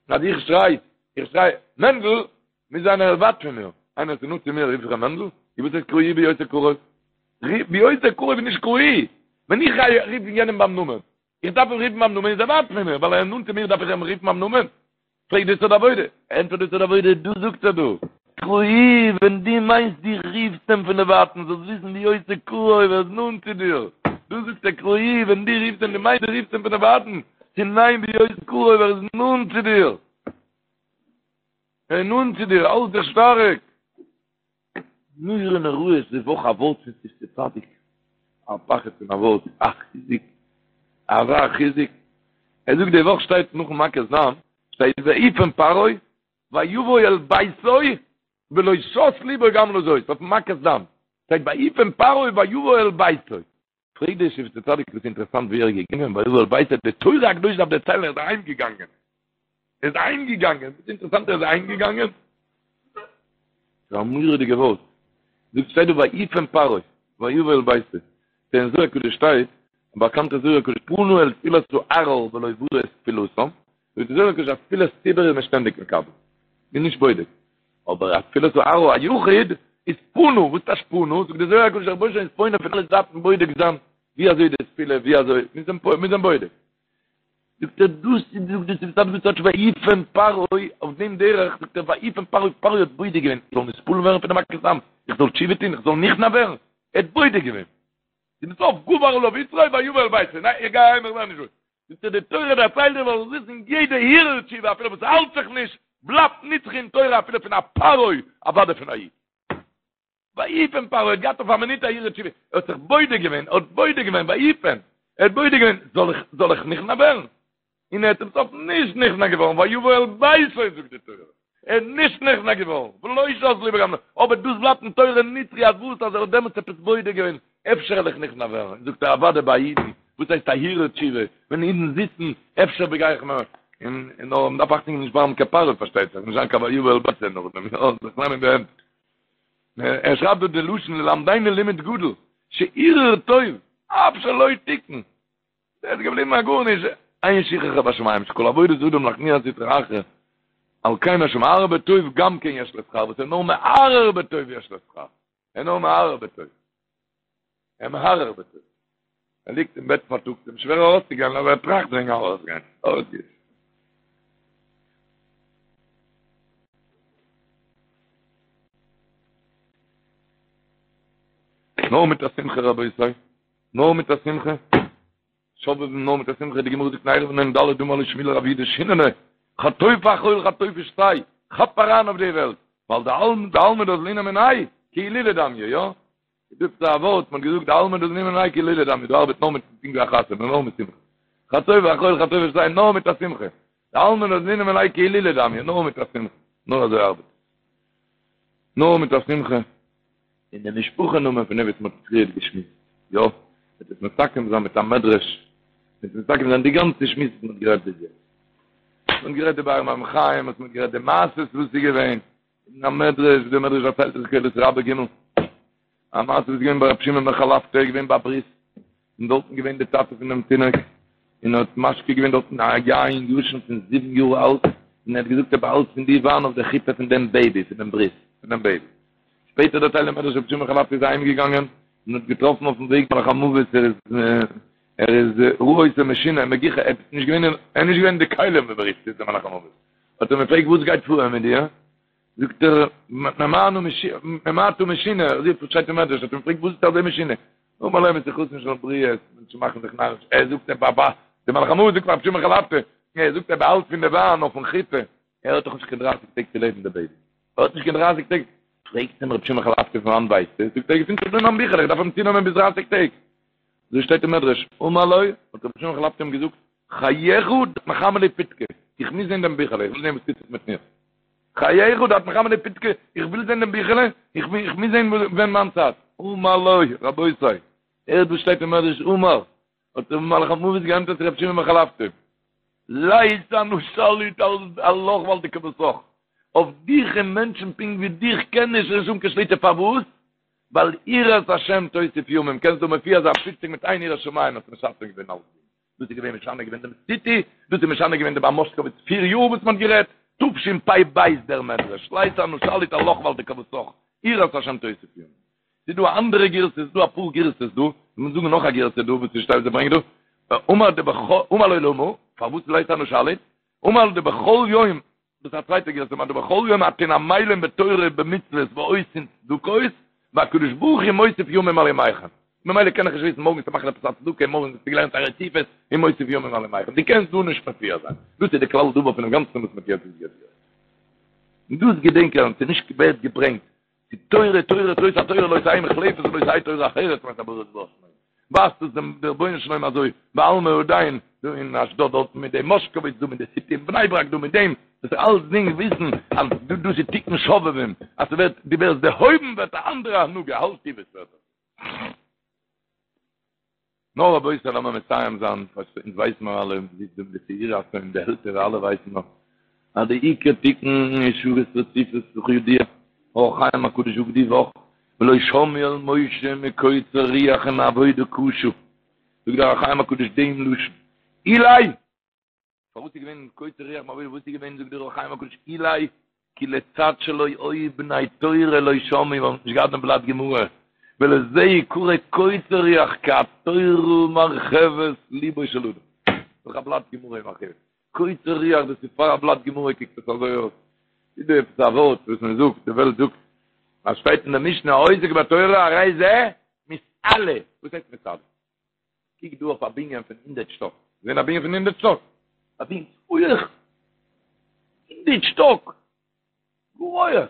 אז איך שריי, איך שריי, מענדל, מוז זיין ער איז ווייט פון מיר, איינער איז נאנט צו מיר רוף איך אים מענדל, און וואס הייסט קראוהו בהיותו קרוב? בהיותו קרוב איז נישט קראוהו, ווען איך גיי רופן יענעם ביים נאמען, איך דארף אים רופן ביים נאמען איז ער ווייט פון מיר, ווייל ער איז נאנט צו מיר דארף איך אים רופן ביים נאמען? פרעגט די יסוד העבודה, ענטפערט די יסוד העבודה, דאס זאגט ער דא, קראוהו, ווען דו מיינסט דו רופסט אים פון דערווייטנס, זאלסט וויסן בהיותו קרוב, ער איז נאנט צו דיר, דאס זאגט ער קראוהו, ווען דו רופסט אים דו מיינסט דו רופסט אים פון דערווייטנס, צו ניין בהיותו קרוב, ער איז נאנט צו דיר. ער איז נאנט צו דיר, האלט דיך שטארק. נורא נוראות די וואך א ווארט פון שפתי צדיק, א פחד פון א ווארט, א חיזוק, אזא חיזוק. ער זאגט די וואך שטייט נאכן מכת דם, שטייט ויפן פרעה ויבוא אל ביתו ולא שת לבו גם לזאת, אויפן מכת דם, שטייט ויפן פרעה ויבוא אל ביתו. פרעגט דער שפתי צדיק וואס אינטערעסאנט ווי ער איז געגאנגען ויבוא אל ביתו, די תורה הקדושה דארף דערציילן ער איז אהיים געגאנגען, ער איז אהיים געגאנגען, וואס אינטערעסאנט ער איז אהיים געגאנגען? ס'איז א מורא'דיגע ווארט, זאגט שטייט דא ויפן פרעה ויבוא אל ביתו, אין זוהר הקדוש שטייט, א באקאנטע זוהר הקדוש פנה אל תפילת הערער ולא ברא את תפילתם, זאגט די זוהר הקדוש אז תפילת ציבור איז מען שטענדיג מקבל, מ'איז נישט בודק, אבער א תפילת הערער א יחיד איז פנה, וואס טייטש פנה? זאגט די זוהר הקדוש דער רבונו של עולם איז פונה פון אלע זייטן בודק זיין ווי אזוי די תפילה ווי אזוי, מיר זענען בודק. זאגט ער דאס איז זאגט די שפתי צדיק טייטש ויפן פרעה אויף דעם דרך זאגט ער ויפן פרעה פרעה האט בודק געווען איך זאל נתפעל ווערן פון די מכת דם איך זאל תשובה טון איך זאל נכנע ווערן ער האט בודק געווען צום סוף גבר עליו יצרו ויבא אל ביתו ניין איך גיי אהיים איך ווער נישט רואיג זאגט ער די תורה דערציילט דיר זאלסט וויסן יעדע הרהור תשובה אפילו וואס האלט זיך נישט בלייבט נצחי אין תורה אפילו פון א פרעה אוודאי פון א איד ויפן פרעה האט געהאט אויף א מינוט א הרהור תשובה ער האט זיך בודק געווען ער האט בודק געווען ויפן ער האט בודק געווען זאל איך זאל איך נכנע ווערן און ער איז צום סוף נישט נכנע געווארן, ויבא אל ביתו זאגט די תורה, ער איז נישט נכנע געווארן, ולא שת לבו גם, אבער דאס בלייבט אין תורה נצחי אז וואס אז ער האט דעמאלטס עפעס בודק געווען, אפשר וועל איך נכנע ווערן, זאגט ער אוודאי ביי אידן, וואס הייסט א הרהור תשובה, ווען אידן זיצן, אפשר בגיי איך מיר, און נאר מען דארף אכטונג געבן נישט ווערן קיין פרעה פארשטייט זיך, נישט זיין קיין ויבא אל ביתו נאכדעם, יא, זיך נעמען אין די הענט. ער שרייבט דא די לשון ללמדנו לימוד גדול, שהרהור טוב, אף שלא תיקן, ער איז געבליבן א גארנישט, אין שכחה בשמים שכל עבודת אדם להכניע סטרא אחרא, על כן השמהרהר בטוב גם כן יש לו שכר, וואס איז נאר מהרהר בטוב יש לו שכר, ער נאר מהרהר בטוב, ער מהרהר בטוב, ער ליגט אין בעט פארטאגס, אים שווער ארויסצוגיין, אבער ער טראכט וועגן ארויסגיין, ארויסגיין. נאר מיט א שמחה רבותי. נאר מיט א שמחה, שובבים נאר מיט א שמחה, די גמרא זאגט אין עירובין נ"ד אמר ליה שמואל לרב יהודה שיננא, חטוף אכול חטוף ושתה, כאפ אריין אויף די וועלט, ווייל דעלמא דאזלינן מיניה, כהילולא דמיא, יא? דאס איז א ווארט, מ'האט געזאגט דעלמא דאזלינן מיניה כהילולא דמיא, דא ארבעט נאר מיט פונקט ווי א חתונה, נאר מיט שמחה. חטוף אכול חטוף ושתה, נאר מיט א שמחה. דעלמא דאזלינן מיניה כהילולא דמיא, נאר מיט א שמחה. נאר אזוי ארבעט עס. נאר מיט א שמחה. און די משפחה נאמען פון דעם וואס מ'האט פריערט געשמועסט, יא? וועט עס מסכם זיין מיט א מדרש, וועט מסכם זיין די גאנצע שמועס וואס מען האט גערעדט ביז יעצט. מען האט גערעדט די באר מים חיים, מען האט גערעדט די מעשות וואס איז געווען, אין א מדרש, די מדרש דערציילט אין קהלת רבה ג', א מעשה וואס איז געווען ביי רבי שמעון בן חלפתא, איז געווען ביי א ברית, און דארטן געווען די טאטע פון דעם תינוק, און האט משקה געווען דארטן א יין ישן פון זיבן יאר אלט, און ער האט געזאגט ער באהאלט פון די וויין אויף די חופה פון דעם בעיבי, פון דעם ברית, פון דעם בעיבי. שפעטער דערציילט דער מדרש רבי שמעון בן חלפתא איז אהיים געגאנגען, און האט געטראפן אויפן וועג מלאך המוות, ער איז ער איז ראה אותו משונה מגוחך, ער איז נישט געווען ער איז נישט געווען אין די כלים ווי מ'רופט עס דער מלאך המוות, האט ער אים געפרעגט וואס גייט פאר מיט דיר? זאגט ער, מפני מה אתה משונה, אזוי שטייט אין מדרש, האט אים געפרעגט וואס איז אזוי משונה? אמר לו משיחתן של בריות, מענטשן מאכן זיך נאריש, ער זאגט ער באבא, דער מלאך המוות זאגט פאר רבי שמעון חלפתא, ער זאגט ער באהאלט פון די וויין אויפן חופה, ער האט דאך נישט קיין דרייסיג טעג צו לעבן דער בעיבי, ער האט נישט קיין דרייסיג טעג, פרעגט אים רבי שמעון חלפתא פון וואנט ווייסטו? זאגט ער געפינט זיך דא אין מיין ביכל, איך דארף אים צונעמען ביז דרייסיג טעג. אזוי שטייט אין מדרש, אמר לו, האט רבי שמעון חלפתא אים געזאגט, חייך דאת מחמי לי פיתקא, איך מוז זען דעם ביכעלע, איך וויל זען וואס טוט זיך מיט מיר. חייך דאת מחמי לי פיתקא, איך וויל זען דעם ביכעלע, איך מוז זען ווען מיין צייט. אמר לו, רבותי, הערט וואס שטייט אין מדרש, אמר, האט דער מלאך המוות געענטפערט צו רבי שמעון בן חלפתא, לית אנא שליט עלך ועל דכוותך, אויף דיך און מענטשן פונקט ווי דיך קען נישט נישט האבן קיין שליטה, פארוואס? ווייל יראת השם תוסיף ימים, קענסט דא מופיע זיין פופציג מיט איין יראת שמים האסטו משנה געווען אלסדינג, דאס איז געווען משנה געווען דעם סיטי, דאס איז משנה געווען דעם מאשקאוויץ פיר יאר וואס מען האט גערעדט, תשפ"ב דער מדרש, לית אנא שליט עלך ועל דכוותך, יראת השם תוסיף ימים. ס'איז דא א אנדערע גירסא, ס'איז דא אפאר גירסאות דא, מיר זאגן נאך א גירסא דא וואס ס'שטייט וואס ער ברענגט דא, אמר דבכל, אמר לו למה, פארוואס לית אנא שליט, אמר דבכל יום דאס איז א צווייטע גירסא, אמר דבכל יום אתון עמלים בתורה ובמצוות ועושין צדקות, והקדוש ברוך הוא מוסיף ימים על ימיכם. ממילא קען איך נישט וויסן מארגן וועסטו מאכן עפעס א צדקה, מארגן האסטו געלערנט א רציפות, און מוסיף ימים על ימיכם. דו קענסט דא נישט מופיע זיין. דאס איז די כלל דבר פונעם גאנצן וואס מ'האט יעצט געזאגט. און דאס געדענקען, ס'איז נישט ווערט געברענגט די תורה, תורה, זאת התורה לא תהא מוחלפת ולא תהא תורה אחרת מאת הבורא יתברך שמו. ווייזט עס דעם רבונו של עולם אזוי, בעלמא הדין, דא אין אשדוד דארטן מיט דעם מאשקאוויץ דא מיט די סיטי אין בני ברק דא מיט דעם, דאס איז אלסדינג וויסן אז דא דאס איז תיקון שובבים, אז ס'ווערט, דו ווערסט דערהויבן ווערט א אנדערע הנהגה, האלט וואס ווערט דאס. נאר רבותי לאמיר מסיים זיין, אונז ווייסן מיר אלע, מ'זיצט דא מיט די צעירי הצאן די עלטערע אלע ווייסן נאך, אז די עיקר תיקון איז שעות רציפות וכידוע, אור החיים הקדוש זאגט די וואך, ולא שמעו אל משה מקוצר רוח ומעבודה קשה, זאגט דער אור החיים הקדוש דעם לשון, אולי פארוואס איז געווען קוצר רוח מעבודה וואס איז געווען זאגט דער אור החיים הקדוש אולי כי לצד שלא היו בני תורה לא שמעו ווייל מ'האט נישט געהאט דעם בלאט גמרא ולזה יקרא קוצר רוח כי התורה מרחבת ליבו של אדם דורך א בלאט גמרא איז מרחיב קוצר רוח דאס איז פאר א בלאט גמרא קוקט עס אזוי אויס איז דא עפעס א ווארט וואס מען זאגט די וועלט זאגט אז שטייט אין די משנה העוסק בתורה הרי זה מתעלה וואס הייסט מתעלה קוק דא אויף א בנין פון הונדערט שטאק, געזען א בנין פון הונדערט שטאק? א בנין הויעך, הונדערט שטאק, גאר הויעך.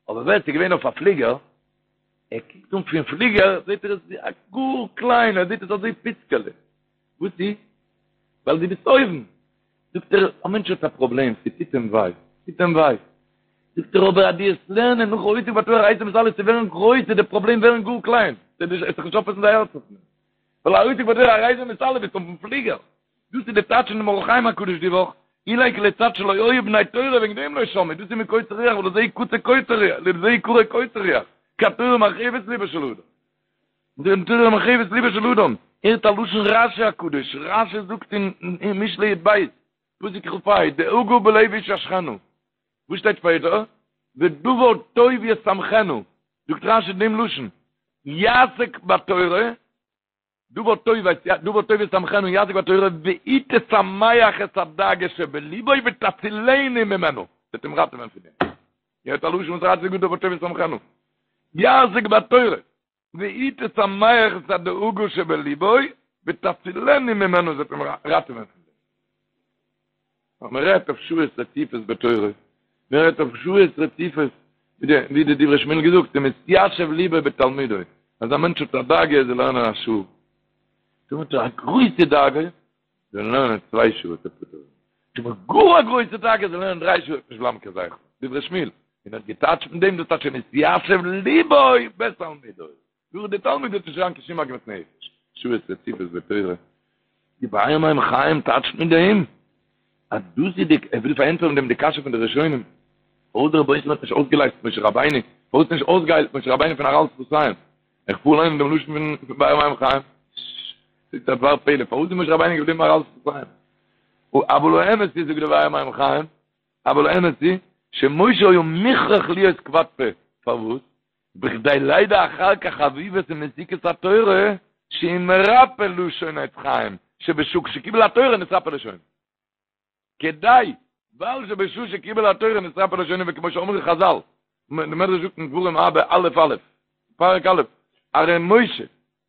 אבער ווער ס'איז געווען אויף א פליגער, ער קוקט אן פון פליגער, זעט ער עס ווי א גאר קליין, ער זעט עס אזוי פיצקעלע. וואס איז? ווייל דו ביסט אויבן. זאגט ער, א מענטש האט א פראבלעם, ס'טוט אים וויי, ס'טוט אים וויי. זאגט ער אבער אז דו וועסט לערנען נאך העוסק בתורה הרי זה מתעלה צו ווערן גרויס וועט די פראבלעם ווערן גאר קליין, וועסט זיך נישט אויפעסן די הארץ אויף דעם. ווייל העוסק בתורה הרי זה מתעלה ביסט אויפן פליגער. דאס איז די טייטש פון דעם אור החיים הקדוש די וואך, אולי כי לצד שלא היו בני תורה וועגן דעם לא שמעו, דאס איז מקוצר רוח ולזה יקצה קוצר רוח, לזה יקרא קוצר רוח, כי התורה מרחיבת ליבו של אדם. די תורה מרחיבת ליבו של אדם, הערט א לשון רשי הקדוש, רשי זאגט אין משלי י"ב, פסוק כ"ה, דאגה בלב איש ישחנה, וואס שטייט שפעטער? ודבר טוב ישמחנה, זאגט רשי דעם לשון, יעסוק בתורה, דבר טוב הייסט דבר טוב ישמחנה יעסוק בתורה, והיא תשמח את הדאגה שבליבו ותצילנו ממנו, וועט אים ראטעווען פון דעם. הערט א לשון וואס רשי זאגט דבר טוב ישמחנה, יעסוק בתורה. והיא תשמח את הדאגה שבליבו ותצילנו ממנו זי וועט אים ראטעווען פון דעם. אז מען רעדט אויף שעות רציפות בתורה, מען רעדט אויף שעות רציפות, ווי די דברי שמואל געזאגט, ומתיישב ליבו בתלמודו, אז א מענטש האט א דאגה ער זאל לערנען א שעה, טאמער האט ער א גרויסע דאגה, זאל ער לערנען צוויי שעה וועט ער פטור ווערן. טאמער גאר א גרויסע דאגה זאל ער לערנען דריי שעה וועט נישט בלייבן קיין זכר. דברי שמואל, און האט געטייטשט מיט דעם דאס טייטש ומתיישב ליבו בתלמודו. דורך די תלמיד וועט נישט זיין קיין שום עגמת נפש. שעות רציפות בתורה. די באר מים חיים טייטשט מיט דעם אז דאס איז די, ער וויל פארענטפערן דעם די קשיא פון די ראשונים, פארוואס דער רבונו של עולם האט נישט אויסגעלייזט משה רבינו, פארוואס נישט אויסגעהיילט משה רבינו פון ערל שפתיים? איך פאר ליינען דעם לשון פון באר מים חיים. ס'איז א דבר פלא, פארוואס איז משה רבינו געבליבן ערל שפתיים? אבל האמת איז, זאגט דער באר מים חיים, אבל האמת היא, שמשה היה מוכרח להיות כבד פה, פארוואס? בכדי לידע אחר כך חביבות ומתיקות התורה, שהיא מרפא לשון עץ חיים, שבשעה שקיבל התורה נתרפא לשונו. כדי, ווייל שבשעה שקיבל התורה נתרפא לשונו וכמו שאמרו חזל, די מדרש זאגט אין דברים אבא א' א', פרק א', הרי משה,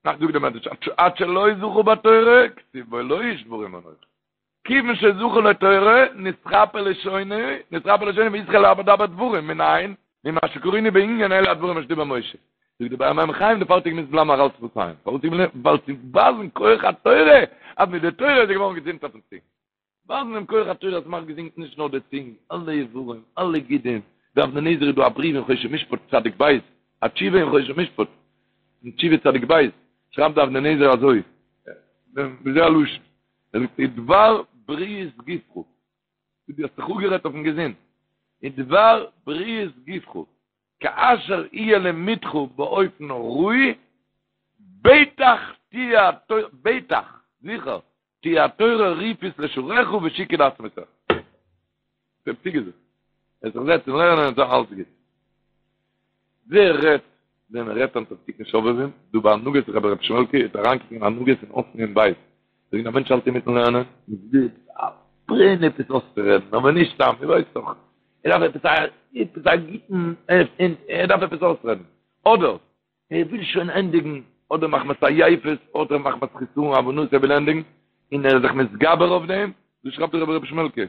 נאך זאגט די מדרש, עד שלא זכה בתורה, כתיב בו לא איש דברים אנכי. כיוון שזכה לתורה, נתרפא לשונו, נתרפא לשונו והתחיל לדבר דברים, מנין? ממה שקראנו בענין אלה הדברים אשר דיבר משה. זאגט די באר מים חיים דערפאר האט ער געמוזט בלייבן ערל שפתיים. פארוואס איז געבליבן? ווייל צו ווייזן כח התורה, אז מיט די תורה איז ער געווארן געזונט אויפן צונג. ווייזן דעם כח התורה אז ס'מאכט געזונט נישט נאר די צונג, אלע איברים, אלע גידים. די אבני נזר איז דא א בריוו אין חושן משפט צדיק ב', א תשובה אין חושן משפט, אין תשובה צדיק ב', שרייבט די אבני נזר אזוי, ווי אזוי א לשון? ער זאגט ודבר בריאות גופך, דו האסט זיך אפגערעדט אויפן געזונט, ודבר בריאות גופך, כאשר יהיה לימודך באופן ראוי, בטח תהיה התורה, בטח, זיכער, תהיה התורה רפאות לשרך ושיקוי לעצמותיך. דער פסוק איז עס. ער זיך זעצן לערנען און זיין אלץ גוט. ווער רעדט ווען מען רעדט היינט אויף תיקון שובבים, דא ביי הנהגות רבי ר' שמעלקע איז אריינקוקן אין הנהגות אין אות נ בית, זאגן א מענטש האלט אינמיטן לערנען, און זיצט א ברען עפעס אויסצורעדן, אבער נישט סתם, איר ווייסט דאך, ער דארף עפעס א עפעס א גוטן, ער דארף עפעס אויסרעדן, אדער ער וויל שוין ענדיגן, אדער מחמת עייפות, אדער מחמת חסרון הבנות ער וויל ענדיגן, און ער איז זיך מתגבר אויף דעם, דאס שרייבט דער רבי ר' שמעלקע,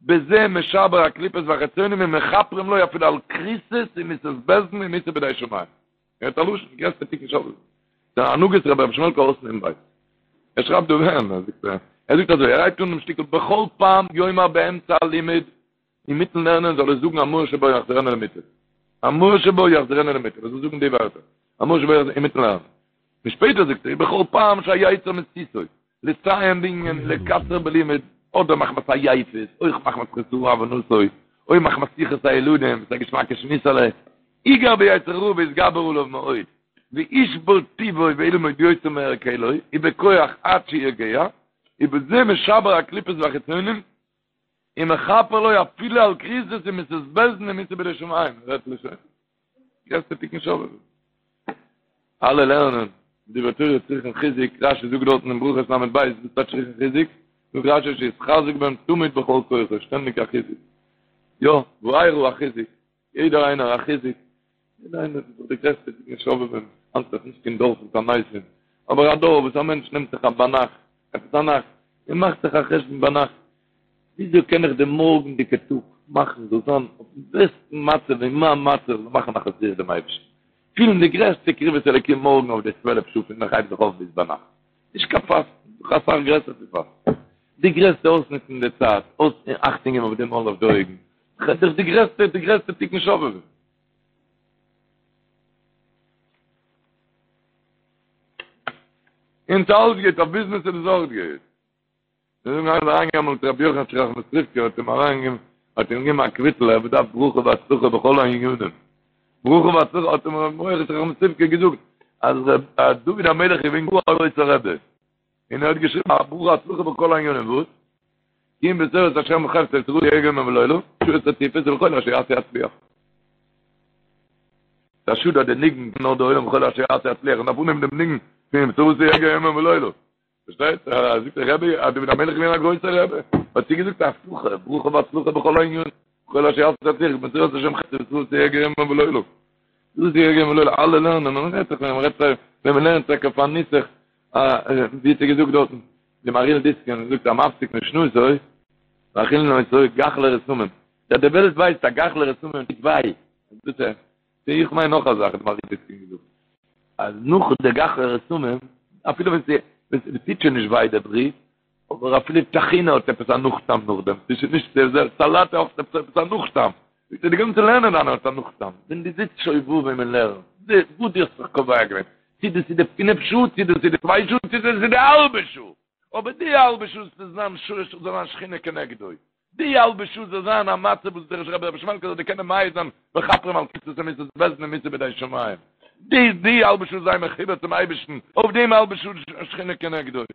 בזה משבר הקליפות והחיצונים ומכפרים לו אפילו על כריתות ומיתות בית דין ומיתה בידי שמים. ער האט א לשון, גרעסטע תיקון שובבים. די הנהגות רבי ר' שמעלקע אות נ בית. ער שרייבט דא ווען, ער זאגט, ער זאגט אזוי, ער הייבט אן דעם שטיקל בכל פעם יאמר באמצע הלימוד, אינמיטן לערנען זאל ער זאגן המאור שבה יחזירנו למוטב. המאור שבה יחזירנו למוטב. ער זאל זאגן די ווערטער. המאור שבה יחזירנו אינמיטן לערנען. און שפעטער זאגט ער, בכל פעם שהיצר מסיתו, לסיים בענין לקצר בלימוד, אדער מחמת עייפות, אויך מחמת חסרון הבנתו, או מחמת שיחת הילדים, ס'איז א געשמאקע שמועסעלע, יגער ביצר הרע ויתגבר עליו מאוד, וישבור טבעו וילמוד יותר מהרגלו, ובכח עד שיגיע, ובזה משבר הקליפות והחיצונים, ומכפר לו אפילו על כריתות ומיתות בית דין ומיתה בידי שמים, רעדט לשון. גרעסטע תיקון שובבים. אלע לערנען דברי תורה צריכן חיזוק, רשי זאגט דארטן אין ברכות ל' ב', וואס טייטש צריכן חיזוק? זאגט רשי שיתחזק בהם תמיד בכל כוחו, שטענדיג א חיזוק. יא, וארא א חיזוק, יעדער איינער א חיזוק, יעדער איינער איז דאך די גרעסטע תיקון שובבים, היינט איז נישט קיין דור פון תעניתים, אבער א דור וואס א מענטש נעמט זיך א ביינאכט, עפעס א נאכט, און מאכט זיך א חשבון ביינאכט, וויאזוי קען איך די מארגנדיגע טאג מאכן זאל זיין אויפן בעסטן מצב אין מיין מצב זאל מאכן נחת רוח דעם אייבערשטן, פילן די גרעסטע קרבת אלוקים מארגן אויף די צוועלף שעה פון איך הייב זיך אויף ביז ביינאכט, נישט קיין פאסטן, דאך אסאך גרעסער פון פאסטן, די גרעסטע אויסנוצן די צייט, אויס אכטונג געבן אויף די מויל אויף די אויגן, דאך די גרעסטע די גרעסטע תיקון שובבים. און ס'אלץ גוט, אויף ביזנעס איז עס אויך גוט. זיי זאגן איינער איז אריינגעגאנגען צו רבי יוחנטשע ראחמיסטריווקער האט אים אריינגעגעבן האט אים געגעבן א קוויטל ער באדארף ברכה והצלחה בכל הענינים ברכה והצלחה האט אים רבי יוחנטשע ראחמיסטריווקער געזאגט אז דוד המלך איז געווען גאר א גרויסער רבי און ער האט געשריבן א ברכה והצלחה בכל הענינים וואס? כי אם בתורת השם חפצו ובתורתו יהגה יומם ולילה שעות רצופות ובכל אשר יעשה יצליח ס'איז א שאד אז די ניגון נאר די עולם בכל אשר יעשה יצליח און דארף אנהייבן דעם ניגון פון ובתורתו יהגה יומם ולילה פארשטייט? זאגט דער רבי, אז דוד המלך איז געווען א גרויסער רבי, האט צוגעזאגט א הבטחה, ברכה והצלחה בכל הענינים, בכל אשר יעשה יצליח, בתורת השם חפצו ובתורתו יהגה יומם ולילה. בתורתו יהגה יומם ולילה, אלע לערנען, מען רעדט זיך ווען מען רעדט ווען מען לערנט טאקע פאר נוסח, ווי האט ער געזאגט דארטן, די מהרי"ל דיסקין זאגט המפסיק משנתו, מאכילין אותו גחלי רתמים, די וועלט ווייסט אז גחלי רתמים טוט וויי, דאס איז איך מיין נאך א זאך האט מהרי"ל דיסקין געזאגט, אז נאך די גחלי רתמים, אפילו ווען ס'טוט שוין נישט וויי די ברי, אבער אפילו טחינה האט עפעס א נאכטעם נאכדעם, ס'איז שוין נישט די זעלבע, סאלאט האט עפעס א נאכטעם, זאגט ער די גאנצע לערנען דיינע האט א נאכטעם, ווען דו זיצט שובבים און לערנסט, וואס דו האסט זיך קובע געווען, צו דאס איז די פינף שעה, צו דאס איז די צוויי שעה, צו דאס איז די האלבע שעה, אבער די האלבע שעה זאל זיין זאל זיין שכינה כנגדו, די האלבע שעה זאל זיין א מצב וואס דער רבי רבי שמעלקא זאל דיר קענען מעיד זיין מכפרים על כתבי מיתות בית דין ומיתה בידי שמים, די די האלבע שעה זיין מחובר צום אייבערשטן, אויף דעם האלבע שעה שכינה כנגדו. און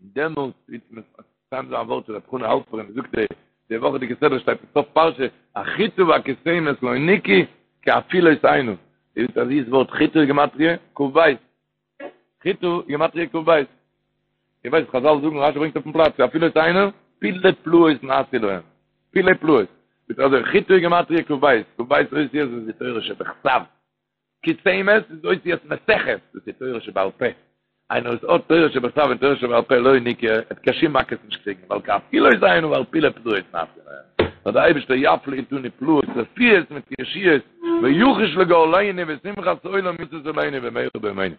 דעמאלטס וועט מען מסיים זיין א ווארט פון ר' חנא האלפערן, זאגט ער, די וואכעדיגע סדרה שטייט אין סוף פרשה, החיטה והכוסמת לא נקהו כי אפילות הנה, איר ווייסט א זיס ווארט חיטה איז גימטריא כ"ב, חיטה גימטריא כ"ב. איר ווייסט חזל זאגן רשי ברענגט אויפן פלאץ אפילות הנה פלאי פלאות נעשו להם. פלאי פלאות. ביז אזוי חיטה גימטריא כ"ב, כ"ב אותיות איז די תורה שבכתב. כוסמת איז אותיות מסכת, דאס איז תורה שבעל פה. איינער וואס האט תורה שבכתב און תורה שבעל פה לא נקהו, ער וועט קיין שום מכות נישט קריגן, ווייל כי אפילות הנה ווייל פלאי פלאות נעשו להם. נאר דער אייבערשטער יפליא אתנו פלאות רפואות מיט ישועות, ויחוש לגאלנו ושמחת עולם ישיש עלינו במהרה בימינו.